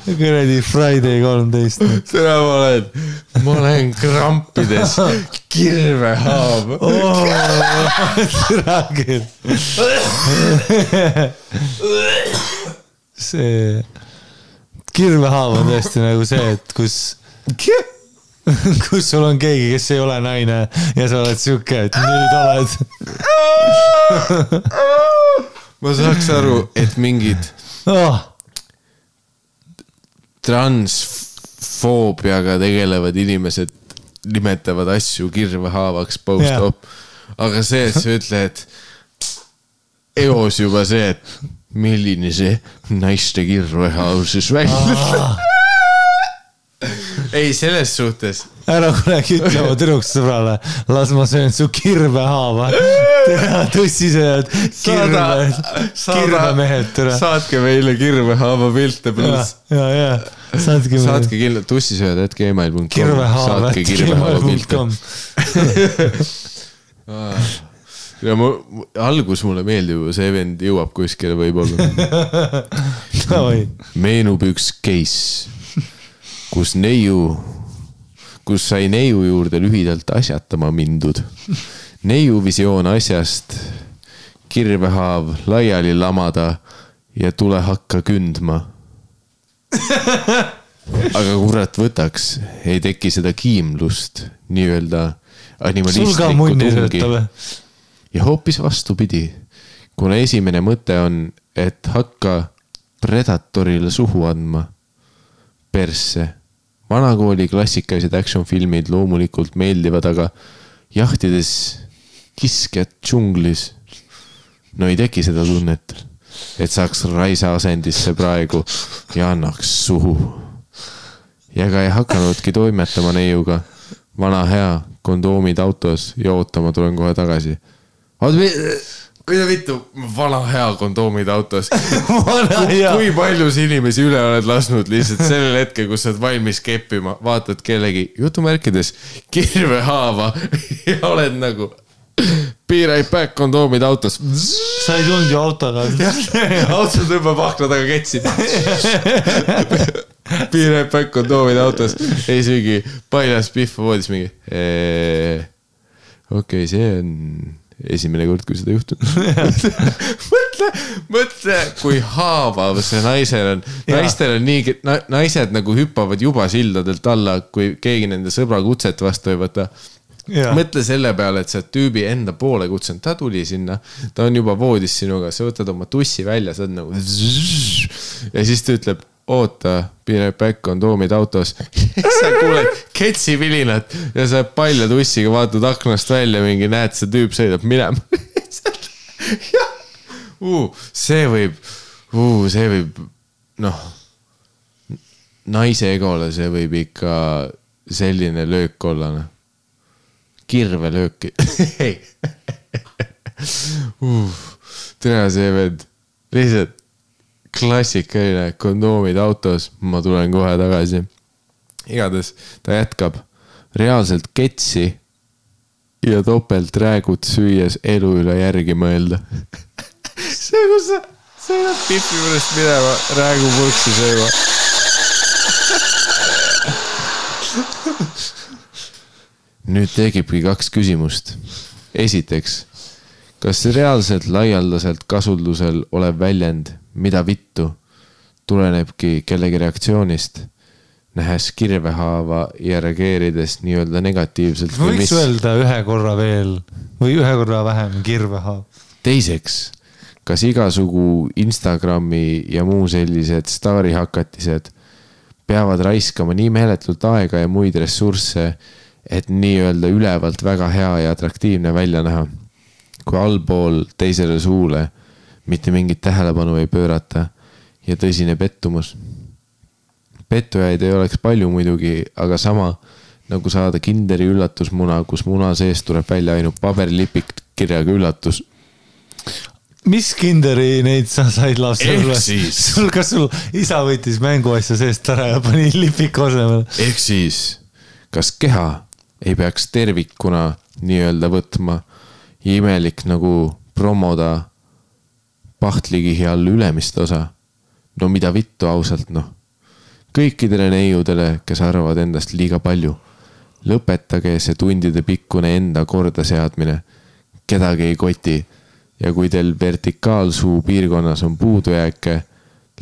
Kuradi Friday 13.
Seda ma olen krampides. Kirvehaav.
Seda küll. See kirvehaav on tõesti nagu see, et kus sul on keegi, kes ei ole naine ja sa oled siuke, et nüüd oled.
Ma saaks aru, et mingid transfoobiaga tegelevad inimesed nimetavad asju kirvehaavaks post-op. Aga see, et sa ütled eos juba see, et milline see naiste kirvehaav siis välja. Ei, selles suhtes.
Ära kunagi ütlema tüdruksõbrale, las ma söön su kirvehaava. Tõsised kirvemehed.
Saatke meile kirvehaava pilte pluss.
Ja.
Saatke kindlalt tussisööd.gmail.com. Saatke kirvehaava pilte. Ja algus mulle meeldib, see vend jõuab kuskile võib-olla. Meenub üks case, kus sai neiu juurde lühidalt asjatama mindud. Neiu visioon asjast, kirvehaav laiali lamada ja tule hakka kündma. Aga kurat võtaks, ei teki seda kiimlust, nii-öelda animalistlikku tungi. Ja hoopis vastupidi, kuna esimene mõte on, et hakka predatorile suhu andma. Persse. Vanakooli klassikalised action-filmid loomulikult meeldivad, aga jahtides kiskjad džunglis. No ei teki seda tunnet, et saaks raisa asendisse praegu ja annaks suhu. Ja ka ei hakanudki toimetama neiuga. Vana hea, kondoomid autos ja ootama tulen kohe tagasi. Mida vittu, vana hea kondoomid autos. Kui paljus inimesi üle oled lasnud lihtsalt sellel hetkel, kus sa oled valmis keppima, vaatad kellegi jutumärkides kirvehaava ja oled nagu be right back kondoomid autos.
Sa ei tulnud ju autoga.
Auto tõmbab akna taga ketsid. Be right back kondoomid autos. Ei söögi paljas pihva voodis mingi. Okei, see on esimene kord, kui seda juhtub. mõtle, kui haavav see naisel on. Naistel on nii, naised nagu hüppavad juba sildadelt alla, kui keegi nende sõbra kutset vastu ei võta. Mõtle selle peale, et sa tüübi enda poole kutsunud, ta tuli sinna, ta on juba voodis sinuga, sa võtad oma tussi välja, sa oled nagu ja siis ta ütleb, oota, be right back, kondoomid autos. Sa kuuled ketsivilinat ja sa palja tussiga vaatad aknast välja, mingi näed, see tüüp sõidab minema. See võib, naise egole see võib ikka selline löök olla. Kirvelööki. Tere see vend. Lihtsalt klassikaline kondoomid autos, ma tulen kohe tagasi. Igades ta jätkab reaalselt ketsi ja topelt räägud süües elu üle järgi mõelda. See, kus sa sõidad pipi juurest minema, räägu pulksi sööma. Nüüd tegibki 2 küsimust. Esiteks, kas reaalselt laialdaselt kasutusel olev väljend mida vittu tulenebki kellegi reaktsioonist, nähes kirvehaava ja reageerides nii-öelda negatiivselt?
Võiks öelda ühe korra veel või ühe korra vähem kirvehaav.
Teiseks, kas igasugu Instagrami ja muu sellised staarihakatised peavad raiskama nii meeletult aega ja muid ressursse, et nii-öelda ülevalt väga hea ja atraktiivne välja näha. Kui allpool teisele suule mitte mingit tähelepanu ei pöörata ja tõsine pettumus. Pettujaid ei oleks palju muidugi, aga sama nagu saada Kinderi üllatusmuna, kus muna sees tuleb välja ainult paberilipik kirjaga üllatus.
Mis Kinderi neid sa said lapsele? Kas sul isa võttis mänguasja seest ära ja pani lipiku asemel?
Ehk siis, kas keha ei peaks tervikuna nii-öelda võtma ja imelik nagu promoda pahtlikihi all ülemist osa? No mida vittu ausalt, noh. Kõikidele neiudele, kes arvavad endast liiga palju. Lõpetage see tundide pikkune enda korda seadmine. Kedagi ei koti. Ja kui teil vertikaalsuu piirkonnas on puudujääke,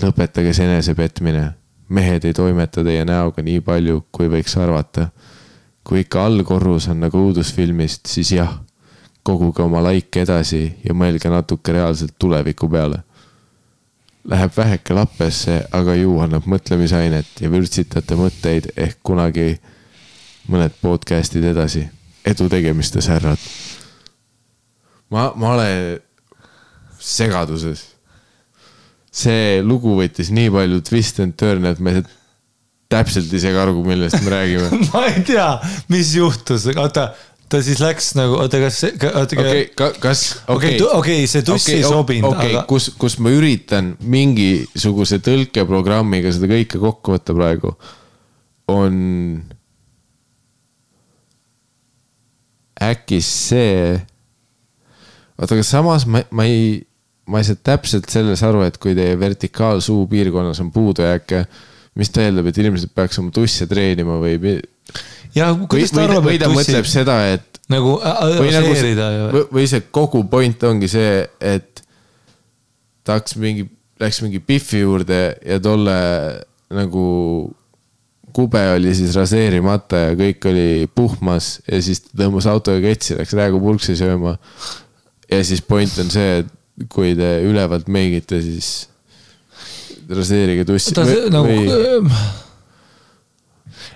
lõpetage see enesepetmine. Mehed ei toimeta teie näoga nii palju, kui võiks arvata. Kui ikka allkorrus on nagu uudusfilmist, siis jah, koguge oma laike edasi ja mõelge natuke reaalselt tuleviku peale. Läheb väheke lappesse, aga ju annab mõtlemisainet ja vürtsitate mõtteid ehk kunagi mõned podcastid edasi. Edu tegemistes, härrad. Ma olen segaduses. See lugu võttis nii palju twist and turn, et me täpselt ei segargu, millest me räägime.
Ma ei tea, mis juhtus. Ta siis läks nagu, okei, see tussi ei sobinud.
Aga... kus ma üritan mingisuguse tõlkeprogrammiga seda kõike kokku võtta praegu, on äkki see... Aga samas ma ei saa täpselt selles aru, et kui teie vertikaalsuu piirkonnas on puudujääke, mis ta eeldab, et inimesed peaks oma tusse treenima või...
Ja, või
ta mõtleb seda, et
nagu
või see kogu point ongi see, et ta läks mingi Biffi juurde ja tolle nagu kube oli siis raseerimata ja kõik oli puhmas ja siis ta tõmbas autoga ketsi, läks räägu pulksi sööma ja siis point on see, et kui te ülevalt meigite, siis raseerige tussi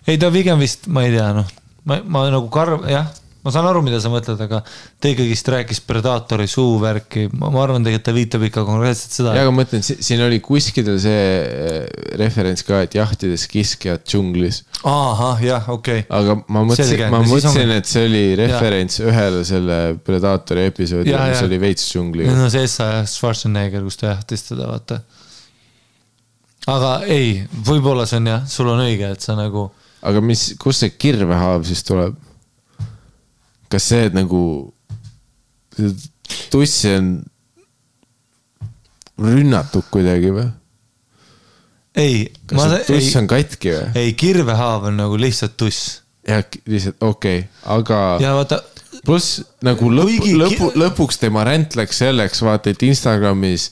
Ei, ta pigem vist, ma ei tea, noh. Ma nagu jah, ma saan aru, mida sa mõtled, aga ta ikkagist rääkis Predaatori suuvärki. Ma arvan tegelikult, ta viitab ikka konkreetselt seda.
Ja, aga mõtlen, siin oli kuskidel see referents ka, et jahtides kiskjad džunglis.
Aha, jah, okei.
Aga ma mõtlesin, et see oli referents ühele selle Predaatori episoodi, mis oli veits džungli.
No see Schwarzenegger, kus ta jahtis teda, vaata. Aga ei, võib-olla see on jah, sul on õige, et sa nagu...
Aga kus see kirvehaav siis tuleb? Kas see, et nagu tussi on rünnatud kuidagi või?
Ei.
Kas see tuss on katki või?
Ei, kirvehaav on nagu lihtsalt tuss.
Jah, lihtsalt, okei. Aga
ja vaata...
Plus nagu lõpuks tema ränt läks selleks, vaata, et Instagramis...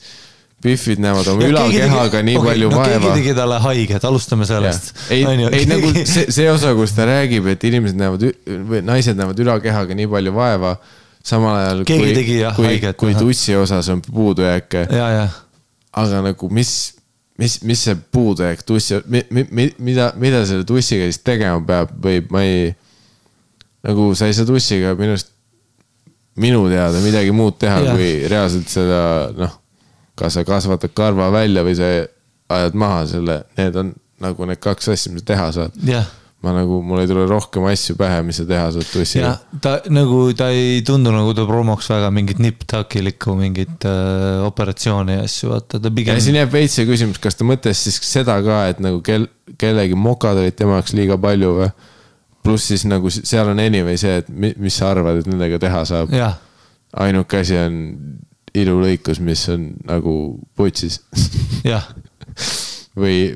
Biffid näevad oma ülakehaga nii palju vaeva.
Keegi tegi talle haiget, alustame sellest.
Ei nagu see osa, kus ta räägib, et inimesed näevad, või naised näevad ülakehaga nii palju vaeva, samal ajal kui tussi osas on puudujääke. Aga nagu mis see puudujääk tussi, mida selle tussiga siis tegema peab või ma ei, nagu sa ei saa tussiga minu teada midagi muud teha, kui reaalselt seda, noh, kas sa kasvatad karva välja või sa ajad maha selle, need on nagu need kaks asja, mis teha saad. Mul ei tule rohkem asju pähe, mis sa teha saad tussiga.
Ta ei tundu nagu ta promoks väga mingit nip-takilikku, mingit operatsiooni asju.
Ja siin jääb veits see küsimus, kas ta mõtles siis seda ka, et nagu kellegi mokad olid tema jaoks liiga palju või? Pluss siis nagu seal on anyway see, et mis sa arvad, et nendega teha saab. Ainuke asi on ilulõikus, mis on nagu putsis.
Jah.
Või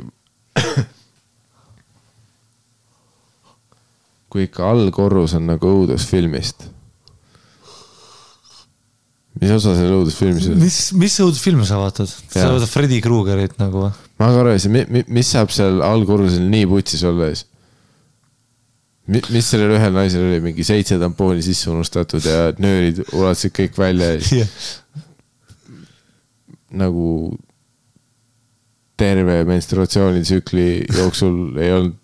kui ikka allkorrus on nagu õudusfilmist. Mis osa selle õudusfilmis on?
Mis õudusfilmi sa vaatad? Sa vaatad Freddy Kruegerit nagu?
Ma ka arvasin, mis saab seal allkorrusel nii putsis olla ees? Mis sellel ühel naisel oli? Mingi 7 tampooni sisse unustatud ja nöörid ulatasid kõik välja ees. nagu terve menstruatsioonitsükli jooksul ei olnud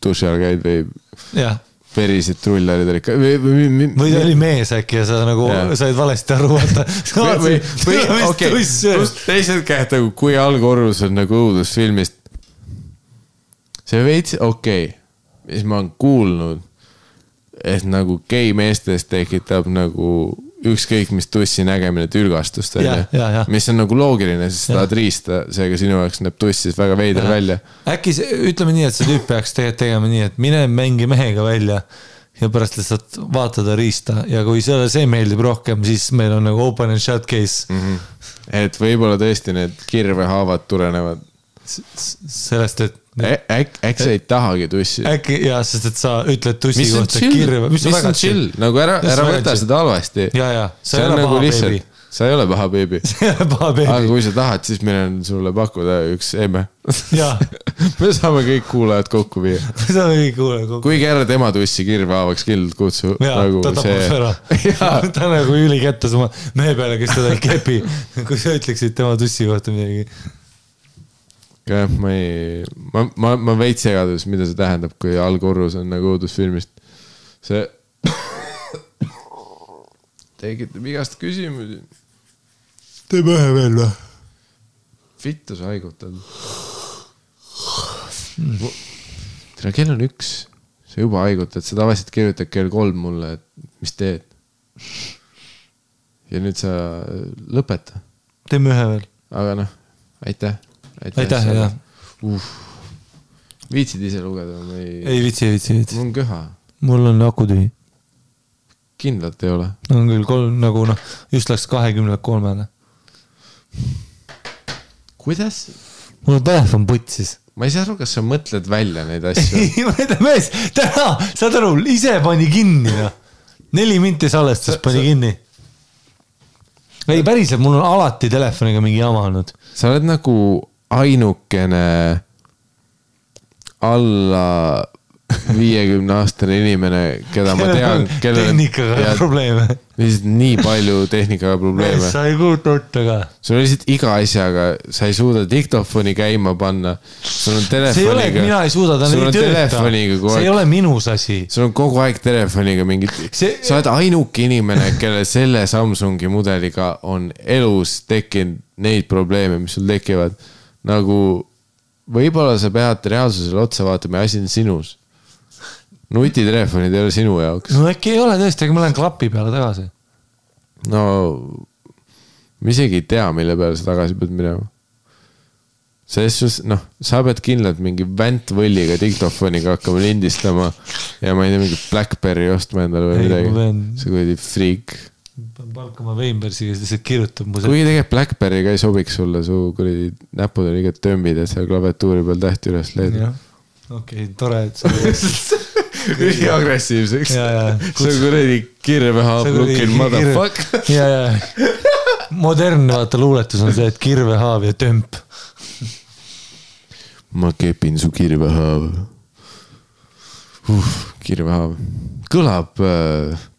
duši all käid või verised trullarid olid ka.
Või ta oli mees äkki ja sa nagu said valesti aru, vaata.
Teised käed, kui algorvus on nagu õudusfilmist. See veits, mis ma olen kuulnud, et nagu gei meestest tekitab nagu ükskõik mis tussi nägemine tülgastust, mis on nagu loogiline, sest sa tahad riista, seega sinu jaoks näeb tuss siis väga veider välja.
Äkki ütleme nii, et see tüüp peaks tegema nii, et mine mängi mehega välja ja pärast lihtsalt vaatada riista ja kui see meeldib rohkem, siis meil on nagu open and shut case.
Et võib-olla tõesti need kirvehaavad tulenevad
sellest, et
äkki sa ei tahagi tussi.
Äkki jah, sest et sa ütled tussi kohta kirve.
Mis on chill? Nagu ära võta seda halvasti.
Sa ei ole paha beebi.
Sa ei ole paha beebi. Aga kui sa tahad, siis meil on sulle pakkuda üks emme. Me saame kõik kuulajad kokku viia. Kuigi ära tema tussi kirve haavaks kindlalt kutsu.
Ta tapab ära. Ta nagu üli kättes oma mehe peale, kes teda ei kepi. Kui sa ütleksid tema tussi kohta midagi.
Ma veits segadus, mida see tähendab, kui algorvus on nagu õudusfilmist. See tekitab igast küsimusi.
Teeme ühe veel või?
Vittu sa haigutad. Tere, kell on 1. Sa juba haigutad. Sa tavaliselt kirjutad kell 3 mulle, et mis teed. Ja nüüd sa lõpeta.
Teeme ühe veel.
Aga noh, aitäh.
Aitäh, jah.
Viitsid ise lugeda?
Ei viitsi.
Mul on köha.
Mul on aku tühi.
Kindlalt ei ole.
On küll 3, nagu just läks 23.
Kuidas?
Mul on telefon putsis.
Ma ei saa aru, kas sa mõtled välja neid asju.
Ei, ma ütlen mees, täna, saad aru, ise pani kinni. 4 minti salestus pani kinni. Ei, päriselt, mul on alati telefoniga mingi jama olnud.
Sa oled nagu ainukene alla 50-aastane inimene, keda ma tean,
tehnikaga probleeme.
Nii palju tehnikaga probleeme.
Sa ei kuuta ka.
Sul on lihtsalt iga asjaga, sa ei suuda diktofoni käima panna. Sul on telefoniga.
See ei ole, et mina ei suuda, ta ei tööta. See ei ole minus asi.
Sul on kogu aeg telefoniga mingid. Sa oled ainuke inimene, kelle selle Samsungi mudeliga on elus tekkinud neid probleeme, mis sul tekivad. Nagu võib-olla sa pead reaalsusele otsa vaatama ja asi on sinus. Nutitelefonid ei ole sinu jaoks.
No äkki ei ole tõesti, aga ma lähen klapi peale tagasi.
No, ma isegi ei tea, mille peale sa tagasi pead minema. Selles, sa pead kindlalt mingi väntvõlliga diktofoniga hakkama lindistama ja ma ei tea, mingi Blackberry ostma endale või midagi. See kuidagi freak.
Palkama Weinbergsiga, siis kirjutab mu see.
Kuigi tegelikult Blackberry ka ei sobiks sulle, su näpud on igat tömbid ja seal klaviatuuri peal tähti üles leedi.
Okei, tore, et sa
üli agressiivseks. See on kuradi kirvehaab looking motherfuck.
Modernne vaata luuletus on see, et kirvehaab ja tömp.
Ma kepin su kirvehaab. Kirvehaab. Kõlab,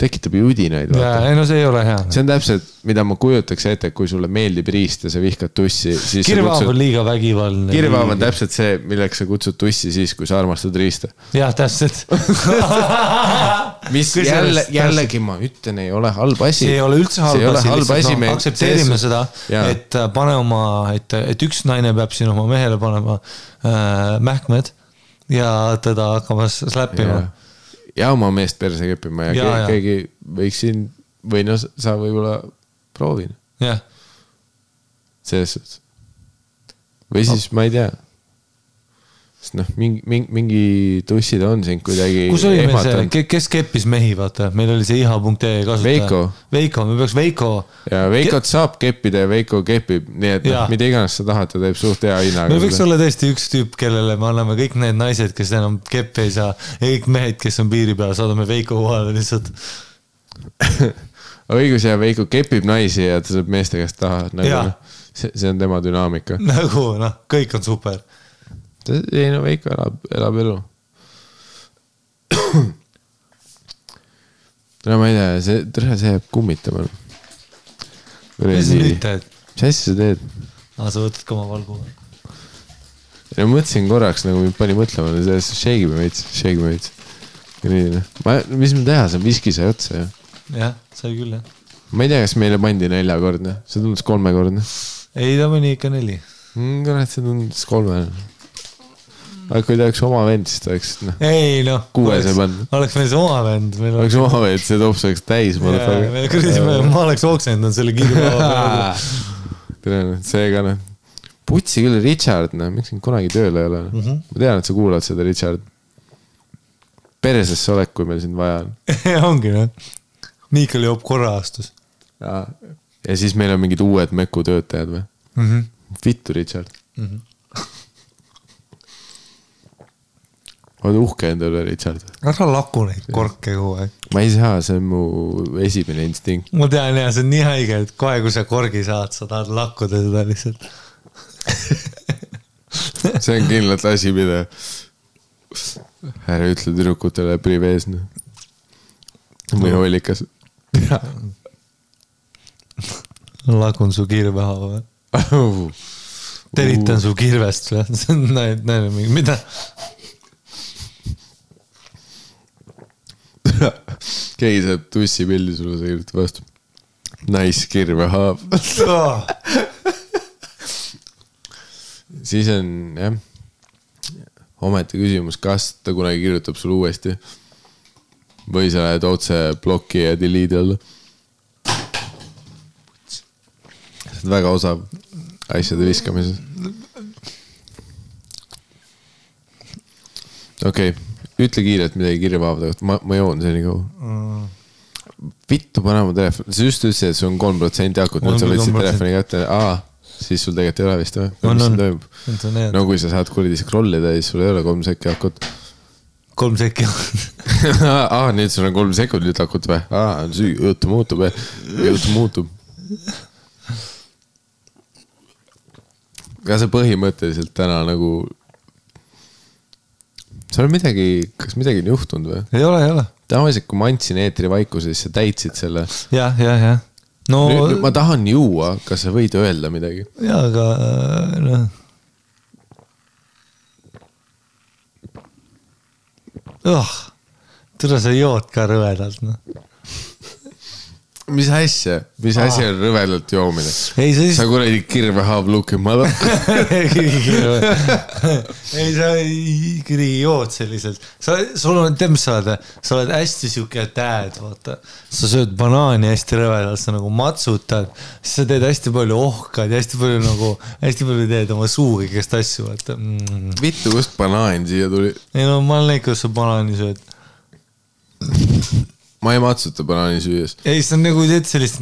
tekitab ju udinaid.
No see ei ole hea.
See on täpselt, mida ma kujutaks ette, kui sulle meeldib riist ja sa vihkad tussi.
Kirvehaab on liiga vägivaldne.
Kirvehaab on täpselt see, milleks sa kutsud tussi siis, kui sa armastad riista.
Jah, täpselt.
Mis jällegi ma ütlen, ei ole halb asi.
See ei ole üldse halb asi. Aktsepteerime seda, et pane oma, et üks naine peab siin oma mehele panema mähkmed ja teda hakkama släppima.
Ja oma meest perse keppima ja keegi võiks siin, või sa võib-olla proovin.
Jah.
Selles suhtes. Või siis ma ei tea. Sest mingi tussid on siin kuidagi
kus oli meil see, kes keppis mehi, vaata? Meil oli see iha.ee kasutaja. Veiko, me peaks Veiko.
Ja Veikot saab keppida ja Veiko kepib, nii et mida iganes sa tahad, ta teeb suht hea hinnaga.
Me võiks olla tõesti üks tüüp, kellele me anname kõik need naised, kes enam keppe ei saa, ja kõik mehed, kes on piiri peal, saadame Veiko kohale lihtsalt.
Õigus ja Veiko kepib naisi ja ta saab meeste käest taha. See on tema dünaamika.
Nagu, kõik on super.
Ei, Veiko elab elu. Ma ei tea, see jääb kummitama.
Mis nüüd teed?
Mis asja sa teed?
Sa võtad ka oma valgu.
Ja mõtlesin korraks, nagu mind pani mõtlema, shake me veits. Mis me teha, see on viski sai otsa, jah?
Jah, sai küll, jah.
Ma ei tea, kas meile pandi 4-kordne, see tundus 3-kordne.
Ei, ta mõni ikka 4.
Kurat, see tundus 3. Aga kui ta oleks oma vend, siis ta oleks,
ei,
6 ei pannud.
Oleks meil see oma vend.
Oleks oma vend, see tops oleks täis.
Ma oleks oksendanud selle kiirpäeva.
See ka, Putsi küll Richard, miks siin kunagi tööle ei ole. Ma tean, et sa kuulad seda, Richard. Peresesse olek, kui meil sind vaja on.
Ongi, Miikal joob korra aastus.
Ja siis meil on mingid uued meku töötajad või? Vittu, Richard. Oled uhke endale, Richard?
Ära laku neid korke kogu aeg.
Ma ei saa, see on mu esimene instinkt.
Ma tean, see on nii haige, et kohe kui sa korgi saad, sa tahad lakkuda seda lihtsalt.
See on kindlalt asi, mida ära ütle tüdrukutele privees. Või hoolikas.
Lakun su kirveha või? Teritan su kirvest või? Mida?
Keegi saab tussipildi sulle, sa kirjutab vastu. Nice kirvehaav. Siis on, jah, ometi küsimus, kas ta kunagi kirjutab sulle uuesti või sa lähed otse bloki ja delete alla. See on väga osav asjade viskamises. Okei, ütle kiirelt midagi kirjapäevade kohta, ma joon see nii kaua. Vittu pane mu telefon, sa just ütlesid, et sul on 3% akut, nüüd sa võtsid telefoni kätte, siis sul tegelikult ei ole vist või? No kui sa saad kuridi scrollida, siis sul ei ole 3 sekki akut.
3 sekki akut.
Nüüd sul on 3 sekundit akut või? Jutu muutub. Ka see põhimõtteliselt täna nagu sul on kas midagi on juhtunud või?
Ei ole.
Tavaliselt, kui ma andsin eetri vaikuse, siis sa täitsid selle.
Jah. No,
nüüd ma tahan juua, kas sa võid öelda midagi?
Jaa, aga Tõra sa jood ka rõvedalt,
Mis asja on rõvedalt joomine? Sa kuradi kirvehaav luki mada.
Ei, sa ikkagi jood selliselt. Sul on, mis sa oled hästi siuke dad, vaata. Sa sööd banaani hästi rõvedalt, sa nagu matsutad, siis sa teed hästi palju ohkad ja hästi palju teed oma suugi, kes tassu, vaata.
Vittu, kust banaan siia tuli?
Ei, ma olen näinud, kus sa banaani sööd.
Ma ei matsuta banaani süües.
Ei, see on nagu teed sellist...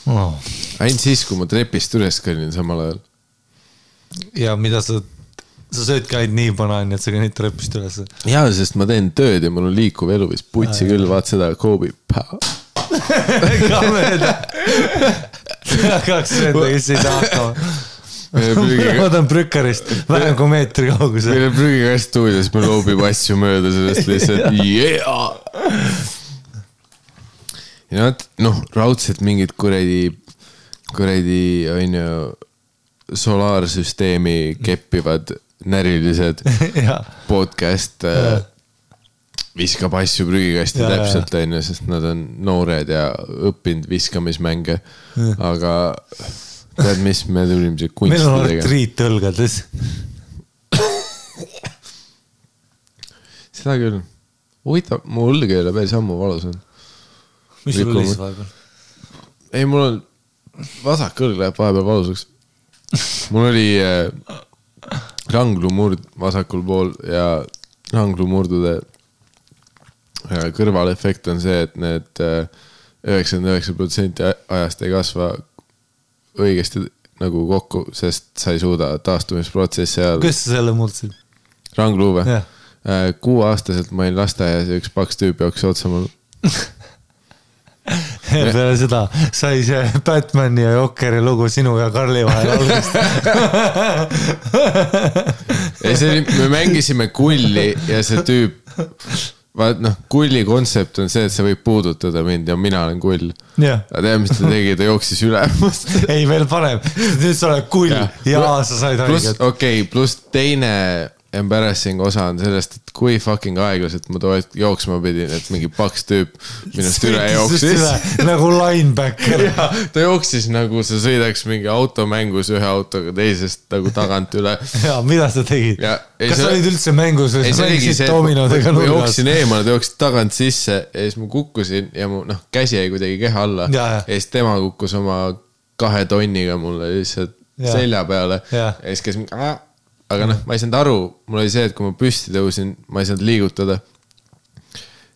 Ainult siis, kui ma trepist üles kõnnin samal ajal.
Ja mida sa sööd ka ainult nii banaani, et sa kõnnid trepist üles.
Jaa, sest ma teen tööd ja mul on liikuv elu, vist putsi küll, vaat seda Kobe.
Ka mööda. Kaks sööda, kes ei saa hakkama. Ma tahan prükkarist vähem kui meetri kaugusel.
Meil on prügikast stuudios, me loobib asju mööda sellest lihtsalt. Ja raudselt mingid kuredi on ju solaarsüsteemi keppivad närilised podcast viskab asju prügikasti täpselt on ju, sest nad on noored ja õppinud viskamismänge, aga tead, mis me tulime see kunsti
tegema? Meil on artriit tõlgades.
Seda küll. Huvitav, mu õlg ei ole päris ammu valus on.
Mis sul oli siis vahepeal?
Ei, mul on vasak õlg läheb vahepeal valusaks. Mul oli ranglumurd vasakul pool ja ranglumurdude kõrvalefekt on see, et need 99% ajast ei kasva õigesti nagu kokku, sest sa ei suuda taastumisprotsessi ajal.
Kus sa selle murdsid?
Rangluuve. 6-aastaselt ma olin lasteaias ja üks paks tüüp jooksis otsa mul.
Peale seda sai see Batmani ja Jokeri lugu sinu ja Karli vahel algust.
Me mängisime kulli ja see tüüp kulli kontsept on see, et sa võib puudutada mind ja mina olen kull. Aga tead, mis ta tegi, ta jooksis üle.
Ei, veel parem. Nüüd sa oled kull ja sa said haiget.
Okei, pluss teine embarrassing osa on sellest, et kui fucking aeglaselt ma jooksma pidin, et mingi paks tüüp minust üle jooksis.
Nagu linebacker.
Ja, ta jooksis nagu sa sõidaks mingi automängus ühe autoga teisest nagu tagant üle.
Ja, mida sa tegid? Kas sa olid üldse mängus või sa mängisid dominodega
nurgas? Ma jooksin eemale, ta jooksid tagant sisse ja siis ma kukkusin ja mu käsi jäi kuidagi keha alla. Ja siis tema kukkus oma 2 tonniga mulle lihtsalt selja peale. Ja siis käis mingi... Aga ma ei saanud aru, mul oli see, et kui ma püsti tõusin, ma ei saanud liigutada.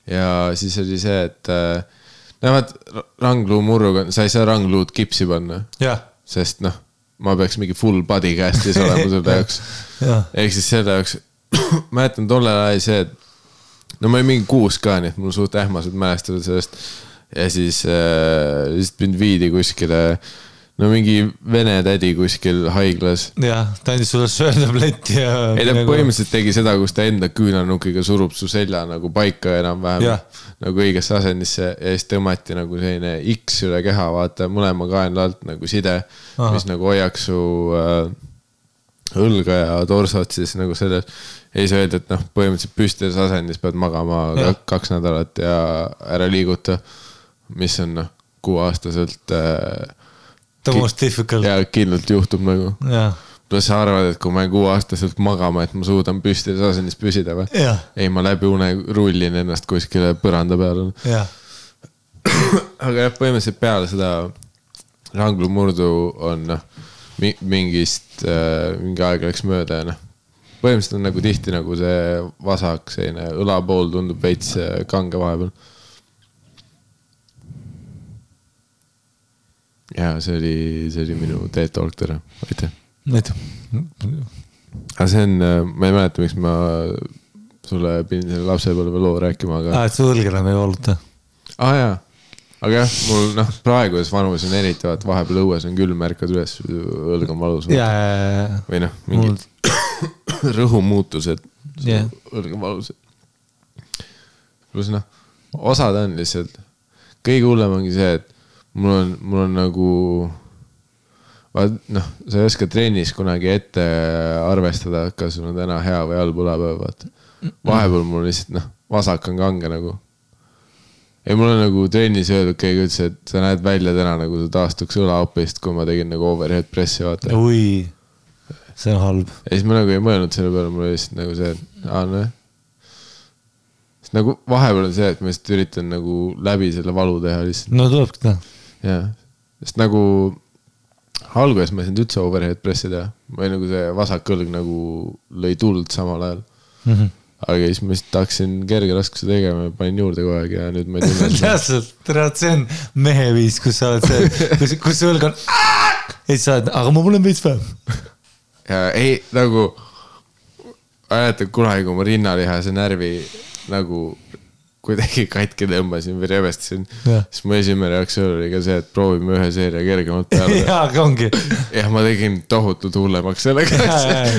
Ja siis oli see, et näevad rangluu murruga, sa ei saa rangluud kipsi panna. Sest ma peaks mingi full body castis olema selle jaoks. Ehk siis selle jaoks, ma jätan tollel ajal see, et ma olin mingi 6 ka, nii et mul suht ähmased mälestada sellest. Ja siis mind viidi kuskile... No mingi vene tädi kuskil haiglas.
Jah, ta andis sulle söötabletti ja...
Ei, ta põhimõtteliselt tegi seda, kus ta enda küünarnukiga surub su selja nagu paika enam-vähem nagu õigesse asendisse ja siis tõmmati nagu selline X üle keha, vaata mõlema kaenla alt nagu side, mis nagu hoiaks su õlga ja torsot siis nagu selles. Ja siis öeldi, et põhimõtteliselt püstides asendis pead magama 2 nädalat ja ära liiguta, mis on 6-aastaselt...
The most difficult.
Ja kindlalt juhtub nagu. Plus sa arvad, et kui ma 6-aastaselt magama, et ma suudan püstides asendis püsida või? Ei, ma läbi une rullin ennast kuskile põranda peale. Aga põhimõtteliselt peale seda ranglu murdu on mingi aeg läks mööda ja põhimõtteliselt on nagu tihti nagu see vasak, selline õlapool tundub veits kange vahepeal. Ja see oli minu TED-talk tere. Aitäh. Aga see on, ma ei mäleta, miks ma sulle pidin selle lapsepõlve loo rääkima, aga...
et su õlg enam ei valuta.
Jaa. Aga jah, mul praeguses vanuses on eriti, et vahepeal õues on küll märkad üles, õlg on valus. Või mingid rõhumuutused, õlg on valus. Plus osad on lihtsalt, kõige hullem ongi see, et mul on nagu, sa ei oska trennis kunagi ette arvestada, kas sul on täna hea või halb õlapäev, vaata. Vahepeal mul lihtsalt, vasak on kange nagu. Ja mul on nagu trennis öeldud keegi üldse, et sa näed välja täna nagu sa taastuks õlaopist, kui ma tegin nagu overhead pressi, vaata.
Ui, see on halb.
Ja siis ma nagu ei mõelnud selle peale, mul oli lihtsalt nagu see, et Sest nagu vahepeal on see, et ma just üritan nagu läbi selle valu teha lihtsalt.
No tulebki teha.
Jah, sest nagu alguses ma ei saanud üldse overhead pressi teha. Või nagu see vasak õlg nagu lõi tuld samal ajal. Aga siis ma just tahaksin kerge raskuse tegema ja panin juurde kogu aeg ja nüüd ma ei tunne seda.
Täpselt, see on mehe viis, kus sa oled see, kus see õlg on ja sa oled, aga ma mul on veits vähem.
Ja ei, nagu ajatab kunagi, kui ma rinnalihase närvi nagu kuidagi katki tõmbasin või revestasin, siis mu esimene reaktsioon oli ka see, et proovime ühe seeria kergemalt peale.
Jaa, ongi.
Ja ma tegin tohutult hullemaks sellega.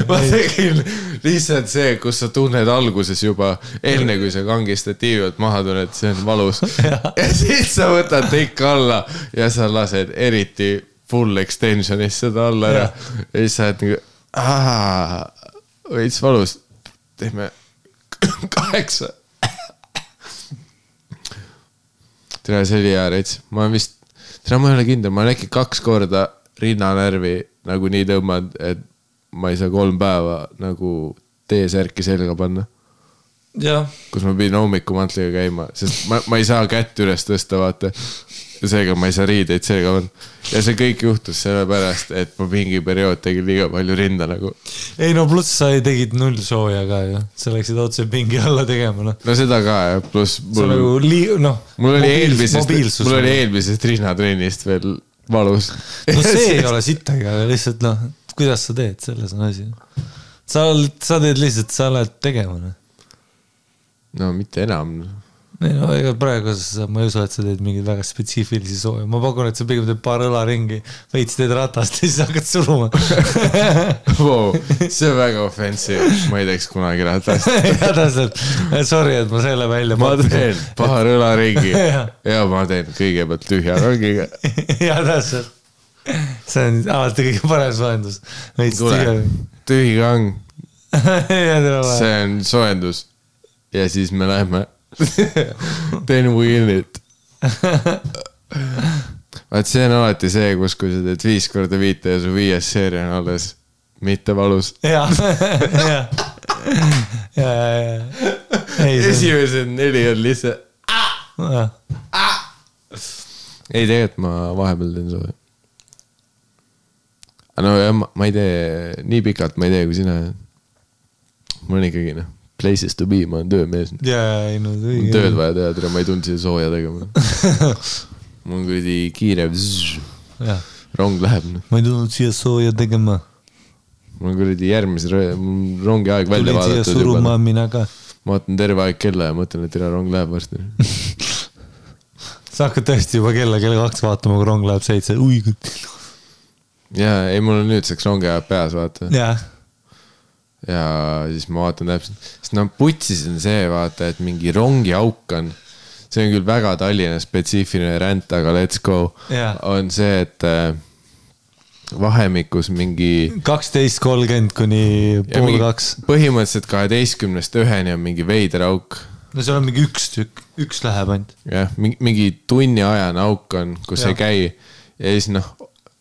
Ma tegin lihtsalt see, kus sa tunned alguses juba enne, kui sa kangistatiivalt maha tunned, see on valus. Ja siis sa võtad teika alla ja sa lased eriti full extensionis seda alla ära. Ja siis sa oled nagu, võits valus. Teeme 8. Tere, see oli hea reits. Ma vist, ma ei ole kindel, ma olen äkki 2 korda rinnanärvi nagu nii tõmmad, et ma ei saa 3 päeva nagu T-särki selga panna. Kus ma pidin hommikumantliga käima, sest ma ei saa kätt üles tõsta, vaata. Ja seega ma ei saa riideid selga panna. Ja see kõik juhtus sellepärast, et ma mingi periood tegin liiga palju rinda nagu.
Ei no pluss sa tegid 0 sooja ka ju. Sa läksid otse pingi alla tegema.
No seda ka ja pluss mul oli eelmisest rinnatrennist veel valus.
No see ei ole sittagi, aga lihtsalt kuidas sa teed, selles on asi. Sa teed lihtsalt, sa oled tegema.
No mitte enam.
No ega praegu ma ei usu, et sa teed mingeid väga spetsiifilisi sooja. Ma pakun, et sa pigem teed paar õlaringi, veits teed ratast ja siis hakkad suruma.
Wow, see on väga offensive. Ma ei teeks kunagi ratast.
Ja täpselt. Sorry, et ma selle välja
ma teen paar õlaringi ja ma teen kõigepealt tühja rongiga.
Ja täpselt. See on alati kõige parem soojendus.
Tule, tühi rong. See on soojendus. Ja siis me läheme then we in it. Vaat see on alati see, kus kui sa teed 5x5 ja su 5. seeria on alles mitte valus.
Ja.
Esimesed 4 on lihtsalt ei, tegelikult ma vahepeal teen sooja. No ma ei tee nii pikalt, ma ei tee kui sina. Mul on ikkagi places to be, ma olen töömees.
Jaa, ei no õige.
Tööd vaja teha, ma ei tulnud siia sooja tegema. Mul on kuidagi kiire. Rong läheb.
Ma ei tulnud siia sooja tegema.
Mul on kuidagi järgmise rongi aeg välja vaadatud.
Tulid siia suruma mina ka.
Ma vaatan terve aeg kella ja mõtlen, et rong läheb varsti.
Sa hakkad tõesti juba kella 2 vaatama, kui rong läheb 7. Ui,
jaa, ei mul on nüüdseks rongi ajab peas, vaata.
Jaa.
Ja siis ma vaatan täpselt, sest putsis on see, vaata, et mingi rongi auk on, see on küll väga Tallinna spetsiifiline ränd, aga let's go, on see, et vahemikus mingi 12:30 kuni 1:30. Põhimõtteliselt 12-st 1-ni on mingi veider auk.
No seal on mingi üks tükk, üks läheb ainult.
Jah, mingi tunni ajane auk on, kus ei käi ja siis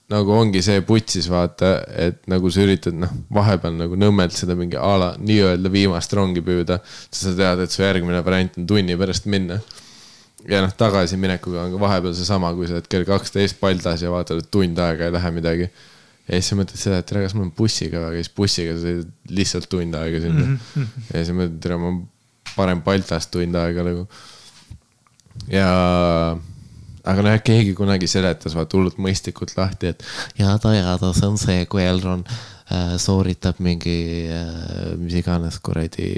nagu ongi see putsis, vaata, et nagu sa üritad vahepeal nagu nõmmelt seda mingi ala nii-öelda viimast rongi püüda, sa tead, et su järgmine variant on tunni pärast minna. Ja tagasi minekuga on ka vahepeal see sama, kui sa oled kell 12 paldas ja vaatad, et tund aega ei lähe midagi. Ja siis sa mõtled seda, et kas mul on bussiga, aga siis bussiga sa lihtsalt tund aega sinna. Ja siis mõtled, et ma parem paltast tund aega nagu. Ja aga keegi kunagi seletas vaat hullult mõistikult lahti, et ja see on see, kui Elron sooritab mingi mis iganes kuradi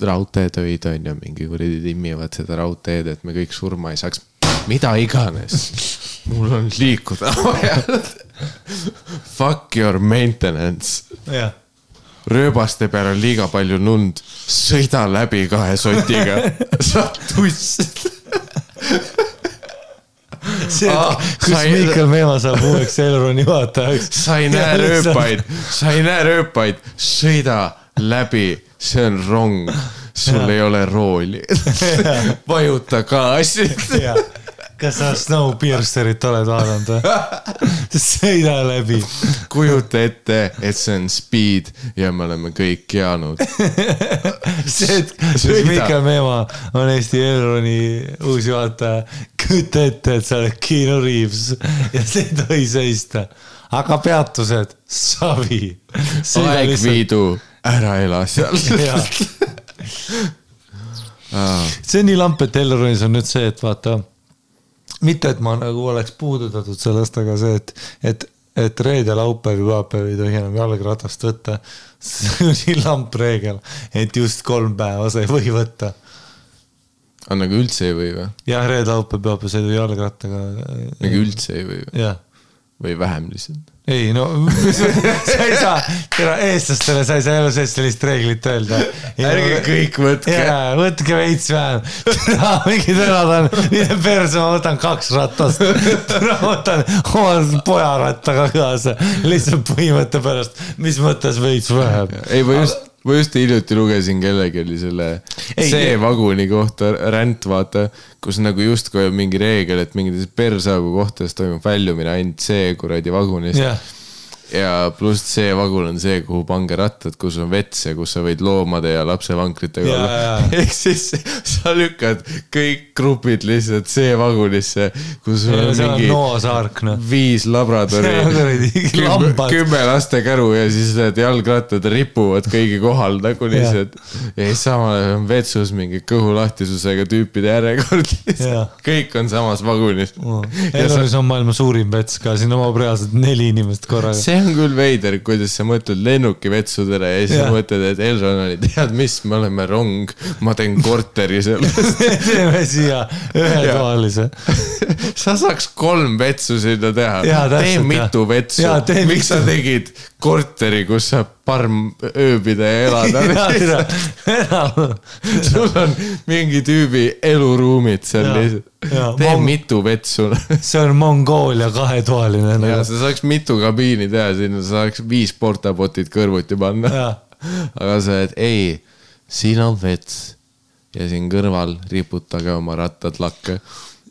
raudteetöid on ja mingi kuradi timmivad seda raudteed, et me kõik surma ei saaks. Mida iganes. Mul on liikuda. Fuck your maintenance.
Jah.
Rööbaste peal on liiga palju nund. Sõida läbi 2 sotiga. Sa tuss.
See, kus Miikal Meema saab uueks Elroni juhatajaks.
Sa ei näe rööpaid, sõida läbi, see on rong, sul ei ole rooli. Vajuta gaasid.
Kas sa Snowpiercerit oled vaadanud või? Sõida läbi.
Kujuta ette, et see on speed ja me oleme kõik jäänud.
See, et Miikal Meema on Eesti Elroni uus juhataja, kujuta ette, et sa oled Keanu Reeves ja see ei tohi seista. Aga peatused, savi.
Aegviidu, ära ela seal.
See on nii lamp, et Elronis on nüüd see, et vaata, mitte, et ma nagu oleks puudutatud sellest, aga see, et reede laupäev ja pühapäev ei tohi enam jalgratast võtta. See on nii lamp reegel, et just 3 päeva sa ei või võtta.
On nagu üldse ei või või?
Jah, reede laupäev pühapäev sa ei tohi jalgrattaga.
Nagu üldse ei või või?
Jah.
Või vähem lihtsalt?
Ei, no sa ei saa, eestlastele sa ei saa elu seest sellist reeglit öelda.
Ärge kõik võtke.
Võtke veits vähem. Mingi tänad on, mine perse, ma võtan 2 ratast. Ma võtan oma pojarattaga kaasa. Lihtsalt põhimõtte pärast, mis mõttes veits vähem.
Ei, ma just hiljuti lugesin kellegi oli selle C-vaguni kohta ränd, vaata, kus nagu just kui on mingi reegel, et mingites persaagu kohtades toimub väljumine ainult C-kuradi vagunist. Ja pluss C-vagun on see, kuhu pange rattad, kus on vets ja kus sa võid loomade ja lapsevankritega olla. Ehk siis sa lükkad kõik grupid lihtsalt C-vagunisse, kus on mingi 5 labradori, 10 laste käru ja siis need jalgrattad ripuvad kõigi kohal nagu lihtsalt. Ja siis samal on vetsus mingi kõhulahtisusega tüüpide järjekord. Kõik on samas vagunis.
Elronis on maailma suurim vets ka, siin omab reaalselt 4 inimest korraga.
on küll veider, kuidas sa mõtled lennukivetsudele ja siis sa mõtled, et Elron oli, tead mis, me oleme rong, ma teen korteri sellest.
Teeme siia ühetoalise.
Sa saaks 3 vetsu sinna teha. Tee mitu vetsu. Miks sa tegid korteri, kus saab parm ööbida ja elada? Sul on mingi tüübi eluruumid seal lihtsalt. Tee mitu vetsu.
See on Mongoolia 2-toaline.
Ja sa saaks mitu kabiini teha sinna, sa saaks 5 portabotid kõrvuti panna. Aga sa et ei, siin on vets ja siin kõrval riputage oma rattad lakke.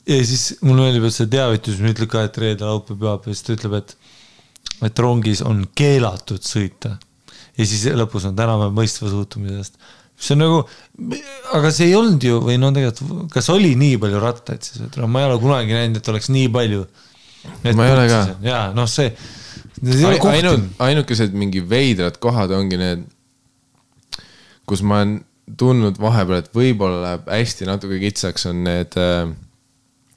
Ja siis mul meeldib, et see teavitus, mis ütleb ka, et reede laupäev peab ja siis ta ütleb, et rongis on keelatud sõita. Ja siis lõpus on täname mõistva suhtumisest. See on nagu, aga see ei olnud ju, või no tegelikult, kas oli nii palju rattaid siis? Ma ei ole kunagi näinud, et oleks nii palju.
Ma ei ole ka.
Jaa, noh see
ainukesed mingi veidrad kohad ongi need, kus ma olen tundnud vahepeal, et võib-olla läheb hästi natuke kitsaks, on need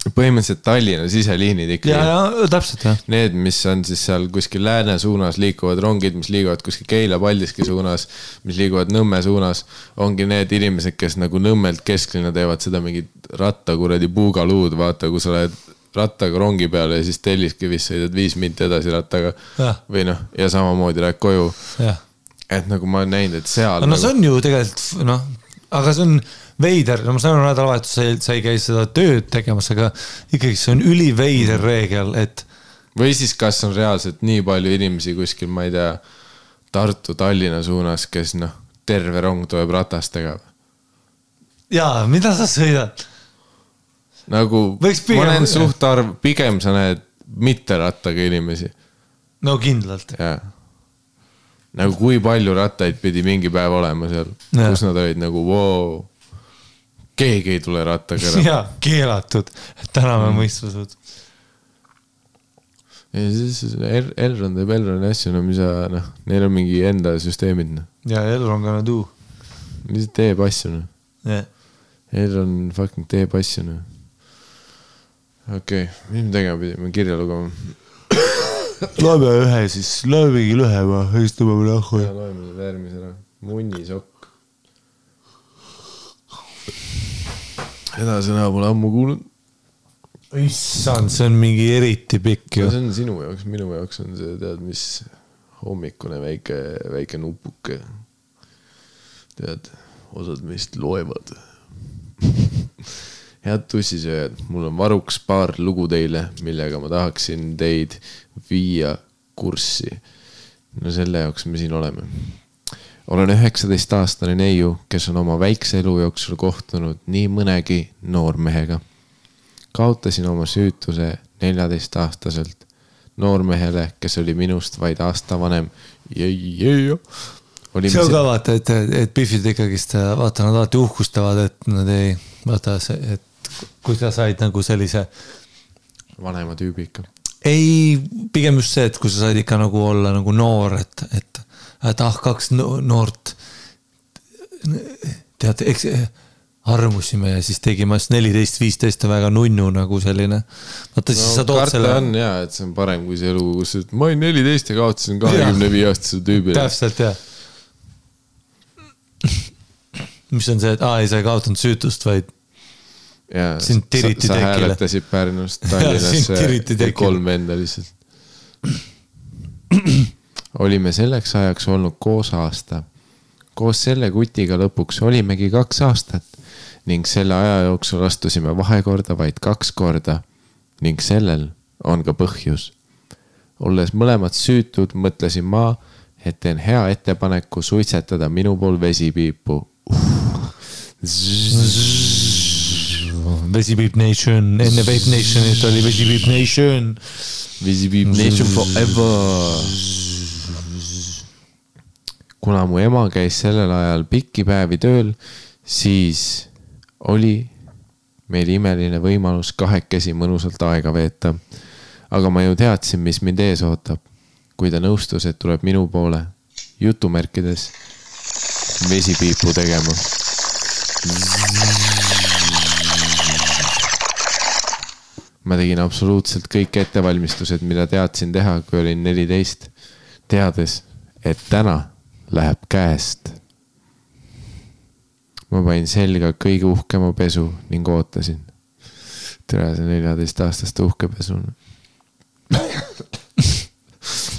põhimõtteliselt Tallinna siseliinid ikka.
Ja, täpselt, jah.
Need, mis on siis seal kuskil lääne suunas liikuvad rongid, mis liiguvad kuskil Keila-Paldiski suunas, mis liiguvad Nõmme suunas, ongi need inimesed, kes nagu Nõmmelt kesklinna teevad seda mingit rattakuradi puugaluud, vaata, kui sa oled rattaga rongi peale ja siis Telliskivis sõidad 5 minti edasi rattaga või noh, ja samamoodi lähed koju. Et nagu ma olen näinud, et seal
no see on ju tegelikult, noh, aga see on veider, no ma saan nädalavahetus sa ei käi seda tööd tegemas, aga ikkagi see on üliveider reegel, et
või siis kas on reaalselt nii palju inimesi kuskil, ma ei tea, Tartu, Tallinna suunas, kes noh, terve rong tuleb ratastega.
Jaa, mida sa sõidad?
Nagu, ma näen suht arv, pigem sa näed mitte rattaga inimesi.
No kindlalt.
Jaa. Nagu kui palju rattaid pidi mingi päev olema seal, kus nad olid nagu, wow, keegi ei tule rattaga ära.
Jaa, keelatud, et täname mõistvusud.
Ja siis Elron teeb Elroni asju, no mis sa, noh, neil on mingi enda süsteemid.
Ja Elron gonna do.
Lihtsalt teeb asju, noh. Elron fucking teeb asju, noh. Okei, mis me tegema pidime kirja lugema?
Loeme ühe siis, loemegi lühema, istume mõne ahhu.
Ja loeme seda järgmise ära. Munnisokk. Seda sõna pole ammu kuulnud.
Issand, see on mingi eriti pikk.
See on sinu jaoks, minu jaoks on see, tead, mis hommikune väike nupuke. Tead, osad meist loevad. Head tussisööjad, mul on varuks paar lugu teile, millega ma tahaksin teid viia kurssi. No selle jaoks me siin oleme. Olen 19-aastane neiu, kes on oma väikse elu jooksul kohtunud nii mõnegi noormehega. Kaotasin oma süütuse 14-aastaselt noormehele, kes oli minust vaid aasta vanem. See
on ka vaata, et Biffid ikkagist, vaata, nad alati uhkustavad, et nad ei, vaata, et kui sa said nagu sellise
vanema tüübi ikka.
Ei, pigem just see, et kui sa said ikka nagu olla nagu noor, et 2 noort tead, eks armusime ja siis tegime 14-15 väga nunnu nagu selline. Vaata, siis sa tood selle.
On jah, et see on parem kui see elu, kus ma olin 14 ja kaotasin 25-aastase tüübile.
Täpselt, jah. Mis on see, et ei, sa ei kaotanud süütust, vaid sind tiriti tekile.
Sa hääletasid Pärnust Tallinnasse 3 venda lihtsalt. Olime selleks ajaks olnud koos aasta. Koos selle kutiga lõpuks olimegi 2 aastat ning selle aja jooksul astusime vahekorda vaid 2 korda ning sellel on ka põhjus. Olles mõlemad süütud, mõtlesin ma, et teen hea ettepaneku suitsetada minu pool vesipiipu.
Vesipiip Nation, enne Vape Nationit oli Vesipiip Nation.
Vesipiip Nation forever. Kuna mu ema käis sellel ajal pikki päevi tööl, siis oli meil imeline võimalus 2 mõnusalt aega veeta. Aga ma ju teadsin, mis mind ees ootab. Kui ta nõustus, et tuleb minu poole jutumärkides vesipiipu tegema. Ma tegin absoluutselt kõik ettevalmistused, mida teadsin teha, kui olin 14. teades, et täna läheb käest. Ma panin selga kõige uhkema pesu ning ootasin. Tere, see 14-aastaste uhkepesu.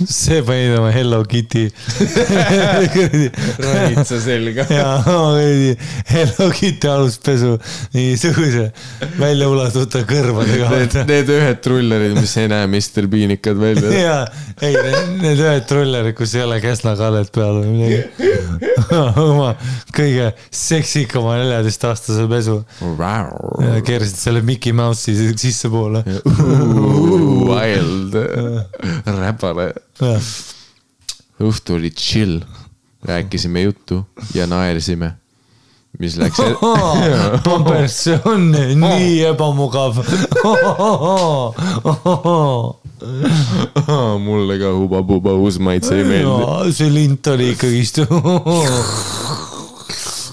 See panid oma Hello Kitty
Ranitsa selga.
Ja Hello Kitty aluspesu nii suguse välja ulatuta kõrvadega.
Need ühed trullerid, mis ei näe Mr. Beanikad välja.
Ja, ei, need ühed trullerid, kus ei ole käsnakallet peal või midagi. Oma kõige seksikama 14-aastase pesu. Keerasid selle Mickey Mouse'i sisse poole.
Wild. Räpale. Õhtu oli chill. Rääkisime juttu ja naersime. Mis läks...
Pampers, see on nii ebamugav.
Mulle ka huba-buba uusmaitse ei meeldi.
See lint oli ikkagist.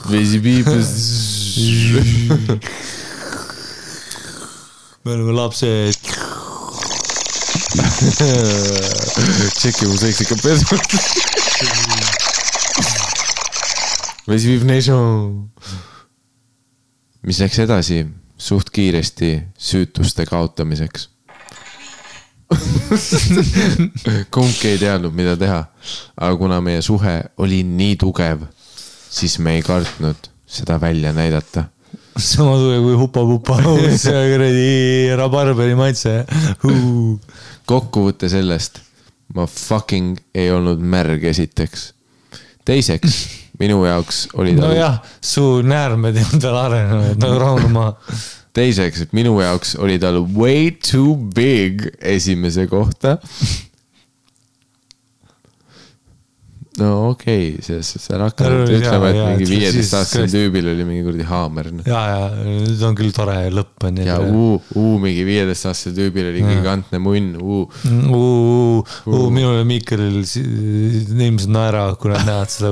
Vesi piipes.
Me oleme lapsed.
Tšeki mu seksika pesu. Vesiviv nation. Mis läks edasi suht kiiresti süütuste kaotamiseks. Kumbki ei teadnud, mida teha. Aga kuna meie suhe oli nii tugev, siis me ei kartnud seda välja näidata.
Sama tugev kui hupa-pupa. See kuradi rabarberi maitse.
Kokkuvõtte sellest, ma fucking ei olnud märg esiteks. Teiseks, minu jaoks oli ta...
No jah, su näärmed ei olnud veel arenenud, nagu rahune maa.
Teiseks, minu jaoks oli tal way too big esimese kohta. No okei, see hakkanud ütlema, et mingi 15-aastasel tüübil oli mingi kurdi haamer.
Ja, nüüd on küll tore lõpp.
Ja mingi 15-aastasel tüübil oli gigantne munn.
Minule Miikelil inimesed naera, kui nad näevad seda.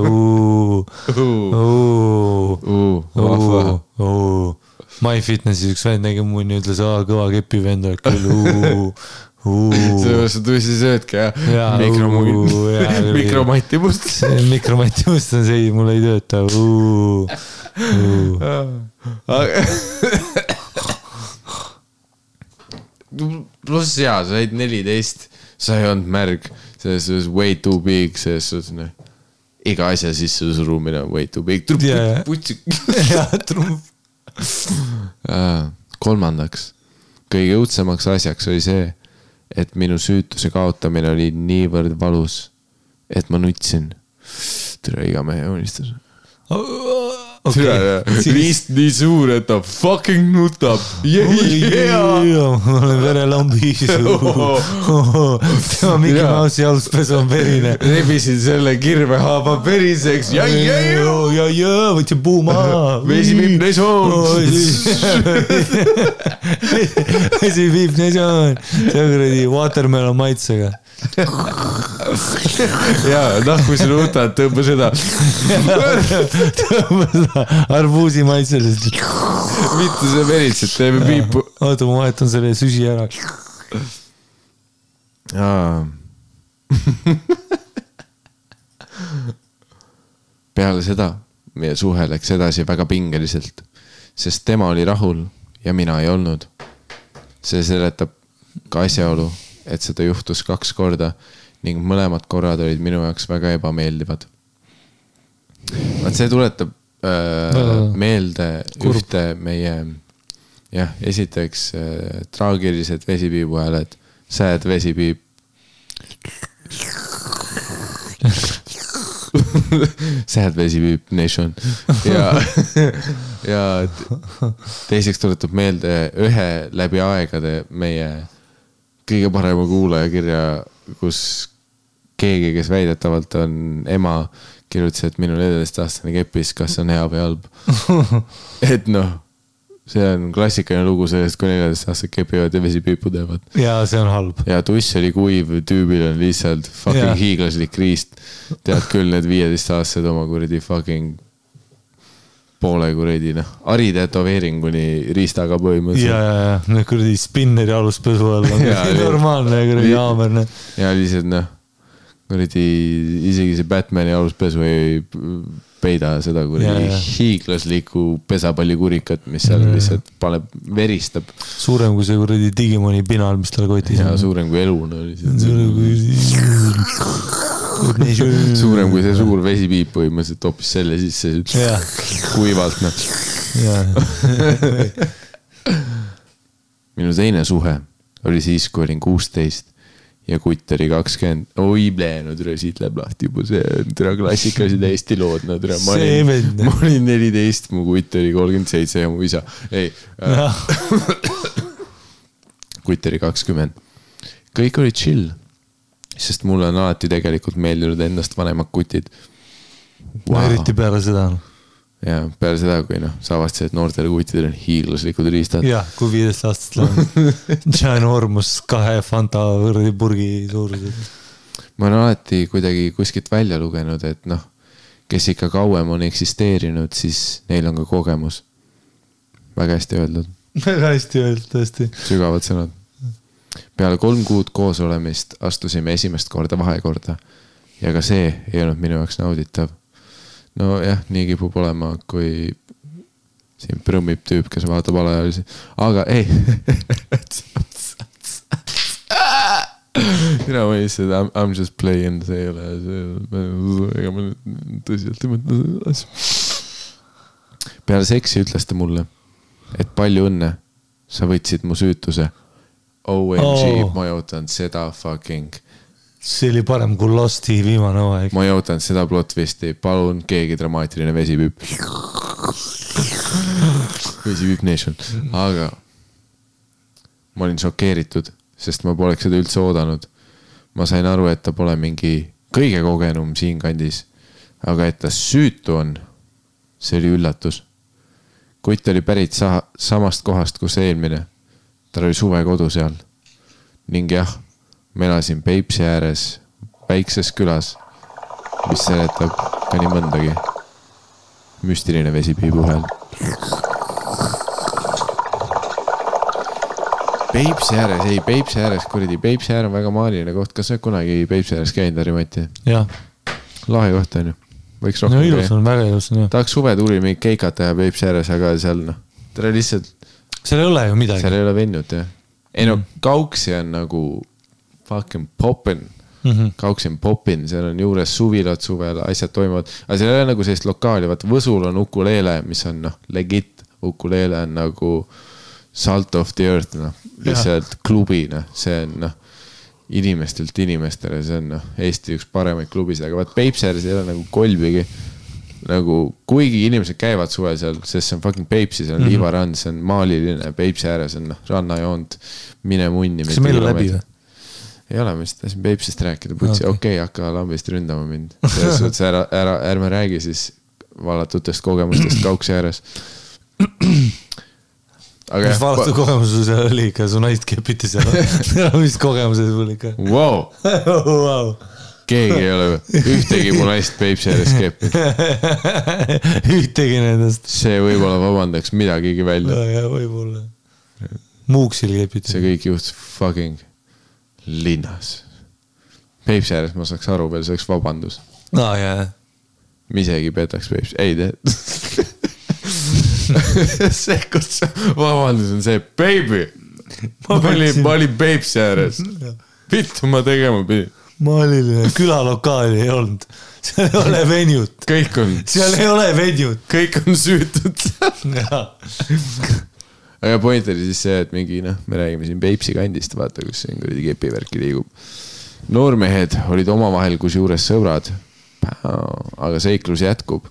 MyFitnessis üks vend nägi munni, ütles, kõva kepi vend oled küll.
Sa tõesti söödki, jah? Mikromati must.
Mikromati must on see, mul ei tööta.
Pluss jaa, sa olid 14, sa ei olnud märg, selles suhtes way too big, selles suhtes iga asja sisse surumine on way too big. Kolmandaks, kõige õudsemaks asjaks oli see, et minu süütuse kaotamine oli niivõrd valus, et ma nutsin. Tere, iga mehe unistus. Riist nii suur, et ta fucking nutab.
Ma olen verelambis. Tema Mickey Mouse'i aluspesu on verine.
Rebisin selle kirvehaaba periseks.
Võtsin puuma.
Vesi viib nesoon.
Vesi viib nesoon. See on kuradi watermelon maitsega.
Jaa, kui sa nutad, tõmba seda.
Tõmba seda arbuusi maitselist.
Mitte see veritselt, teeme piipu.
Oota, ma vahetan selle süsi ära.
Peale seda meie suhe läks edasi väga pingeliselt, sest tema oli rahul ja mina ei olnud. See seletab ka asjaolu, et seda juhtus 2 korda ning mõlemad korrad olid minu jaoks väga ebameeldivad. See tuletab meelde ühte meie, esiteks traagilised vesipiibu hääled, sad vesipiip. Sad vesipiip nation. Ja teiseks tuletab meelde ühe läbi aegade meie kõige parema kuulaja kirja, kus keegi, kes väidetavalt on ema, kirjutas, et minu 14-aastane kepis, kas on hea või halb. Et see on klassikaline lugu sellest, kui 14-aastased kepivad ja vesipiipu teevad.
Ja see on halb.
Ja tuss oli kuiv, tüübil on lihtsalt fucking hiiglaslik riist. Tead küll, need 15-aastased oma kuradi fucking poole kuradi, aritetoveeringuni riistaga põhimõtteliselt.
Ja, kuradi spinneri aluspesu all on normaalne kuradi haamerne.
Ja lihtsalt isegi see Batmani aluspesu ei peida seda hiiglaslikku pesapallikurikat, mis seal lihtsalt paneb, veristab.
Suurem kui see kuradi Digimoni pinal, mis tal kotis
on. Suurem kui elu. Suurem kui see suur vesipiip põhimõtteliselt hoopis selle sisse kuivalt. Minu teine suhe oli siis, kui olin 16 ja kutt oli 20. Oi, nüüd siit läheb lahti juba see klassikalised Eesti lood. Ma olin 14, mu kutt oli 37 ja mu isa. Ei, kutt oli 20. Kõik oli chill, sest mulle on alati tegelikult meeldinud endast vanemad kutid.
Eriti peale seda.
Ja peale seda, kui sa avastasid, et noortele kuttidel on hiiglaslikud riistad.
Jah, kui 15 aastast läheb. Ginormus 2 Fanta võrdi purgi suurused.
Ma olen alati kuidagi kuskilt välja lugenud, et kes ikka kauem on eksisteerinud, siis neil on ka kogemus. Väga hästi öeldud.
Väga hästi öeldud, tõesti.
Sügavad sõnad. Peale 3 kuud koos olemist astusime esimest korda vahekorda. Ja ka see ei olnud minu jaoks nauditav. No jah, nii kipub olema, kui siin prõmmib tüüp, kes vaatab alaealisi. Aga ei. Mina mõistan, I'm just playing, see ei ole. Ega ma tõsiselt ei mõtle seda asja. Peale seksi ütles ta mulle, et palju õnne, sa võtsid mu süütuse. OMG, ma jõutan seda fucking...
See oli parem kui Losti viimane aeg.
Ma jõutan seda plotvisti. Palun keegi dramaatiline vesipüüp. Vesipüüp nation. Aga ma olin šokeeritud, sest ma poleks seda üldse oodanud. Ma sain aru, et ta pole mingi kõige kogenum siin kandis. Aga et ta süütu on, see oli üllatus. Kutt oli pärit samast kohast kus eelmine. Tal oli suve kodu seal. Ning jah, ma elasin Peipsi ääres väikses külas, mis seletab ka nii mõndagi. Müstiline vesipiibu hääl. Peipsi ääres, kuradi, Peipsi äär on väga maaliline koht. Kas sa kunagi Peipsi ääres käinud, Harimati?
Jah.
Lahe koht on ju. Võiks rohkem
käia. Ilus on, väga ilus on.
Tahaks suve tuli mingi keikat teha Peipsi ääres, aga seal tere lihtsalt...
Seal ei ole ju midagi.
Seal ei ole vennut, jah. Ei Kauksi on nagu... fucking poppin. Kauksi on poppin, seal on juures suvilad suvel, asjad toimuvad. Aga seal ei ole nagu sellist lokaali, vaata Võsul on ukuleele, mis on legit. Ukuleele on nagu salt of the earth, lihtsalt klubina. See on inimestelt inimestele, see on Eesti üks paremaid klubisid, aga vaat Peipsääres ei ole nagu kolbigi. Nagu, kuigi inimesed käivad suve seal, sest see on fucking Peipsi, see on liivarand, see on maaliline, Peipsi ääres on rannajoont, mine munni.
Kas meil on läbi või?
Ei ole, ma tahtsin Peipsist rääkida, putsi, okei, hakka lambist ründama mind. Selles suhtes ärme räägi siis vallatutest kogemustest Kauksi ääres.
Mis vallatud kogemuses oli ikka, su naist kepiti seal. Mis kogemused sul ikka?
Wow! Keegi ei ole, ühtegi mu naist Peipsi ääres kepid.
Ühtegi nendest.
See võib-olla vabandaks midagigi välja.
Ja võib-olla. Muuksil kepiti.
See kõik juhtus fucking linnas. Peipsi ääres ma saaks aru veel, see oleks vabandus.
Jah.
Ma isegi petaks Peipsi. Ei tee. See, kus vabandus on see, baby. Ma olin Peipsi ääres. Vittu ma tegema pidin.
Maaliline külalokaali ei olnud. Seal ei ole venjut.
Kõik on.
Seal ei ole venjut.
Kõik on süütud. Aga point oli siis see, et mingi, me räägime siin Peipsi kandist, vaata, kus siin kepivärki liigub. Noormehed olid omavahel kus juures sõbrad, aga seiklus jätkub.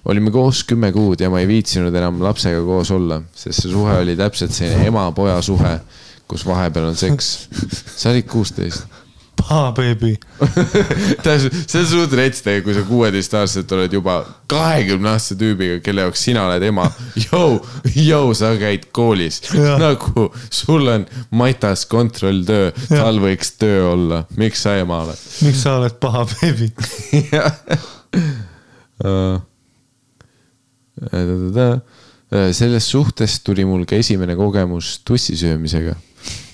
Olime koos 10 kuud ja ma ei viitsinud enam lapsega koos olla, sest see suhe oli täpselt selline ema-poja suhe, kus vahepeal on seks. Sa olid 16.
Paha, baby.
See on suht retstega, kui sa 16-aastaselt oled juba 20-aastase tüübiga, kelle jaoks sina oled ema. Jou, sa käid koolis. Nagu sul on matas kontrolltöö, tal võiks töö olla. Miks sa ema oled?
Miks sa oled paha, baby?
Selles suhtes tuli mul ka esimene kogemus tussisöömisega.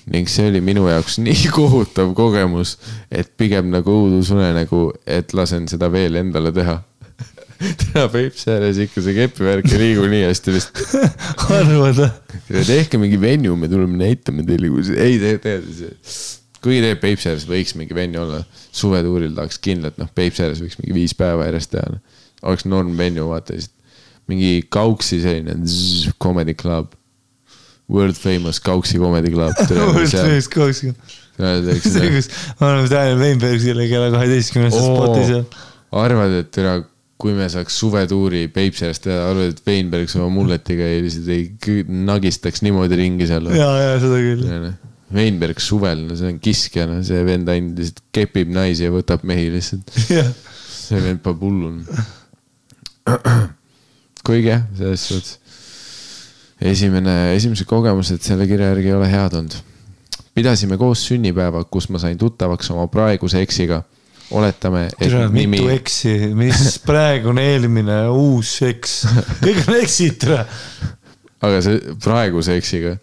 ning see oli minu jaoks nii kohutav kogemus, et pigem nagu õudusunenägu, et lasen seda veel endale teha. Täna Peipsi ääres ikka see kepivärk ei liigu nii hästi vist.
Arvada.
Tehke mingi venju, me tuleme näitame teile, ei kui teeb Peipsi ääres võiks mingi venju olla, suvetuuril tahaks kindlalt, Peipsi ääres võiks mingi 5 päeva järjest teha. Oleks norm venju, vaata mingi Kauksi selline comedy club. World famous Kauksi comedy club.
World famous Kauksi. See, kus ma oleme Daniel Weinbergsile kella 12 spoti seal.
Arvad, et kui me saaks suvetuuri Peipsi ääres teha, arvad, et Weinbergs oma mulletiga ei nagistaks niimoodi ringi seal.
Jaa, seda küll.
Weinbergs suvel, see on kiskja, see vend ainult lihtsalt kepib naisi ja võtab mehi lihtsalt. See vend pa pullun. Kuigi, selles suhtes. Esimese kogemused selle kirja järgi ei ole head olnud. Pidasime koos sünnipäeva, kus ma sain tuttavaks oma praeguse eksiga. Oletame, et
nimi... Mitu eksi, mis praegune eelmine uus eks. Kõik on eksid.
Aga see praeguse eksiga.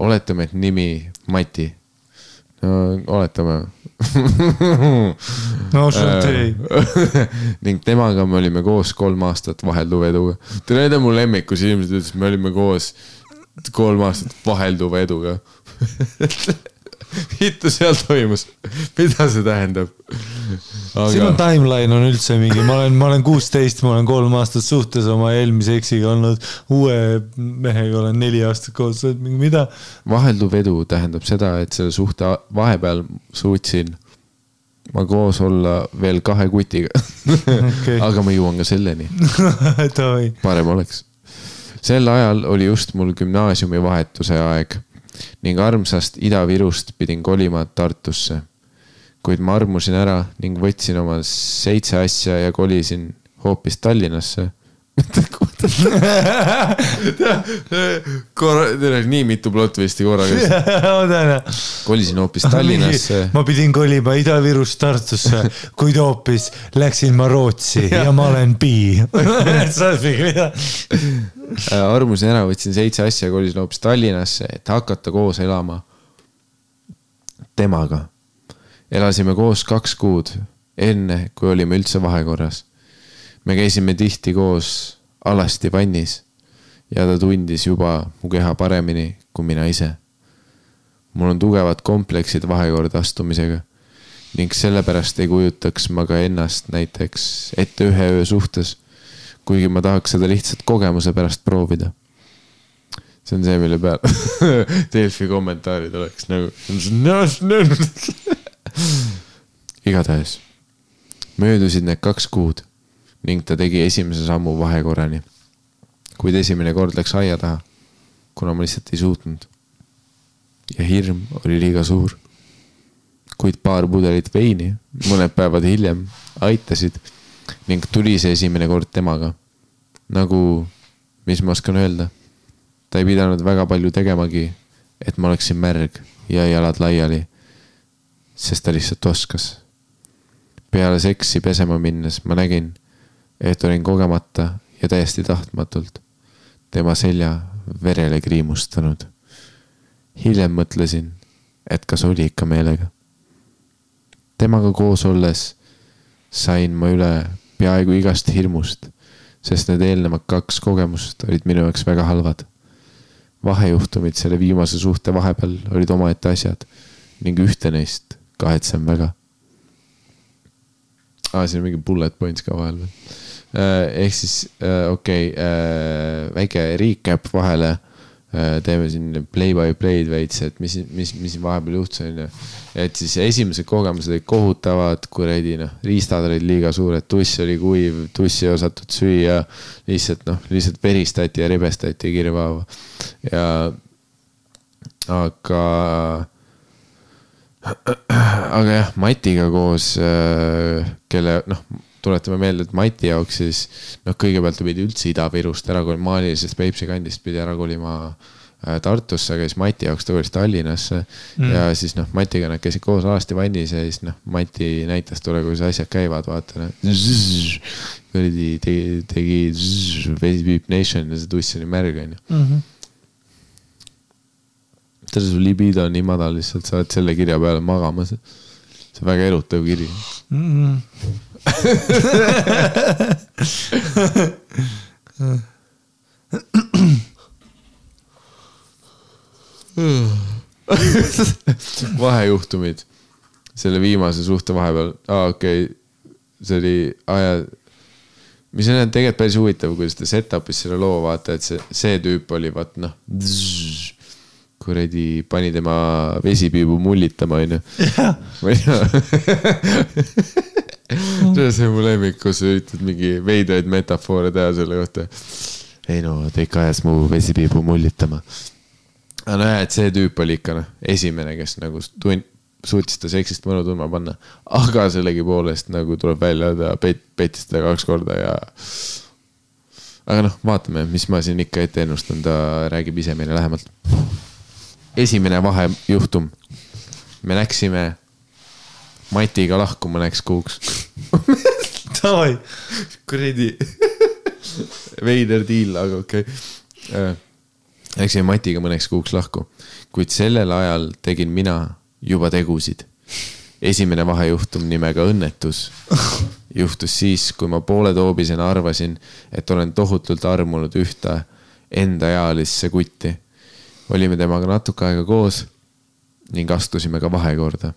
Oletame, et nimi Mati. No, oletame.
No, ei.
Ning temaga me olime koos 3 aastat vahelduva eduga. Te näete mu lemmikus inimesed ütles, me olime koos 3 aastat vahelduva eduga. Hittu seal toimus. Mida see tähendab?
Sinu timeline on üldse mingi. Ma olen 16, ma olen 3 aastat suhtes oma eelmise eksiga olnud. Uue mehega olen 4 aastat koos. Mida?
Vahelduv edu tähendab seda, et selle suhte vahepeal suutsin ma koos olla veel 2 kutiga. Okay. Aga ma jõuan ka selleni. Parem oleks. Sel ajal oli just mul gümnaasiumi vahetuse aeg. Ning armsast Ida-Virust pidin kolima Tartusse. Kuid ma armusin ära ning võtsin oma 7 asja ja kolisin hoopis Tallinnasse. Nii mitu plotvisti korraga. Kolisin hoopis Tallinnasse.
Ma pidin kolima Ida-Virust Tartusse, kuid hoopis läksin ma Rootsi ja ma olen bi.
Armusin ära, võtsin 7 asja ja kolisin hoopis Tallinnasse, et hakata koos elama temaga. Elasime koos 2 kuud, enne kui olime üldse vahekorras. Me käisime tihti koos alasti vannis ja ta tundis juba mu keha paremini kui mina ise. Mul on tugevad kompleksid vahekorda astumisega ning sellepärast ei kujutaks ma ka ennast näiteks ette 1 öö suhtes, kuigi ma tahaks seda lihtsalt kogemuse pärast proovida. See on see, mille peal Delfi kommentaarid oleks nagu igatahes. Möödusid need 2 kuud ning ta tegi esimese sammu vahekorrani. Kuid esimene kord läks aia taha, kuna ma lihtsalt ei suutnud. Ja hirm oli liiga suur. Kuid paar pudelit veini, mõned päevad hiljem, aitasid ning tuli see esimene kord temaga. Nagu, mis ma oskan öelda, ta ei pidanud väga palju tegemagi, et ma oleksin märg ja jalad laiali, sest ta lihtsalt oskas. Peale seksi pesema minnes ma nägin, et olin kogemata ja täiesti tahtmatult tema selja verele kriimustanud. Hiljem mõtlesin, et kas oli ikka meelega. Temaga koos olles sain ma üle peaaegu igast hirmust, sest need eelnevad 2 kogemust olid minu jaoks väga halvad. Vahejuhtumid selle viimase suhte vahepeal olid omaette asjad ning ühte neist kahetsem väga. Siin on mingi bullet points ka vahel veel. Ehk siis, väike recap vahele, teeme siin play by play'd veits, et mis vahepeal juhtus on. Et siis esimesed kogemused olid kohutavad, kuradi, riistad olid liiga suured, tuss oli kuiv, tussi ei osatud süüa, lihtsalt veristati ja ribestati kirvaava. Aga jah, Matiga koos, kelle, tuletame meelde, et Mati jaoks siis, kõigepealt pidi üldse Ida-Virust ära kolima, maalilisest Peipsi kandist pidi ära kolima Tartusse, aga siis Mati jaoks tõulis Tallinnasse ja siis Matiga nad käisid koos alasti vannis ja siis Mati näitas tule, kuidas asjad käivad, vaata. Tegi Beep Nation ja see tuss oli märg. Valter, su libido on nii madal lihtsalt, sa oled selle kirja peale magamas. See on väga erutav kiri. Vahejuhtumid selle viimase suhte vahepeal. Okei. See oli mis on tegelikult päris huvitav, kuidas ta setup'is selle loo vaata, et see tüüp oli kuredi pani tema vesipiibu mullitama, on ju. See on mu lemmik, kus sa üritad mingi veidraid metafoore teha selle kohta. Ei no, ta ikka ajas mu vesipiibu mullitama. Aga no et see tüüp oli ikka esimene, kes nagu suutis ta seksist mõnu tundma panna. Aga sellegi poolest nagu tuleb välja, ta petis teda 2 korda ja... Aga vaatame, mis ma siin ikka ette ennustan, ta räägib ise meile lähemalt. Esimene vahejuhtum. Me läksime Matiga lahku mõneks kuuks.
Tavai.
Kuredi. Veider diil, aga okei. Läksime Matiga mõneks kuuks lahku. Kuid sellel ajal tegin mina juba tegusid. Esimene vahejuhtum nimega õnnetus juhtus siis, kui ma poole toobisena arvasin, et olen tohutult armunud ühte enda ealisse kutti. Olime temaga natuke aega koos ning astusime ka vahekorda.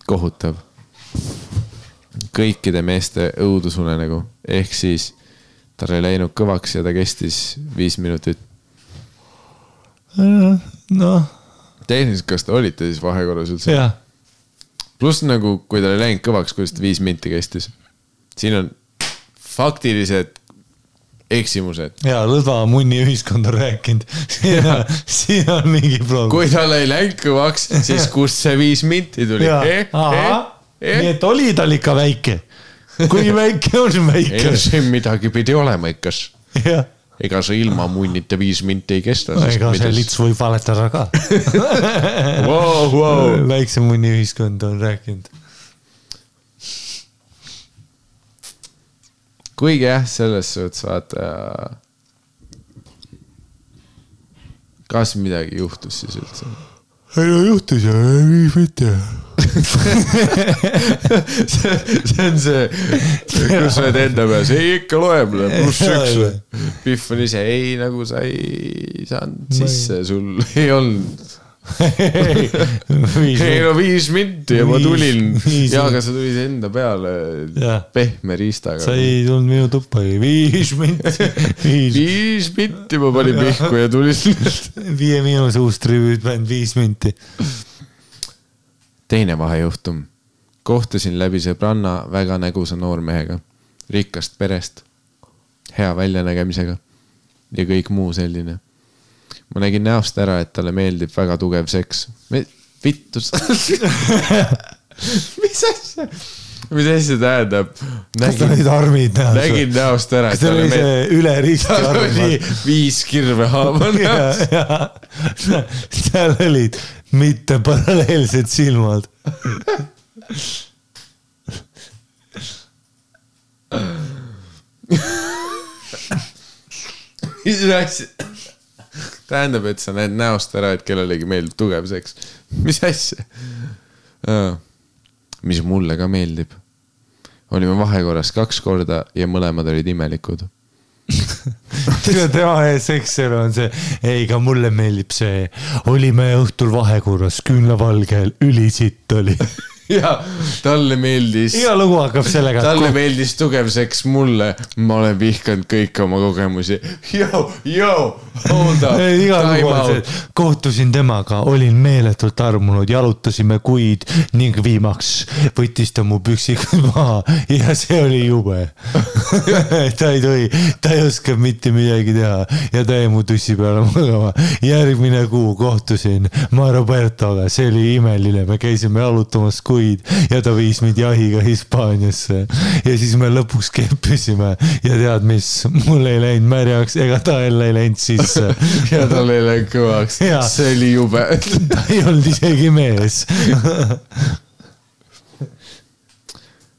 Kohutav. Kõikide meeste õudusunenägu. Ehk siis tal ei läinud kõvaks ja ta kestis 5 minutit. Tehniliselt, kas te olite siis vahekorras üldse?
Jah.
Plus nagu, kui ta ei läinud kõvaks, kuidas ta 5 minti kestis. Siin on faktilised eksimused.
Jaa, lõdva munni ühiskond on rääkinud. Siin on mingi probleem.
Kui tal ei läinud kõvaks, siis kust see 5 minti tuli?
Nii et oli tal ikka väike. Kui väike on väike.
Ei, see midagi pidi olema ikkas.
Jah.
Ega see ilma munnita 5 minti ei kesta.
Ega see lits võib valetada ka. Väikse munni ühiskond on rääkinud.
Kuigi jah, selles suhtes vaata, kas midagi juhtus siis üldse?
Ei no juhtus ja ei mitte.
See on see, kus sa oled enda peas, ei ikka loeb, +1. Pihv on ise, ei nagu sa ei saanud sisse, sul ei olnud. Ei no 5 minti ja ma tulin. Ja aga sa tulid enda peale pehme riistaga.
Sa ei tulnud minu tuppa, 5 minti.
5 minti ma panin pihku ja tulin.
5- uus-tribüüt bänd 5 minti.
Teine vahejuhtum. Kohtusin läbi sõbranna väga nägusa noormehega. Rikkast perest. Hea väljanägemisega. Ja kõik muu selline. Ma nägin näost ära, et talle meeldib väga tugev seks. Vittus. Mis asja? Mis asja tähendab?
Kas ta olid armid näost?
Nägin näost ära.
Kas ta oli see üle risti armad?
Tal oli 5 kirve haava näost.
Seal olid mitte paralleelsed silmad.
Mis asja? Tähendab, et sa näed näost ära, et kellelegi meeldib tugev seks. Mis asja? Mis mulle ka meeldib. Olime vahekorras 2 korda ja mõlemad olid imelikud.
Tema seksel on see, ei ka mulle meeldib see, olime õhtul vahekorras, küünlavalgel, ülisitt oli.
Ja talle meeldis.
Iga lugu hakkab sellega.
Talle meeldis tugev seks mulle. Ma olen vihkanud kõik oma kogemusi. Hold up.
Iga lugu on see, kohtusin temaga, olin meeletult armunud, jalutasime kuid ning viimaks võttis ta mu püksikud maha ja see oli jube. Ta ei oska mitte midagi teha ja ta jäi mu tussi peale magama. Järgmine kuu kohtusin ma Robertoga, see oli imeline, me käisime jalutamas kuid ja ta viis mind jahiga Hispaaniasse ja siis me lõpuks keppisime ja tead mis, mul ei läinud märjaks ega ta ei läinud sisse
ja tal ei läinud kõvaks, see oli jube.
Ta ei olnud isegi mees.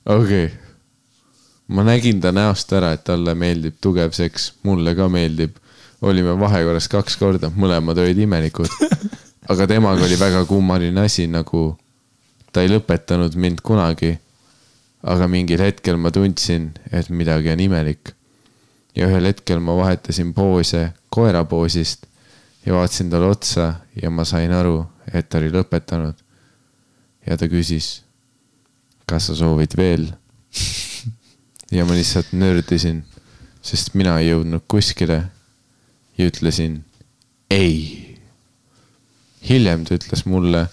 Okei. Ma nägin ta näost ära, et talle meeldib tugev seks, mulle ka meeldib. Olime vahekorras 2 korda, mõlemad olid imelikud. aga temaga oli väga kummaline asi, nagu ta ei lõpetanud mind kunagi, aga mingil hetkel ma tundsin, et midagi on imelik. Ja ühel hetkel ma vahetasin poose koera poosist ja vaatasin talle otsa ja ma sain aru, et ta oli lõpetanud. Ja ta küsis, kas sa soovid veel? Ja ma lihtsalt nördisin, sest mina ei jõudnud kuskile ja ütlesin ei. Hiljem ta ütles mulle,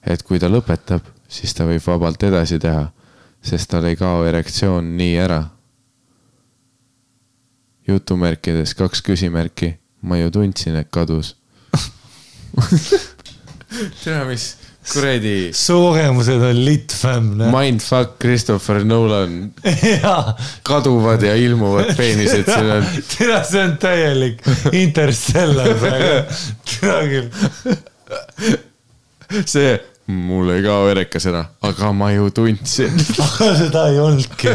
et kui ta lõpetab, siis ta võib vabalt edasi teha, sest tal ei kao erektsioon nii ära. Jutumärkides 2 küsimärki. Ma ju tundsin, et kadus. Tea, mis kuredi...
Su kogemused on lit, fam.
Mindfuck Christopher Nolan. Kaduvad ja ilmuvad peenised.
Tea, see on täielik Interstellar praegu. Tea küll.
See... Mul ei kao erekas ära, aga ma ju tundsin.
Aga seda ei olnudki.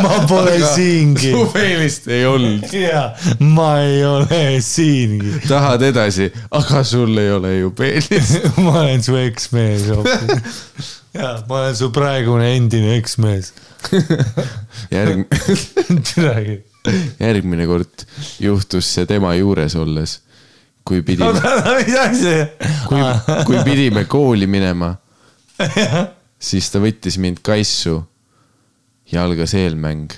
Ma pole siingi.
Su peenist ei olnud.
Ja, ma ei ole siingi.
Tahad edasi, aga sul ei ole ju peenist.
Ma olen su eksmees. Ja, ma olen su praegune endine eksmees.
Järgmine kord juhtus see tema juures olles. Kui pidime kooli minema, siis ta võttis mind kaissu ja algas eelmäng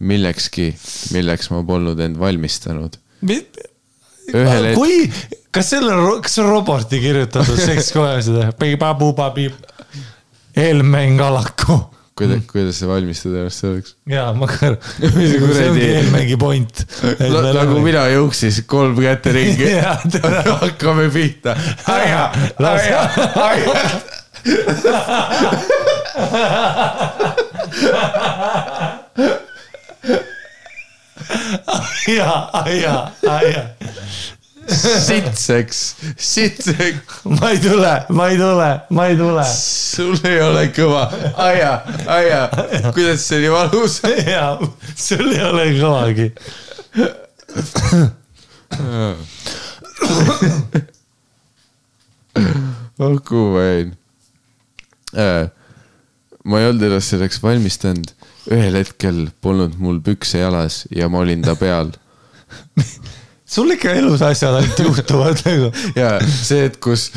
millekski, milleks ma polnud end valmistanud.
Kas see on Roberti kirjutatud sekskoja seda? Eelmäng alaku.
Kuidas see valmistada ennast selleks?
Jaa, ma kõr. See ongi eelmängi point.
Nagu mina jõuksis 3 kätte ringi. Hakkame pihta. Aja. Sitseks.
Ma ei tule.
Sul ei ole kõva. Aja. Kuidas see nii valus?
Jaa, sul ei ole kõvagi.
Olgu vain. Ma ei olnud ennast selleks valmistanud. Ühel hetkel polnud mul pükse jalas ja ma olin ta peal.
Sul ikka elus asjad ainult juhtuvad nagu.
Ja see, et kus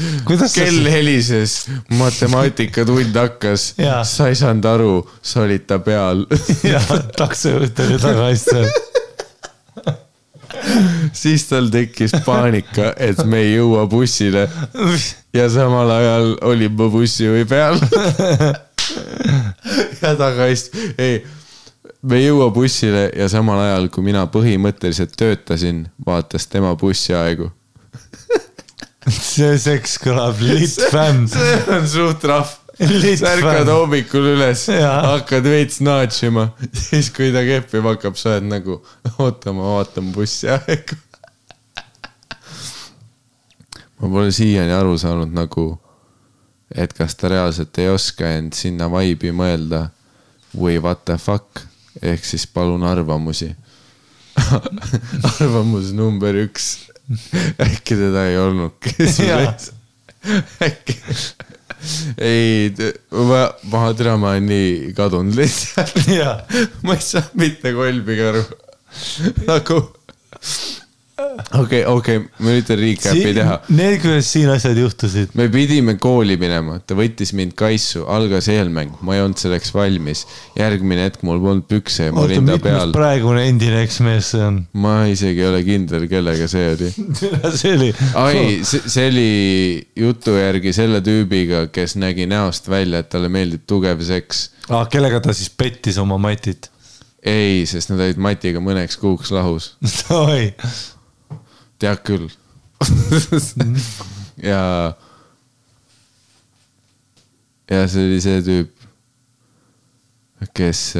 kell helises, matemaatikatund hakkas, sa ei saanud aru, sa olid ta peal.
Ja taksojuht oli tagasi.
Siis tal tekkis paanika, et me ei jõua bussile ja samal ajal olin ma bussijuhi peal. Ja tagasi, me ei jõua bussile ja samal ajal, kui mina põhimõtteliselt töötasin, vaatas tema bussiaegu.
See seks kõlab lit fam.
See on suht rahv. Särkad hommikul üles, hakkad veits naatšima. Siis kui ta keppima hakkab, sa oled nagu, oota, ma vaatan bussiaegu. Ma pole siiani aru saanud nagu, et kas ta reaalselt ei oska end sinna vaibi mõelda või what the fuck. Ehk siis palun arvamusi. Arvamus number 1. Äkki teda ei olnud. Äkki. Ei, ma olen nii kadunud lihtsalt. Ma ei saa mitte kolbiga aru. Nagu... Okei, ma üritan recap'i teha.
Need, kuidas siin asjad juhtusid.
Me pidime kooli minema, ta võttis mind kaissu, algas eelmäng, ma ei olnud selleks valmis. Järgmine hetk mul polnud pükse ja ma olin ta peal.
Mitmes praegune endine eksmees see on?
Ma isegi ei ole kindel, kellega see oli. See oli jutu järgi selle tüübiga, kes nägi näost välja, et talle meeldib tugev seks.
Kellega ta siis pettis oma matit?
Ei, sest nad olid matiga mõneks kuuks lahus.
Oi.
Tead küll. Ja see oli see tüüp, kes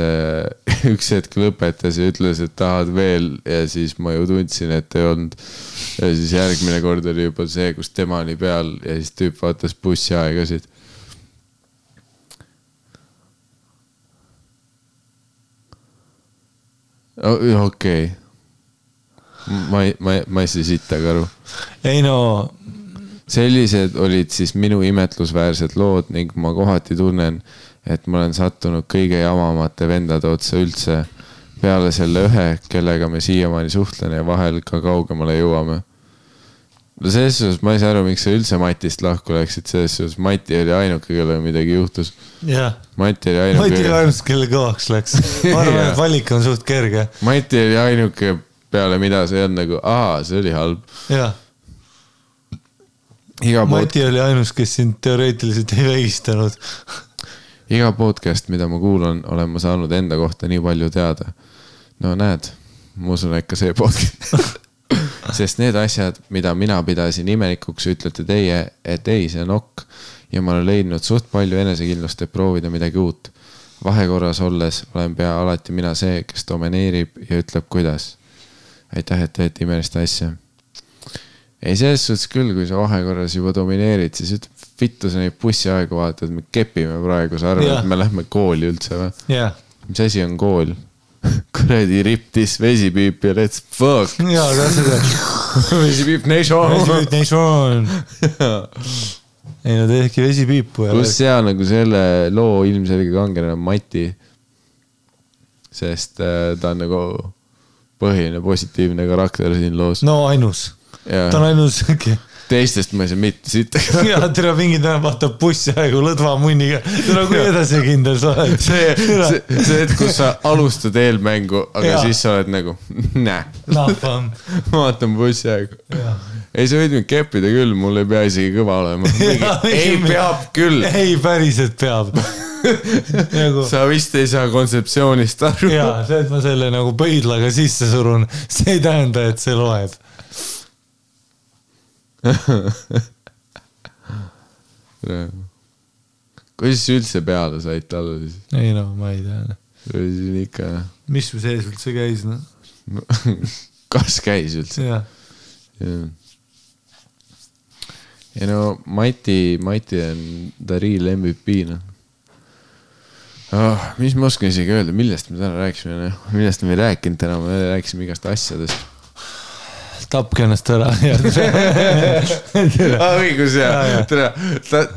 üks hetk lõpetas ja ütles, et tahad veel ja siis ma ju tundsin, et ei olnud. Ja siis järgmine kord oli juba see, kus tema oli peal ja siis tüüp vaatas bussiaegasid. Okei. Ma ei saa sittaga aru.
Ei no,
sellised olid siis minu imetlusväärsed lood ning ma kohati tunnen, et ma olen sattunud kõige jamamate vendade otsa üldse peale selle ühe, kellega me siiamaani suhtlen ja vahel ka kaugemale jõuame. No selles suhtes ma ei saa aru, miks sa üldse Matist lahku läksid, selles suhtes Mati oli ainuke, kelle midagi juhtus.
Jah.
Mati oli ainuke,
kelle kõvaks läks. Ma arvan, et valik on suht kerge.
Mati oli ainuke peale, mida see on nagu, see oli halb.
Jah. Mati oli ainus, kes sind teoreetiliselt ei vägistanud.
Iga podcast, mida ma kuulan, olen ma saanud enda kohta nii palju teada. No näed, ma usun, et ka see podcast. Sest need asjad, mida mina pidasin imelikuks, ütlete teie, et ei, see on ok. Ja ma olen leidnud suht palju enesekindlust, et proovida midagi uut. Vahekorras olles olen pea alati mina see, kes domineerib ja ütleb kuidas. Aitäh, et teete imelist asja. Ei, selles suhtes küll, kui sa vahekorras juba domineerid, siis ütleb, vittu sa neid bussiaegu vaatad, me kepime praegu, sa arvad, et me lähme kooli üldse või?
Yeah.
Mis asi on kool? Kuredi riptis vesipiip ja let's fuck.
Jaa, seda.
Vesipiip nation.
Vesipiip nation. Ei, no tehki vesipiipu.
Plus seal nagu selle loo ilmselge kangelane Mati. Sest ta on nagu põhiline positiivne karakter siin loos.
No ainus. Ta on ainus.
Teistest ma ei saa mitte siit.
Ja tere mingi täna vaatab bussi aegu lõdva munniga. Tere kui edasi kindel sa oled.
See, et kus sa alustad eelmängu, aga siis sa oled nagu, näe. Ma vaatan bussi aegu. Ei, sa võid mind keppida küll, mul ei pea isegi kõva olema. Ei, peab küll.
Ei, päriselt peab.
Sa vist ei saa kontseptsioonist aru.
Jaa, see, et ma selle nagu pöidlaga sisse surun, see ei tähenda, et see loeb.
Kuidas üldse peale said talle siis?
Ei no, ma ei tea.
Ikka...
Mis mu sees üldse käis? No?
Kas käis üldse?
Jah.
Ja no Mati on the real MVP. No. Mis ma oskan isegi öelda, millest me täna rääkisime? Millest me ei rääkinud täna, me rääkisime igast asjadest.
Tapke ennast ära.
Õigus, jah.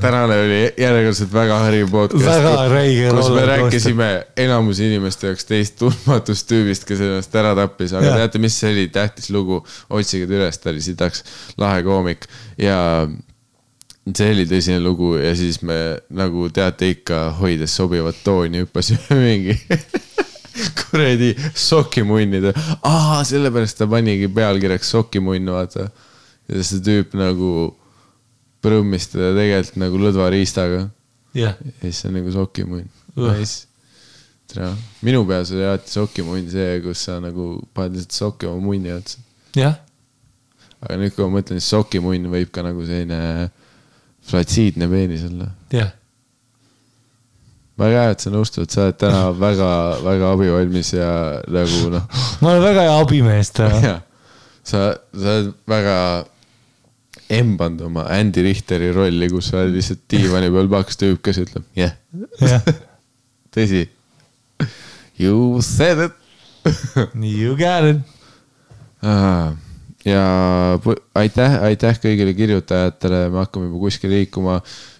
Tänane oli järjekordselt väga hari podcast.
Väga räige.
Kus me rääkisime enamus inimeste jaoks teist tundmatust tüübist, kes ennast ära tappis. Aga teate, mis see oli tähtis lugu? Otsige üles, ta oli sidaks lahe koomik. Ja see oli tõsine lugu ja siis me nagu teate ikka hoides sobivat tooni hüppasime mingi... kuredi sokimunnid. Sellepärast ta panigi pealkirjaks sokimunn, vaata. Ja see tüüp nagu prõmmistada tegelikult nagu lõdva riistaga.
Ja
siis on nagu sokimunn. Nice. Minu peas oli alati sokimunn see, kus sa nagu paned lihtsalt sokki oma munni otsa.
Jah.
Aga nüüd, kui ma mõtlen, siis sokimunn võib ka nagu selline flatsiidne peenis olla.
Jah.
Väga hea, et sa nõustud, sa oled täna väga, väga abivalmis ja nagu noh.
Ma olen väga hea abimees täna.
Sa oled väga embanud oma Andy Richteri rolli, kus sa oled lihtsalt diivani peal paks tüüp, kes ütleb, tõsi. You said it.
You got it.
Ja aitäh kõigile kirjutajatele, me hakkame juba kuskil liikuma.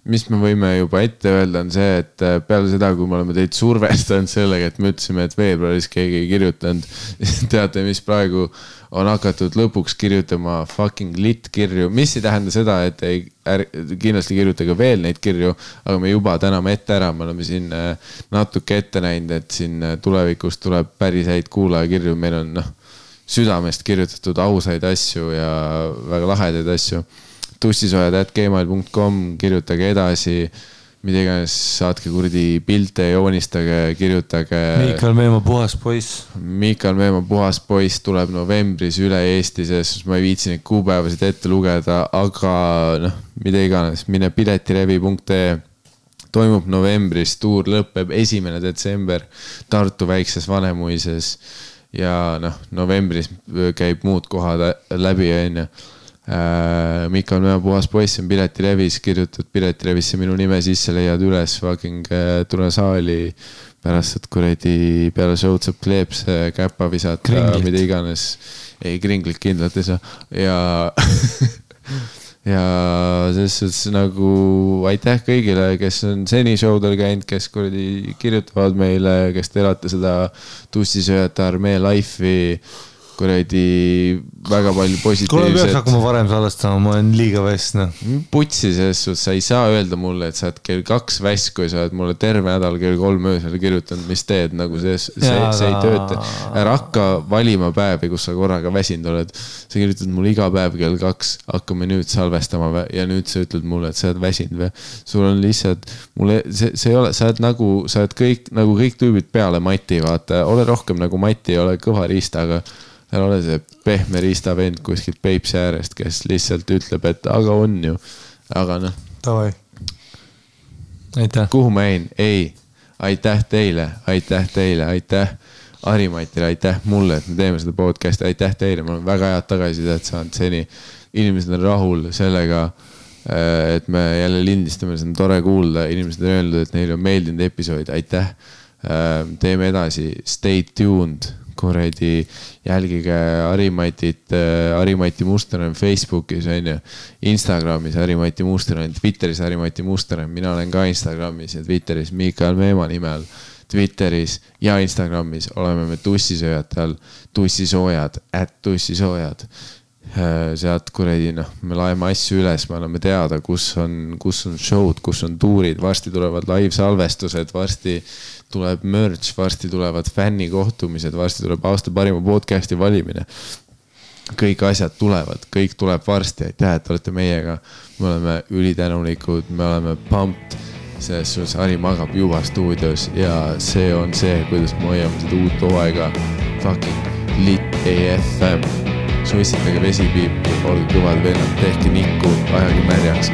Mis me võime juba ette öelda on see, et peale seda, kui me oleme teid survestanud sellega, et me ütlesime, et veebruaris keegi ei kirjutanud, teate, mis praegu on hakatud lõpuks kirjutama fucking lit kirju, mis ei tähenda seda, et ei kindlasti kirjutage veel neid kirju, aga me juba täname ette ära, me oleme siin natuke ette näinud, et siin tulevikus tuleb päris häid kuulajakirju, meil on südamest kirjutatud ausaid asju ja väga lahedaid asju. tussisojad@gmail.com, kirjutage edasi, mida iganes, saatke kurdi pilte, joonistage, kirjutage.
Miikal Meemaa puhas poiss.
Miikal Meemaa puhas poiss tuleb novembris üle Eesti, sest ma ei viitsi neid kuupäevasid ette lugeda, aga mida iganes, mine piletilevi.ee. Toimub novembris, tuur lõpeb 1. detsember Tartu väikses Vanemuises ja novembris käib muud kohad läbi enne. Miikal Meemaa puhas poiss on Piletilevis, kirjutad Piletilevisse minu nime sisse, leiad üles, fucking tule saali pärast, et kuredi peale show'd saab kleeps, käpa visata, mida iganes. Ei, kringlit kindlalt ei saa. ja selles suhtes nagu aitäh kõigile, kes on seni showdel käinud, kes kuradi kirjutavad meile, kes te elate seda tussisööjate armee life'i, kuradi väga palju positiivset.
Kuule peaks hakkama varem salvestama, ma olen liiga väss.
Putsi selles suhtes, sa ei saa öelda mulle, et sa oled kell 2 väss, kui sa oled mulle terve nädal kell 3 öösel kirjutanud, mis teed, nagu see ei tööta. Ära hakka valima päevi, kus sa korraga väsinud oled. Sa kirjutad mulle iga päev kell 2, hakkame nüüd salvestama ja nüüd sa ütled mulle, et sa oled väsinud või. Sul on lihtsalt, see ei ole, sa oled kõik tüübid peale Mati, vaata, ole rohkem nagu Mati, ole kõva riista, aga ära ole see pehme riista vend kuskilt Peipsi äärest, kes lihtsalt ütleb, et aga on ju. Aga noh.
Tavai. Aitäh.
Kuhu ma jäin? Ei. Aitäh teile. Aitäh Harimatile, aitäh mulle, et me teeme seda podcasti. Aitäh teile. Ma olen väga head tagasisidet saanud seni. Inimesed on rahul sellega, et me jälle lindistame. See on tore kuulda. Inimesed on öelnud, et neile on meeldinud episood. Aitäh. Teeme edasi. Stay tuned. Kuradi jälgige Harimati Muster on Facebookis, on ju, Instagramis Harimati Muster on, Twitteris Harimati Muster on, mina olen ka Instagramis ja Twitteris Mikael Meemaa nimel, Twitteris ja Instagramis oleme me tussisööjad all, tussisoojad, @tussisoojad. Sealt kuradi, noh, me laeme asju üles, me anname teada, kus on show'd, kus on tuurid, varsti tulevad live salvestused, varsti tuleb merch, varsti tulevad fännikohtumised, varsti tuleb aasta parima podcasti valimine. Kõik asjad tulevad, kõik tuleb varsti, aitäh, et olete meiega. Me oleme ülitänulikud, me oleme pumped, selles suhtes Hari magab juba stuudios ja see on see, kuidas me hoiame seda uut hooaega. Fucking lit AFM. Suitsitage vesipiipu, olge kõvad vennad, tehke nikku, ajage märjaks.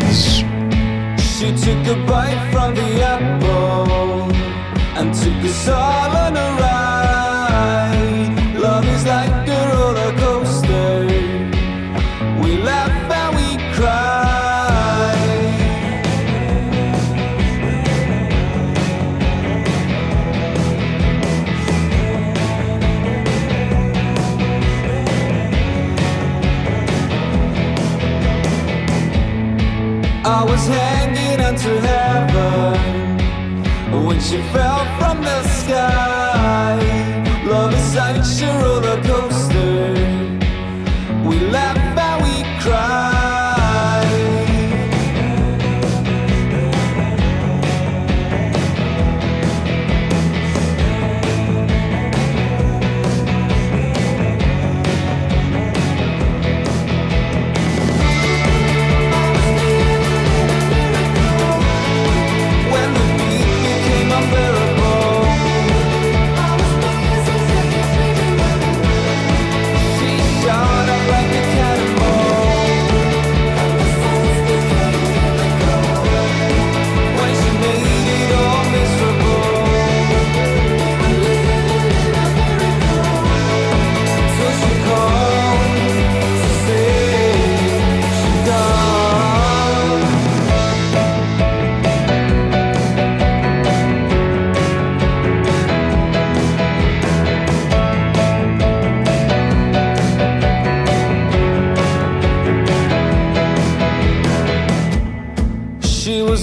She took a bite from the apple and took us all on a ride. Love is like a roller coaster. We laugh and we cry. I was hanging onto heaven when she fell from the sky. Love is such a roller coaster. We laugh and we cry.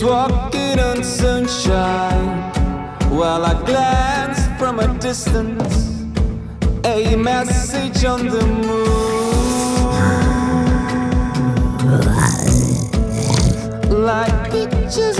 Walking on sunshine while I glanced from a distance, a message on the moon, like pictures